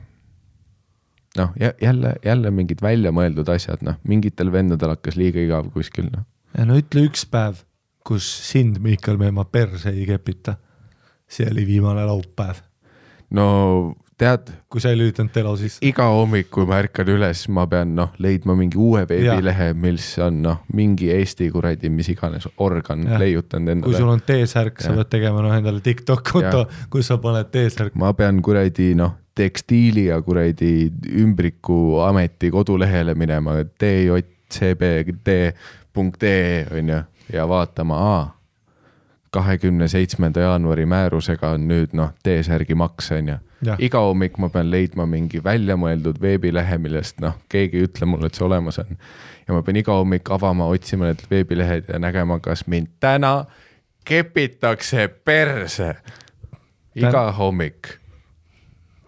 Jälle mingid välja mõeldud asjad, mingitel vendadel hakkas liiga igav kuskil. Ja ütle üks päev, kus sind, Miikal Meemaa, perse ei kepita. See oli viimane laupäev. No tead, kui sa ei lüütanud telo sisse. Iga hommik, kui ma ärkan üles, ma pean leidma mingi uue veebilehe, mis on mingi Eesti kuradi, mis iganes organ leiutanud endale. Kui sul on T-särk, sa pead tegema endale TikTok-konto, kus sa paned T-särk. Ma pean kuradi tekstiili ja kuradi ümbriku ameti kodulehele minema tjcbd.ee on ju ja vaatama 27. jaanuari määrusega on nüüd T-särgi maks on ju. Iga hommik ma pean leidma mingi väljamõeldud veebilehe, millest keegi ütle mulle, et see olemas on. Ja ma pean iga hommik avama, otsima need veebilehed ja nägema, kas mind täna kepitakse perse. Iga hommik.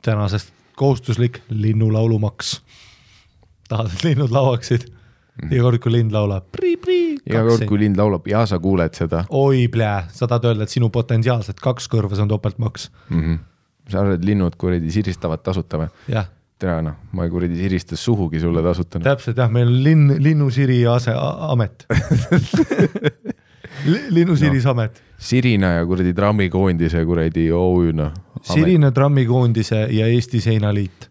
Tänasest kohustuslik linnulaulumaks. Tahad, et linnud lauaksid? Iga kord, kui lind laulab. Iga kord, kui lind laulab ja sa kuuled seda. Oi plää, sa tahad öelda, et sinu potentsiaalselt 2 kõrvas on topeltmaks. Sa arvad, et linnud kuradi siristavad tasuta või? Jah. Tere, ma ei kuradi siristas suhugi sulle tasutanud. Täpselt jah, meil on linnusiri amet. Linnusiris amet. Sirina ja kuradi trammikoondise kuradi OÜ-na. Sirina trammikoondise ja Eesti seinaliit.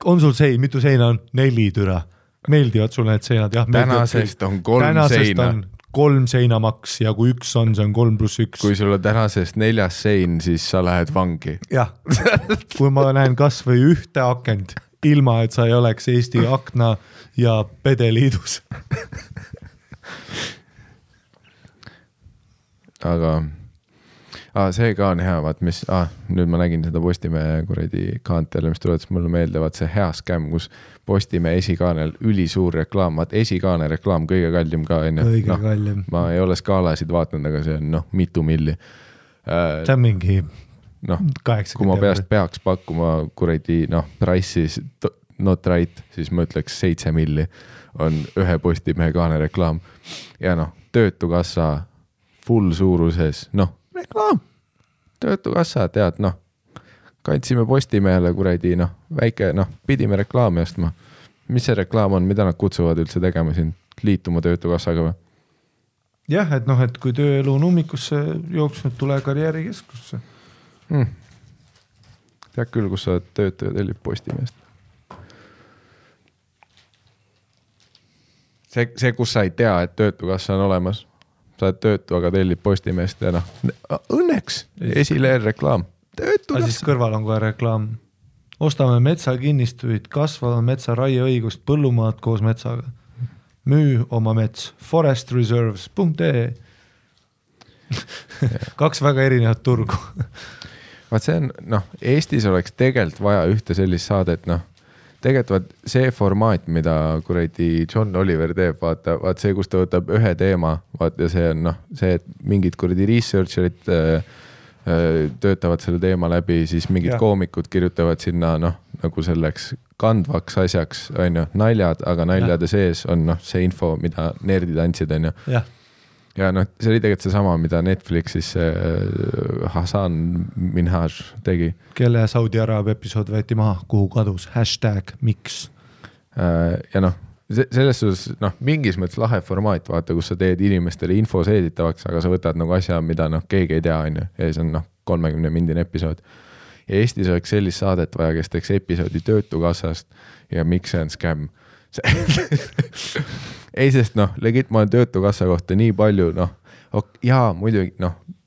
On sul mitu seina on? 4 türa. Meeldivad sulle need seinad? Jah, tänasest on 3 seina. On 3 seinamaks ja kui 1 on, see on 3+1. Kui sul on tänasest 4 sein, siis sa lähed vangi. Jah, kui ma näen kas või ühte akent, ilma et sa ei oleks Eesti Akna ja Pedeliidus. Aga see ka on hea, vaat mis, nüüd ma nägin seda Postimehe kuradi kaantele, mis tuletas mulle meelde, vaat see hea skäm, kus Postimehe esikaanel ülisuur reklaam, vaat esikaane reklaam kõige kallim ka enne. Kõige kallim. Ma ei ole skaalasid vaatanud, aga see on mitu milli. See on mingi 80. Kui ma peaks pakkuma kuradi price'is not right, siis ma ütleks 7 milli on ühe Postimehe kaane reklaam. Ja töötukassa full suuruses, reklaam, töötukassa, tead, kandsime Postimehele kuradi, väike, pidime reklaami ostma. Mis see reklaam on, mida nad kutsuvad üldse tegema siin, liituma töötukassaga või? Jah, et kui tööelu on ummikusse jooksnud, tule karjäärikeskusse. Tead küll, kus sa töötaja tellib Postimehest. See, kus sa ei tea, et töötukassa on olemas. Sa oled töötu, aga tellib Postimehest ja õnneks esileer reklaam. Töötukassa. Siis kõrval on kohe reklaam. Ostame metsakinnistuid, kasvava metsa raieõigust, põllumaad koos metsaga. Müü oma mets, forestreserves.ee 2 väga erinevat turgu. Vaat see on, Eestis oleks tegelikult vaja ühte sellist saadet, tegelikult see formaat, mida kuradi John Oliver teeb, vaata see, kus ta võtab ühe teema, vaata see on see, et mingid kuradi researcherid töötavad selle teema läbi, siis mingid koomikud kirjutavad sinna nagu selleks kandvaks asjaks, on ju, naljad, aga naljade sees on see info, mida nerdid andsid, on ju. Ja see oli tegelikult seesama, mida Netflixis Hasan Minhaj tegi. Kelle Saudi Araabia episood võeti maha, kuhu kadus, #miks. Ja selles suhtes, mingis mõttes lahe formaat, vaata, kus sa teed inimestele info seeditavaks, aga sa võtad nagu asja, mida keegi ei tea, on ju, ja see on 30-mindine episood. Ja Eestis oleks sellist saadet vaja, kes teeks episoodi Töötukassast ja miks see on scam. Ei, sest legit ma olen Töötukassa kohta nii palju, jaa, muidugi,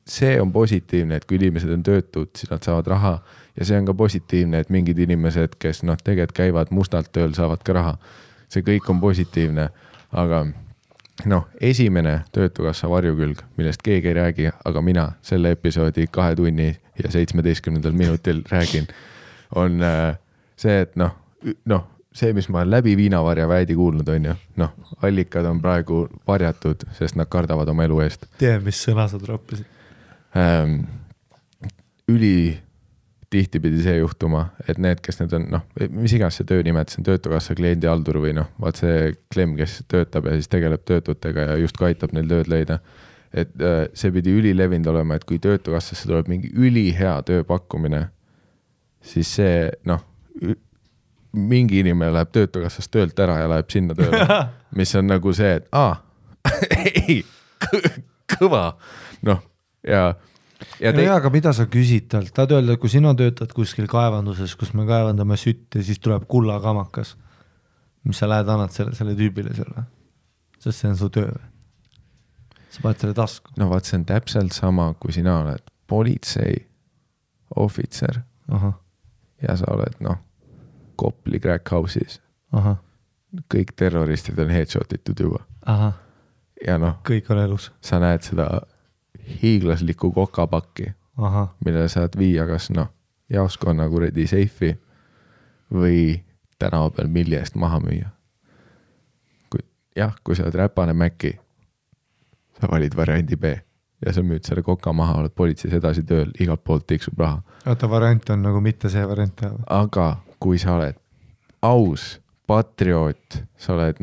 see on positiivne, et kui inimesed on töötud, siis nad saavad raha ja see on ka positiivne, et mingid inimesed, kes tegelikult käivad mustalt tööl, saavad ka raha. See kõik on positiivne, aga esimene Töötukassa varjukülg, millest keegi ei räägi, aga mina selle episoodi 2 tunni ja 17 minutil räägin, on see, et see, mis ma olen läbi Viinavarja väidi kuulnud, on ju, allikad on praegu varjatud, sest nad kardavad oma elu eest. Tee, mis sõna sa troppisid? Tihti pidi see juhtuma, et need, kes need on, mis iganes see töönimet, see on Töötukassa kliendihaldur või vaat see Klem, kes töötab ja siis tegeleb töötutega ja just aitab neil tööd leida. Et see pidi ülilevinud olema, et kui Töötukassasse tuleb mingi ülihea tööpakkumine, siis see, mingi inimene läheb Töötukassast töölt ära ja läheb sinna tööle, mis on nagu see, et ei, kõva, aga mida sa küsid talt? Tahad öelda, kui sina töötad kuskil kaevanduses, kus me kaevandame sütt ja siis tuleb kullakamakas, mis sa lähed annad selle tüübile selle, sest see on su töö. Sa paned selle tasku. Vaat see on täpselt sama, kui sina oled politsei ohvitser ja sa oled Kopli crack house'is. Kõik terroristid on headshotitud juba. Ja kõik on elus. Sa näed seda hiiglaslikku kokapakki, millele saad viia kas jaoskonna kuredi seifi või tänava peal milli eest maha müüa. Kui sa oled räpane Mäkki, sa valid variandi B ja sa müüd selle koka maha, oled politseis edasi tööl, igalt poolt tiksub raha. Oota, variant on nagu mitte see variant. Aga kui sa oled aus, patrioot, sa oled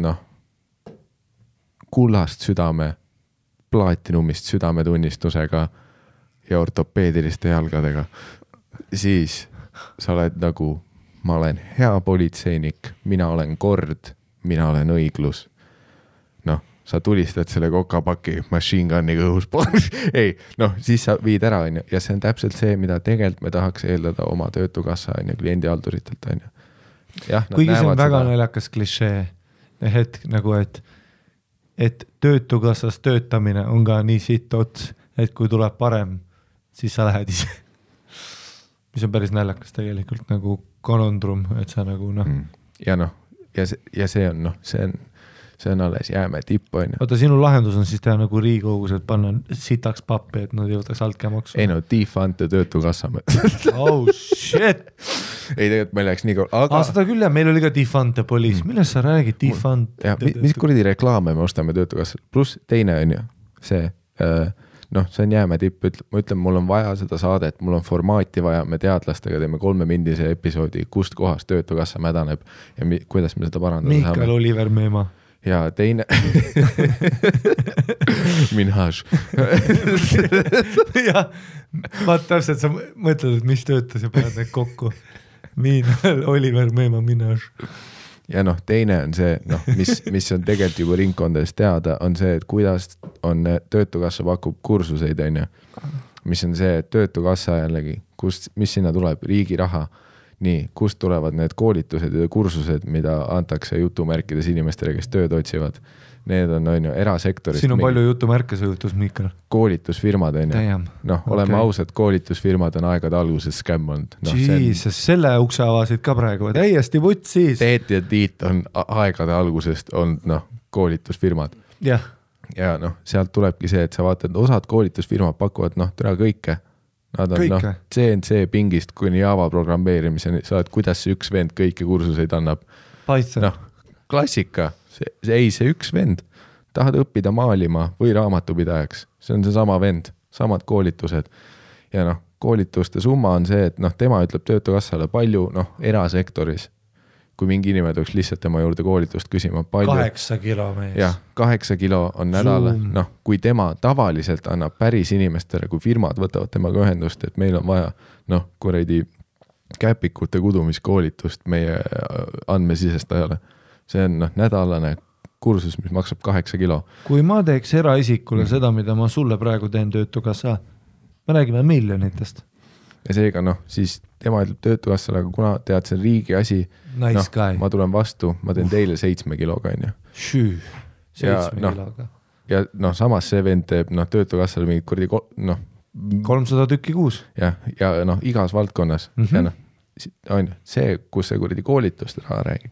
kullast südame, plaatinumist südametunnistusega ja ortopeediliste jalgadega, siis sa oled nagu, ma olen hea politseinik, mina olen kord, mina olen õiglus. Sa tulistad selle kokapaki machine gunniga õhus. Ei, siis sa viid ära, on ju. Ja see on täpselt see, mida tegelikult me tahaks eeldada oma Töötukassa, on ju, kliendihalduritelt, on ju. Kuigi see on väga naljakas klišee hetk nagu, et Töötukassas töötamine on ka nii sitt ots, et kui tuleb parem, siis sa lähed ise. Mis on päris naljakas tegelikult nagu konondrum, et sa nagu Ja see on alles jääme tipp, on ju. Oota, sinu lahendus on siis teha nagu Riigikogus, et panna sitaks pappi, et nad jõutaks altkäemaksu. Ei defund ja Töötukassa. Oh shit! Ei, tegelikult meil läks nii kaua. Seda küll ja meil oli ka defund ja poliis. Millest sa räägid? Defund? Mis kuradi reklaame me ostame Töötukassa? Plus teine on ju see, see on jääme tipp. Ma ütlen, mul on vaja seda saadet, mul on formaati vaja, me teadlastega teeme 3-mindise episoodi, kust kohast Töötukassa mädaneb ja kuidas me seda parandada saame. Mikael Oliver Meema. Ja teine Minhaj. Ja vaat täpselt sa mõtled, et mis töötas ja paned need kokku. Oliver Meema Minhaj. Ja teine on see, mis on tegelikult juba ringkondades teada, on see, et kuidas on Töötukassa pakub kursuseid, on ju. Mis on see, et Töötukassa jällegi, mis sinna tuleb, riigi raha. Nii, kust tulevad need koolitused ja kursused, mida antakse jutumärkides inimestele, kes tööd otsivad. Need on ju erasektorist. Siin on palju jutumärke see jutus, Mikal. Koolitusfirmad on ju. Oleme ausad, koolitusfirmad on aegade alguses scam olnud. Jesus, selle ukse avasid ka praegu. Täiesti vutt siis. Teet ja Tiit on aegade algusest olnud koolitusfirmad. Ja sealt tulebki see, et sa vaatad, osad koolitusfirmad pakuvad tere kõike. Nad on Kõike. CNC pingist kuni Java programmeerimiseni, sa oled, kuidas see üks vend kõiki kursuseid annab. Python. Klassika, see üks vend, tahad õppida maalima või raamatupidajaks, see on see sama vend, samad koolitused. Ja koolituste summa on see, et tema ütleb Töötukassale palju, erasektoris, kui mingi inimene tuleks lihtsalt tema juurde koolitust küsima. 8 kilo mees. Jah, 8 kilo on nädal, kui tema tavaliselt annab päris inimestele, kui firmad võtavad temaga ühendust, et meil on vaja, kuradi käpikute kudumiskoolitust meie andmesisestajale. See on nädalane kursus, mis maksab 8 kilo. Kui ma teeks eraisikule seda, mida ma sulle praegu teen Töötukassa, me räägime miljonitest. Ja seega siis tema ütleb Töötukassale, aga kuna tead, see on riigi asi, Nice guy. ma tulen vastu, ma teen teile 7 kiloga, on ju. Šüü, 7 kiloga. Ja samas see vend teeb Töötukassale mingid kurdi, 300 tükki kuus. Ja igas valdkonnas. Ja on see, kus see kurdi koolitust raha räägib.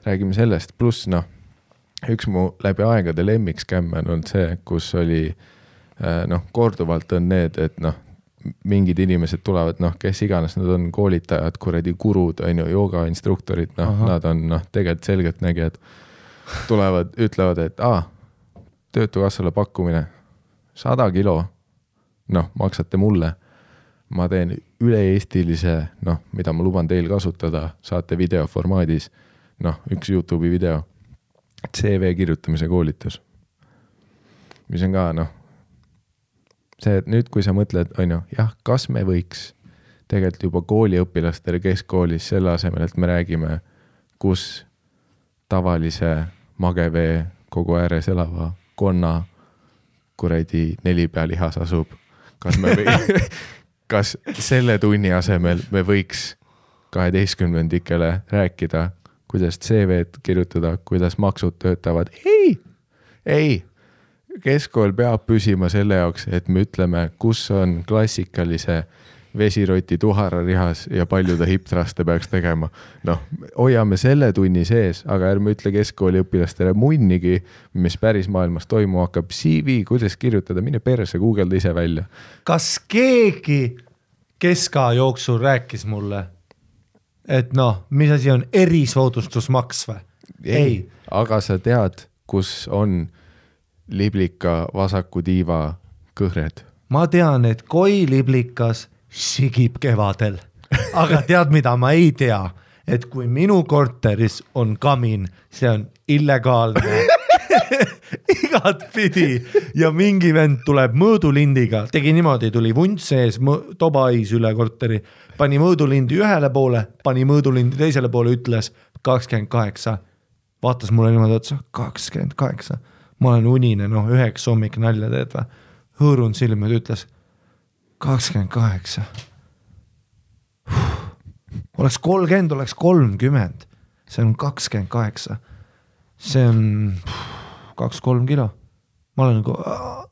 Räägime sellest, pluss üks mu läbi aegade lemmikskämme on olnud see, kus oli korduvalt on need, et mingid inimesed tulevad, kes iganes, nad on koolitajad, kuradi gurud, jooga instruktorid, nad on tegelikult selgelt nägijad, tulevad, ütlevad, et Töötukassale pakkumine 100 kilo, maksate mulle, ma teen üle-eestilise, mida ma luban teil kasutada, saate videoformaadis, üks YouTube'i video, CV kirjutamise koolitus, mis on ka, see, et nüüd, kui sa mõtled, kas me võiks tegelikult juba kooliõpilastele keskkoolis selle asemel, et me räägime, kus tavalise magevee kogu ääres elava konna kuradi 4 pealihas asub. Kas selle tunni asemel me võiks 12-ndikele rääkida, kuidas CV-d kirjutada, kuidas maksud töötavad? Ei! Keskkool peab püsima selle jaoks, et me ütleme, kus on klassikalise vesiroti tuhararihas ja palju ta hiptraste peaks tegema. Hoiame selle tunni sees, aga ärme ütle keskkooli õpilastele munnigi, mis päris maailmas toimu hakkab. CV, kuidas kirjutada, mine perse, Googleda ise välja. Kas keegi keska jooksul rääkis mulle, et mis asi on erisoodustusmaks või? Ei. Aga sa tead, kus on liblika vasaku tiiva kõhred. Ma tean, et koi liblikas sigib kevadel. Aga tead, mida ma ei tea? Et kui minu korteris on kamin, see on illegaalne. Igat pidi. Ja mingi vend tuleb mõõdulindiga. Tegi niimoodi, tuli vunt sees, tobais üle korteri. Pani mõõdulindi ühele poole, pani mõõdulindi teisele poole, ütles 28. Vaatas mulle niimoodi otsa, 28. Ma olen unine, 9 hommik nalja teed või? Hõõrun silmad, ütles 28. Oleks 30, oleks 30. See on 28. See on 2-3 kilo. Ma olen nagu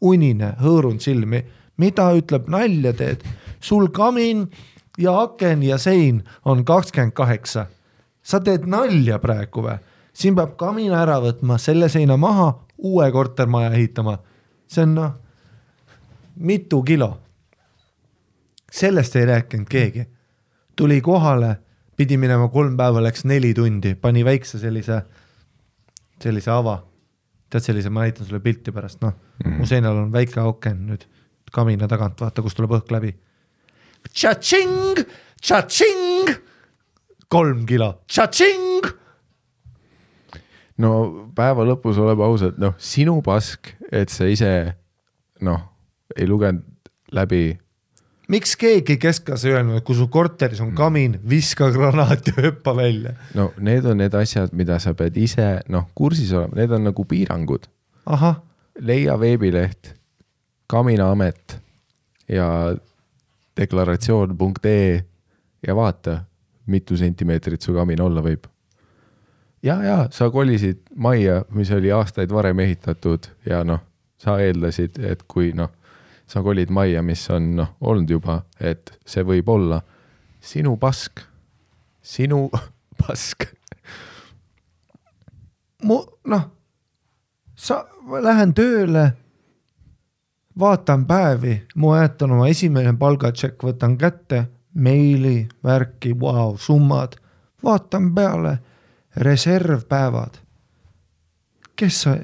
unine, hõõrun silmi. Mida ütleb nalja teed? Sul kamin ja aken ja sein on 28. Sa teed nalja praegu või? Siin peab kamina ära võtma, selle seina maha, uue kortermaja ehitama. See on mitu kilo. Sellest ei rääkinud keegi. Tuli kohale, pidi minema 3 päeva, läks 4 tundi, pani väikse sellise ava. Tead sellise, ma näitan sulle pilti pärast. Mu seinal on väike auken nüüd kamina tagant, vaata, kus tuleb õhk läbi. Tša-tšing! Tša-tšing! 3 kilo. Tša-tšing! No päeva lõpus oleb ausalt, sinu pask, et sa ise, ei lugenud läbi. Miks keegi keskas öelnud, et kui su korteris on kamin, viska granaat ja hüppa välja? Need on need asjad, mida sa pead ise, kursis olema, need on nagu piirangud. Aha. Leia veebileht, kaminaamet ja deklaratsioon.ee ja vaata, mitu sentimeetrit su kamin olla võib. Ja, sa kolisid majja, mis oli aastaid varem ehitatud ja sa eeldasid, et kui sa kolid majja, mis on olnud juba, et see võib olla sinu pask. Lähen tööle, vaatan päevi, ma jätan oma esimene palgatšekk, võtan kätte, meili, värki, wow, summad, vaatan peale, reservpäevad. Kes sa,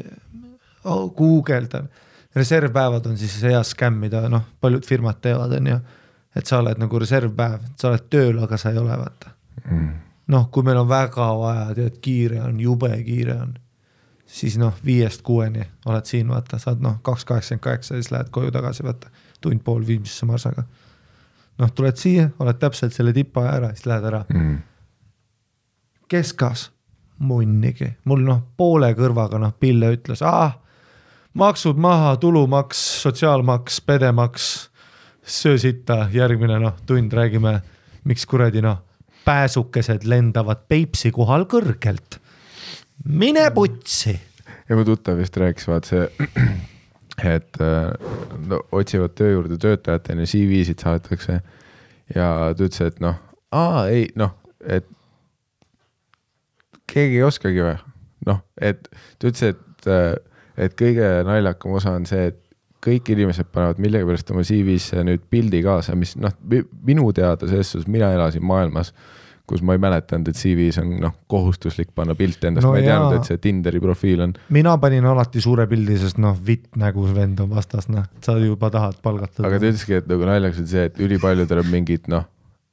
guugeldan, reservpäevad on siis hea skämm, mida paljud firmad teevad, on ju, et sa oled nagu reservpäev, sa oled tööl, aga sa ei ole, vaata. Kui meil on väga vaja, tead, kiire on, jube kiire on, siis 5-6 oled siin, vaata, saad 2.88, siis lähed koju tagasi, vaata, tund pool viimsisse marsaga. Tuled siia, oled täpselt selle tipa ära, siis lähed ära. Keskas, munnigi. Mul poole kõrvaga Pille ütles, maksud maha, tulumaks, sotsiaalmaks, pedemaks, söösita, järgmine tund räägime, miks kuradi pääsukesed lendavad Peipsi kohal kõrgelt. Mine putsi! Ja mu tuttav vist rääkis, vaat see, et otsivad töö juurde töötajatena, CV-sid saadetakse ja ta ütles, et et keegi ei oskagi või. Et ta ütles, et kõige naljakam osa on see, et kõik inimesed panevad millegi pärast oma CV-sse nüüd pildi kaasa, mis minu teada selles suhtes, mina elasin maailmas, kus ma ei mäletanud, et CV-s on kohustuslik panna pilt endast, ma ei teadnud, et see Tinderi profiil on. Mina panin alati suure pildi, sest vitt nägu vend on vastas, sa juba tahad palgatada. Aga ta ütleski, et ülejaks on see, et ülipaljudel on mingid,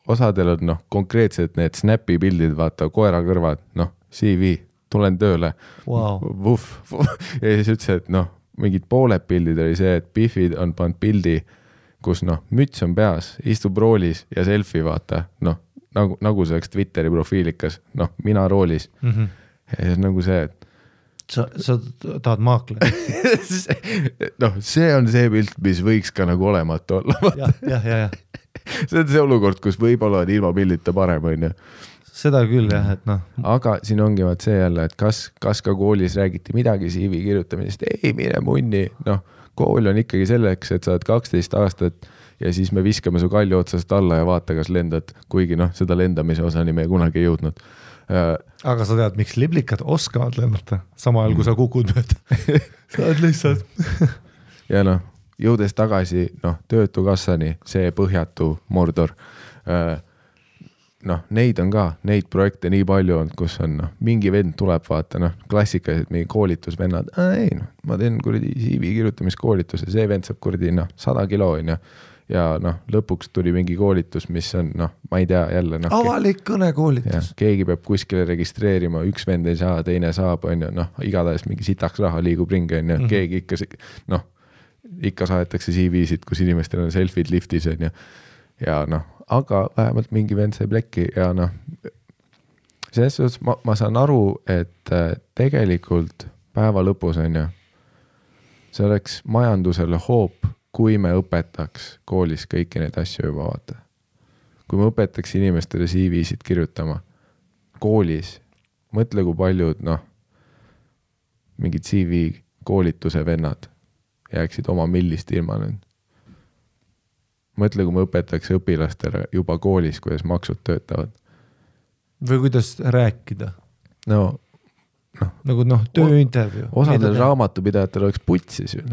osadel on konkreetselt need snapi pildid, vaata, koera kõrvad, CV, tulen tööle. Wow. Ja siis ütles, et mingid pooled pildid oli see, et Biffid on pannud pildi, kus müts on peas, istub roolis ja selfie vaata, nagu see oleks Twitteri profiilikas, mina roolis. Ja siis nagu see, et sa tahad maakle. See on see pilt, mis võiks ka nagu olematu olla. Ja. See on see olukord, kus võib-olla on ilma pildita parem, on ju. Seda küll, jah, et Aga siin ongi vaat see jälle, et kas ka koolis räägiti midagi CV kirjutamisest, ei mine munni, kool on ikkagi selleks, et sa oled 12 aastat ja siis me viskame su kalli otsast alla ja vaata, kas lendad, kuigi seda lendamise osani me kunagi ei jõudnud. Aga sa tead, miks liblikad oskavad lennata, sama ajal kui sa kukud mööda. Sa oled lihtsalt. Ja jõudes tagasi töötukassani, see põhjatu Mordor, neid on ka, neid projekte nii palju on, kus on mingi vend tuleb vaata, klassikalised mingi koolitusvennad, ma teen kuradi CV kirjutamiskoolituse, see vend saab kuradi 100 kilo on ja lõpuks tuli mingi koolitus, mis on, ma ei tea jälle. Avalik kõnekoolitus. Keegi peab kuskile registreerima, üks vend ei saa, teine saab, on ju, igatahes mingi sitaks raha liigub ringi, on ju, keegi ikka saadetakse CV-sid, kus inimestel on selfid liftis, on ju, ja aga vähemalt mingi vend sai plekki ja selles suhtes ma saan aru, et tegelikult päeva lõpus on ju, see oleks majandusele hoop, kui me õpetaks koolis kõiki neid asju juba vaata. Kui me õpetaks inimestele CV-sid kirjutama koolis, mõtle kui paljud mingid CV koolituse vennad jääksid oma millist ilma nüüd. Mõtle, kui me õpetaks õpilastele juba koolis, kuidas maksud töötavad. Või kuidas rääkida. Nagu tööintervju. Osadel raamatupidajatel oleks putsis ju.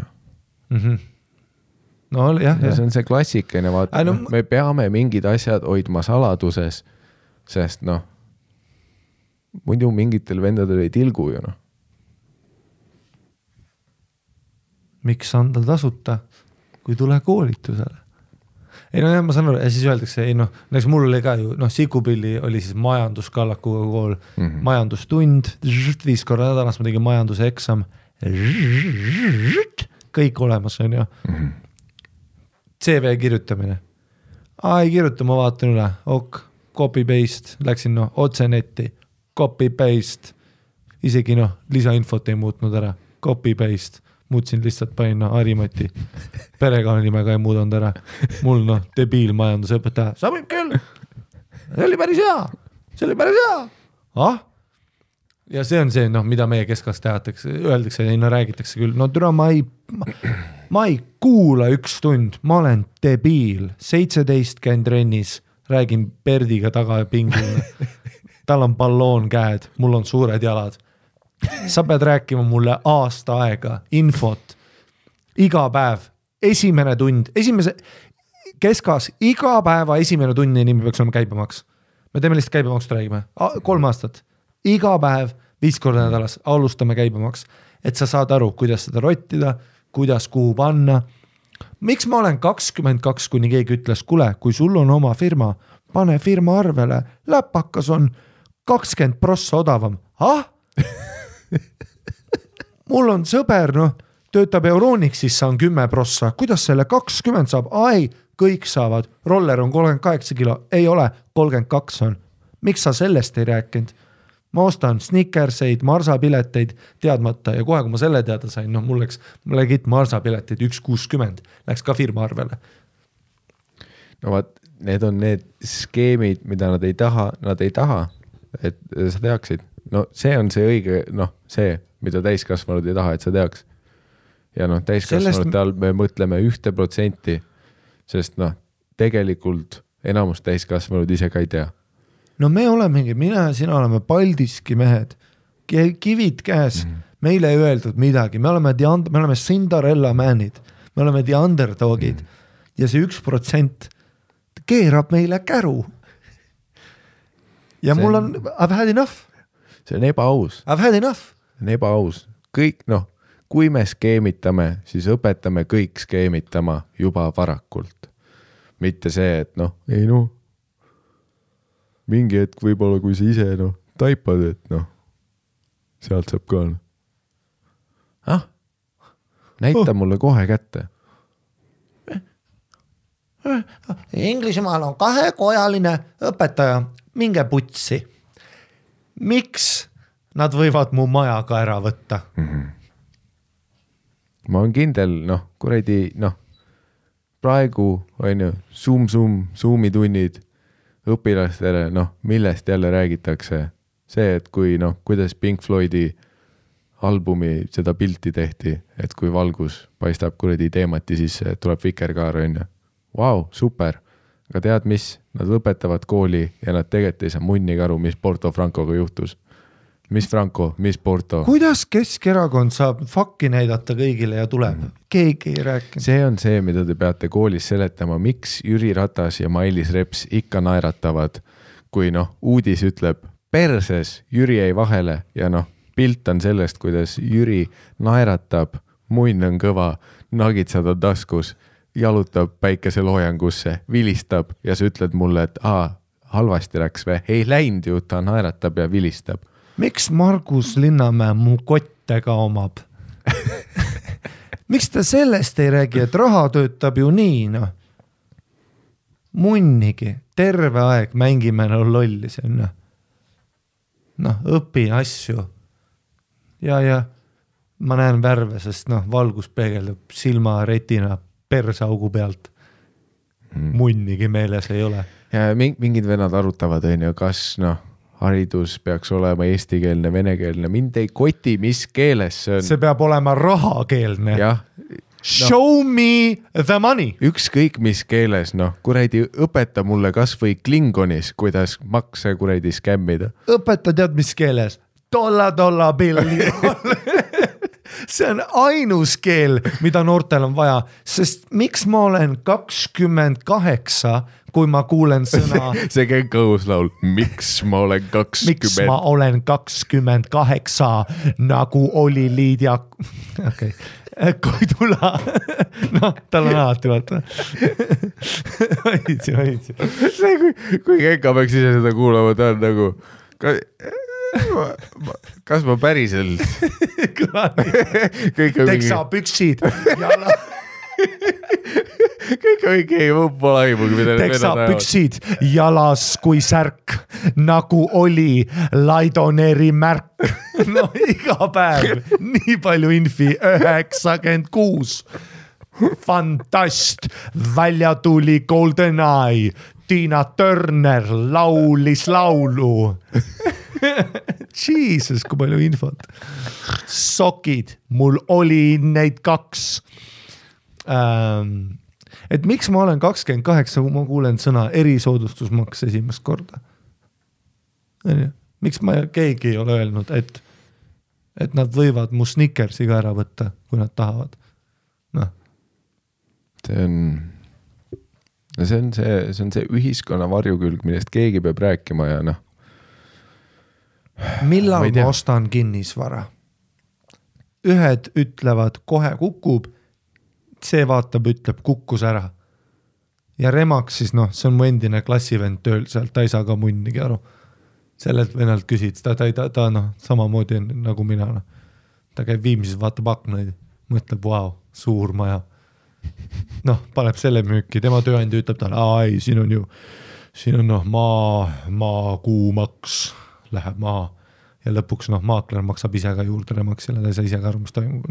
Jah. See on see klassikaline, vaata, me peame mingid asjad hoidma saladuses, sest muidu mingitel vendadel ei tilgu ju. Miks anda tasuta, kui tule koolitusele? Ei ma saan aru, ja siis öeldakse, näiteks mul oli ka ju, Sikupilli oli siis majanduskallakuga kool, majandustund, 5 korra nädalas ma tegin majanduse eksam, kõik olemas on ju. CV kirjutamine. Ei kirjuta, ma vaatan üle, copy-paste, läksin otse netti, copy-paste, isegi lisainfot ei muutnud ära, copy-paste. Muutsin lihtsalt panin Harimati perekonnanimega ei muudanud ära. Mul debiil majandusõpetaja. Sa võib küll. See oli päris hea. Ja see on see, mida meie keskast tehatakse, öeldakse ja räägitakse küll. Türa, ma ei kuula 1 tund. Ma olen debiil. 17 käin trennis. Räägin Perdiga taga ja pingil. Tal on balloon käed. Mul on suured jalad. Sa pead rääkima mulle aasta aega, infot, iga päev, esimene tund, keskas iga päeva esimene tunnini me peaks olema käibemaks. Me teeme lihtsalt käibemaksust räägime, 3 aastat, iga päev 5 korda nädalas alustame käibemaks, et sa saad aru, kuidas seda rottida, kuidas kuhu panna. Miks ma olen 22, kuni keegi ütles, kuule, kui sul on oma firma, pane firma arvele, läpakas on 20% odavam. Mul on sõber, töötab Euronixis, on 10%, kuidas selle 20 saab? Kõik saavad, roller on 38 kilo, ei ole, 32 on. Miks sa sellest ei rääkinud? Ma ostan snickerseid, marsapileteid teadmata ja kohe, kui ma selle teada sain, mul läks marsapileteid 1,60, läks ka firma arvele. No vaat, need on need skeemid, mida nad ei taha, et sa teaksid. No see on see õige, see, mida täiskasvanud ei taha, et sa teaks. Ja täiskasvanute all me mõtleme 1%, sest tegelikult enamus täiskasvanud ise ka ei tea. No me olemegi, mina ja sina oleme Paldiski mehed, kivid käes, meile ei öeldud midagi, me oleme Cinderella manid, me oleme the underdogid ja see 1% keerab meile käru. Ja mul on, I've had enough. See on ebaaus. I've had enough. See on ebaaus. Kõik, kui me skeemitame, siis õpetame kõik skeemitama juba varakult. Mitte see, et mingi hetk võib-olla, kui sa ise taipad, et sealt saab ka. Näita mulle kohe kätte. Inglismaal on 2-kojaline õpetaja, minge putsi. Miks nad võivad mu maja ka ära võtta? Ma olen kindel, praegu on ju Zoomi tunnid õpilastele, millest jälle räägitakse. See, et kuidas Pink Floydi albumi seda pilti tehti, et kui valgus paistab teemati sisse, et tuleb vikerkaar on ju. Vau, super. Aga tead mis? Nad lõpetavad kooli ja nad tegelikult ei saa munnigi aru, mis Porto Francoga juhtus. Mis Franco, mis Porto? Kuidas Keskerakond saab fakki näidata kõigile ja tuleb? Keegi ei rääkinud. See on see, mida te peate koolis seletama. Miks Jüri Ratas ja Mailis Reps ikka naeratavad, kui uudis ütleb perses, Jüri ei vahele ja pilt on sellest, kuidas Jüri naeratab, munn on kõva, nagitsad on taskus, jalutab päikeseloojangusse, vilistab ja sa ütled mulle, et halvasti läks või? Ei läinud ju, ta naeratab ja vilistab. Miks Margus Linnamäe mu kottega omab? Miks ta sellest ei räägi, et raha töötab ju nii, Munnigi, terve aeg mängime lolli see, õpin asju. Ja ma näen värve, sest valgus peegeldub silma retina persaugu pealt. Munnigi meeles ei ole. Ja mingid venad arutavad, kas haridus peaks olema eestikeelne, venekeelne. Mind ei koti, mis keeles see on. See peab olema rahakeelne. Jah. Show me the money. Ükskõik mis keeles, õpeta mulle kas või klingonis, kuidas makse skämmida. Õpeta tead mis keeles? Dolla billi. See on ainus keel, mida noortel on vaja, sest miks ma olen 28, kui ma kuulen sõna... see käib kõhuslaul. Miks ma olen 20? Miks ma olen 28, nagu oli Liidia... Okay. Koidula. Tal on alati, vaata. Hoidsi. Kui Kenka peaks ise seda kuulama, ta on nagu... Kas ma päriselt? Teksa püksid jala. Kõik on mingi pole aimugi. Teksa püksid jalas kui särk, nagu oli Laidoneri märk. Iga päev, nii palju infi, 96. Fantast, välja tuli GoldenEye, Tina Turner laulis laulu. Jesus, kui palju infot. Sokid, mul oli neid 2. Et miks ma olen 28, kui ma kuulen sõna erisoodustusmaks esimest korda? Miks keegi ei ole öelnud, et nad võivad mu Snickersi ka ära võtta, kui nad tahavad? see on see ühiskonna varjukülg, millest keegi peab rääkima ja noh. Millal ma ostan kinnisvara? Ühed ütlevad kohe kukub, see vaatab, ütleb kukkus ära. Ja Remaks siis noh, see on mu endine klassivend tööl sealt, ta ei saa ka munnigi aru. Sellelt venelt küsid, ta noh, samamoodi nagu mina. No. Ta käib Viimsis, vaatab aknaid, mõtleb, vau, suur maja. Noh, paneb selle müüki, tema tööandja ütleb talle, ei, siin on noh, maa kuumaks, läheb maa. Ja lõpuks noh, maakler maksab ise ka juurde Remaksile, ta ei saa ise ka aru, mis toimub.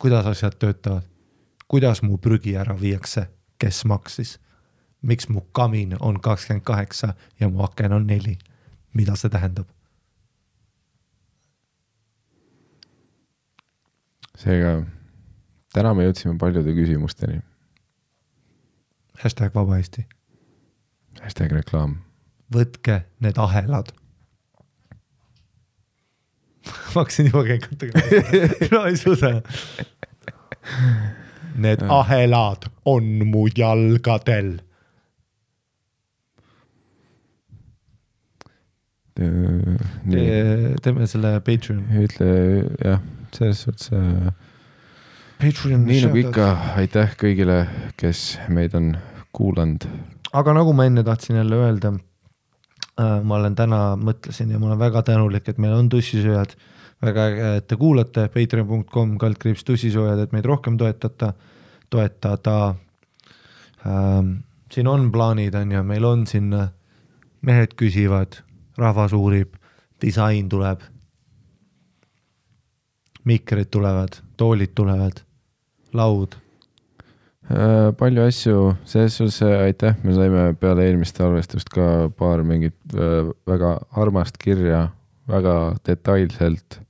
Kuidas asjad töötavad? Kuidas mu prügi ära viiakse? Kes maksis? Miks mu kamin on 28 ja mu aken on 4? Mida see tähendab? Seega, täna me jõudsime paljude küsimusteni. #vaba Eesti. #reklaam. Võtke need ahelad. Ma hakkasin juba keikutega. No ei suuda. Need ahelad on mu jalgadel. Teeme selle Patreon. Ütle, jah, selles suhtes Patreon. Nii nagu ikka, aitäh kõigile, kes meid on kuulanud. Aga nagu ma enne tahtsin jälle öelda, ma olen täna mõtlesin ja ma olen väga tänulik, et meil on tussisööjad, väga äge, et te kuulate patreon.com/tussisööjad, et meid rohkem toetada. Siin on plaanid, on ja meil on siin mehed küsivad, rahvas uurib, disain tuleb, mikrid tulevad, toolid tulevad, laud. Palju asju, selles suhtes aitäh, me saime peale eelmist arvestust ka paar mingit väga armast kirja, väga detailselt.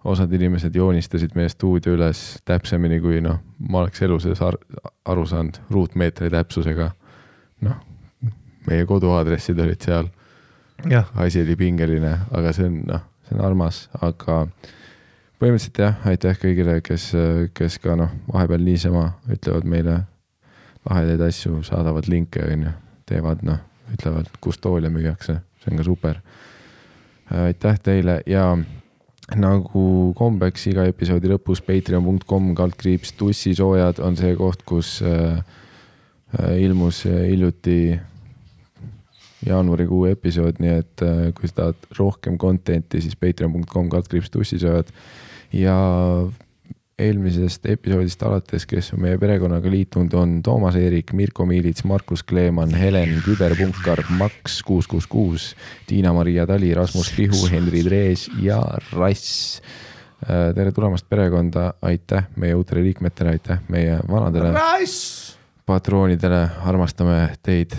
Osad inimesed joonistasid meie stuudio üles täpsemini, kui noh, ma oleks elu sees aru saanud ruutmeetri täpsusega. Noh, meie koduaadressid olid seal. Ja. Asi oli pingeline, aga see on armas, aga põhimõtteliselt jah, aitäh kõigile, kes ka noh, vahepeal niisama ütlevad meile lahedaid asju, saadavad linke, teevad ütlevad, kus toole müüakse, see on ka super. Aitäh teile ja nagu kombeks iga episoodi lõpus patreon.com/tussisoojad on see koht, kus ilmus hiljuti jaanuarikuu episood, nii et kui sa tahad rohkem contenti, siis patreon.com/tussisoojad ja eelmisest episoodist alates, kes on meie perekonnaga liitunud, on Toomas Eerik, Mirko Miilits, Markus Kleeman, Helen Küberpunkar, Max 666, Tiina-Maria Tali, Rasmus Pihu, Henri Drees ja Rass. Tere tulemast perekonda, aitäh meie uutele liikmetele, aitäh meie vanadele patroonidele, armastame teid.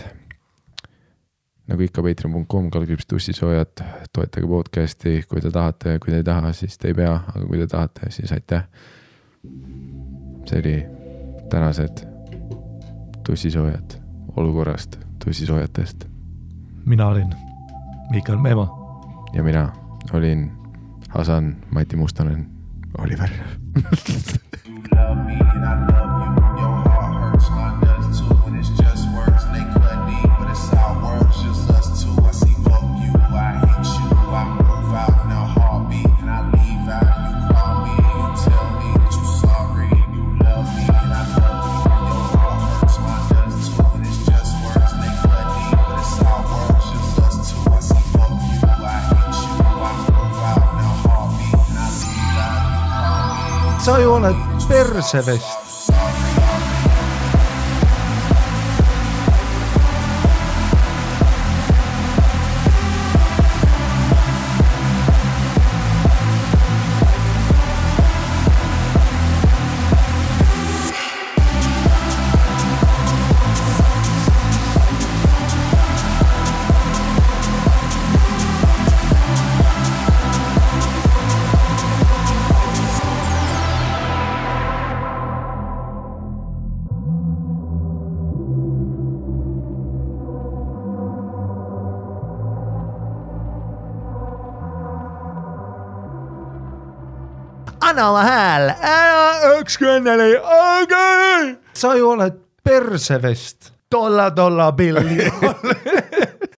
Nagu ikka patreon.com/tussisoojad, toetage podcasti, kui te tahate, kui te ei taha, siis te ei pea, aga kui te tahate, siis aitäh. See oli tänased tussisoojad olukorrast tussisoojatest. Mina olin Mikael Meema. Ja mina olin Hasan Mati Mustonen, Oliver. You love me and I love you. Your heart hurts, mine does too. And it's just words and they cut deep. But it's our words, just us two. I see fuck you, I hate you. I move out in a heartbeat. And I leave out and you call me. And you tell me that you're sorry. You love me and I love you. Your heart hurts, mine does too. And it's just words and they cut deep. But it's our words, just us two. I see fuck you, I hate you. I move out in a heartbeat. And I leave out and you call me. Sa ju oled persevest. anna oma hääl, üks kõnneli, sa ju oled persevest, tolla pilli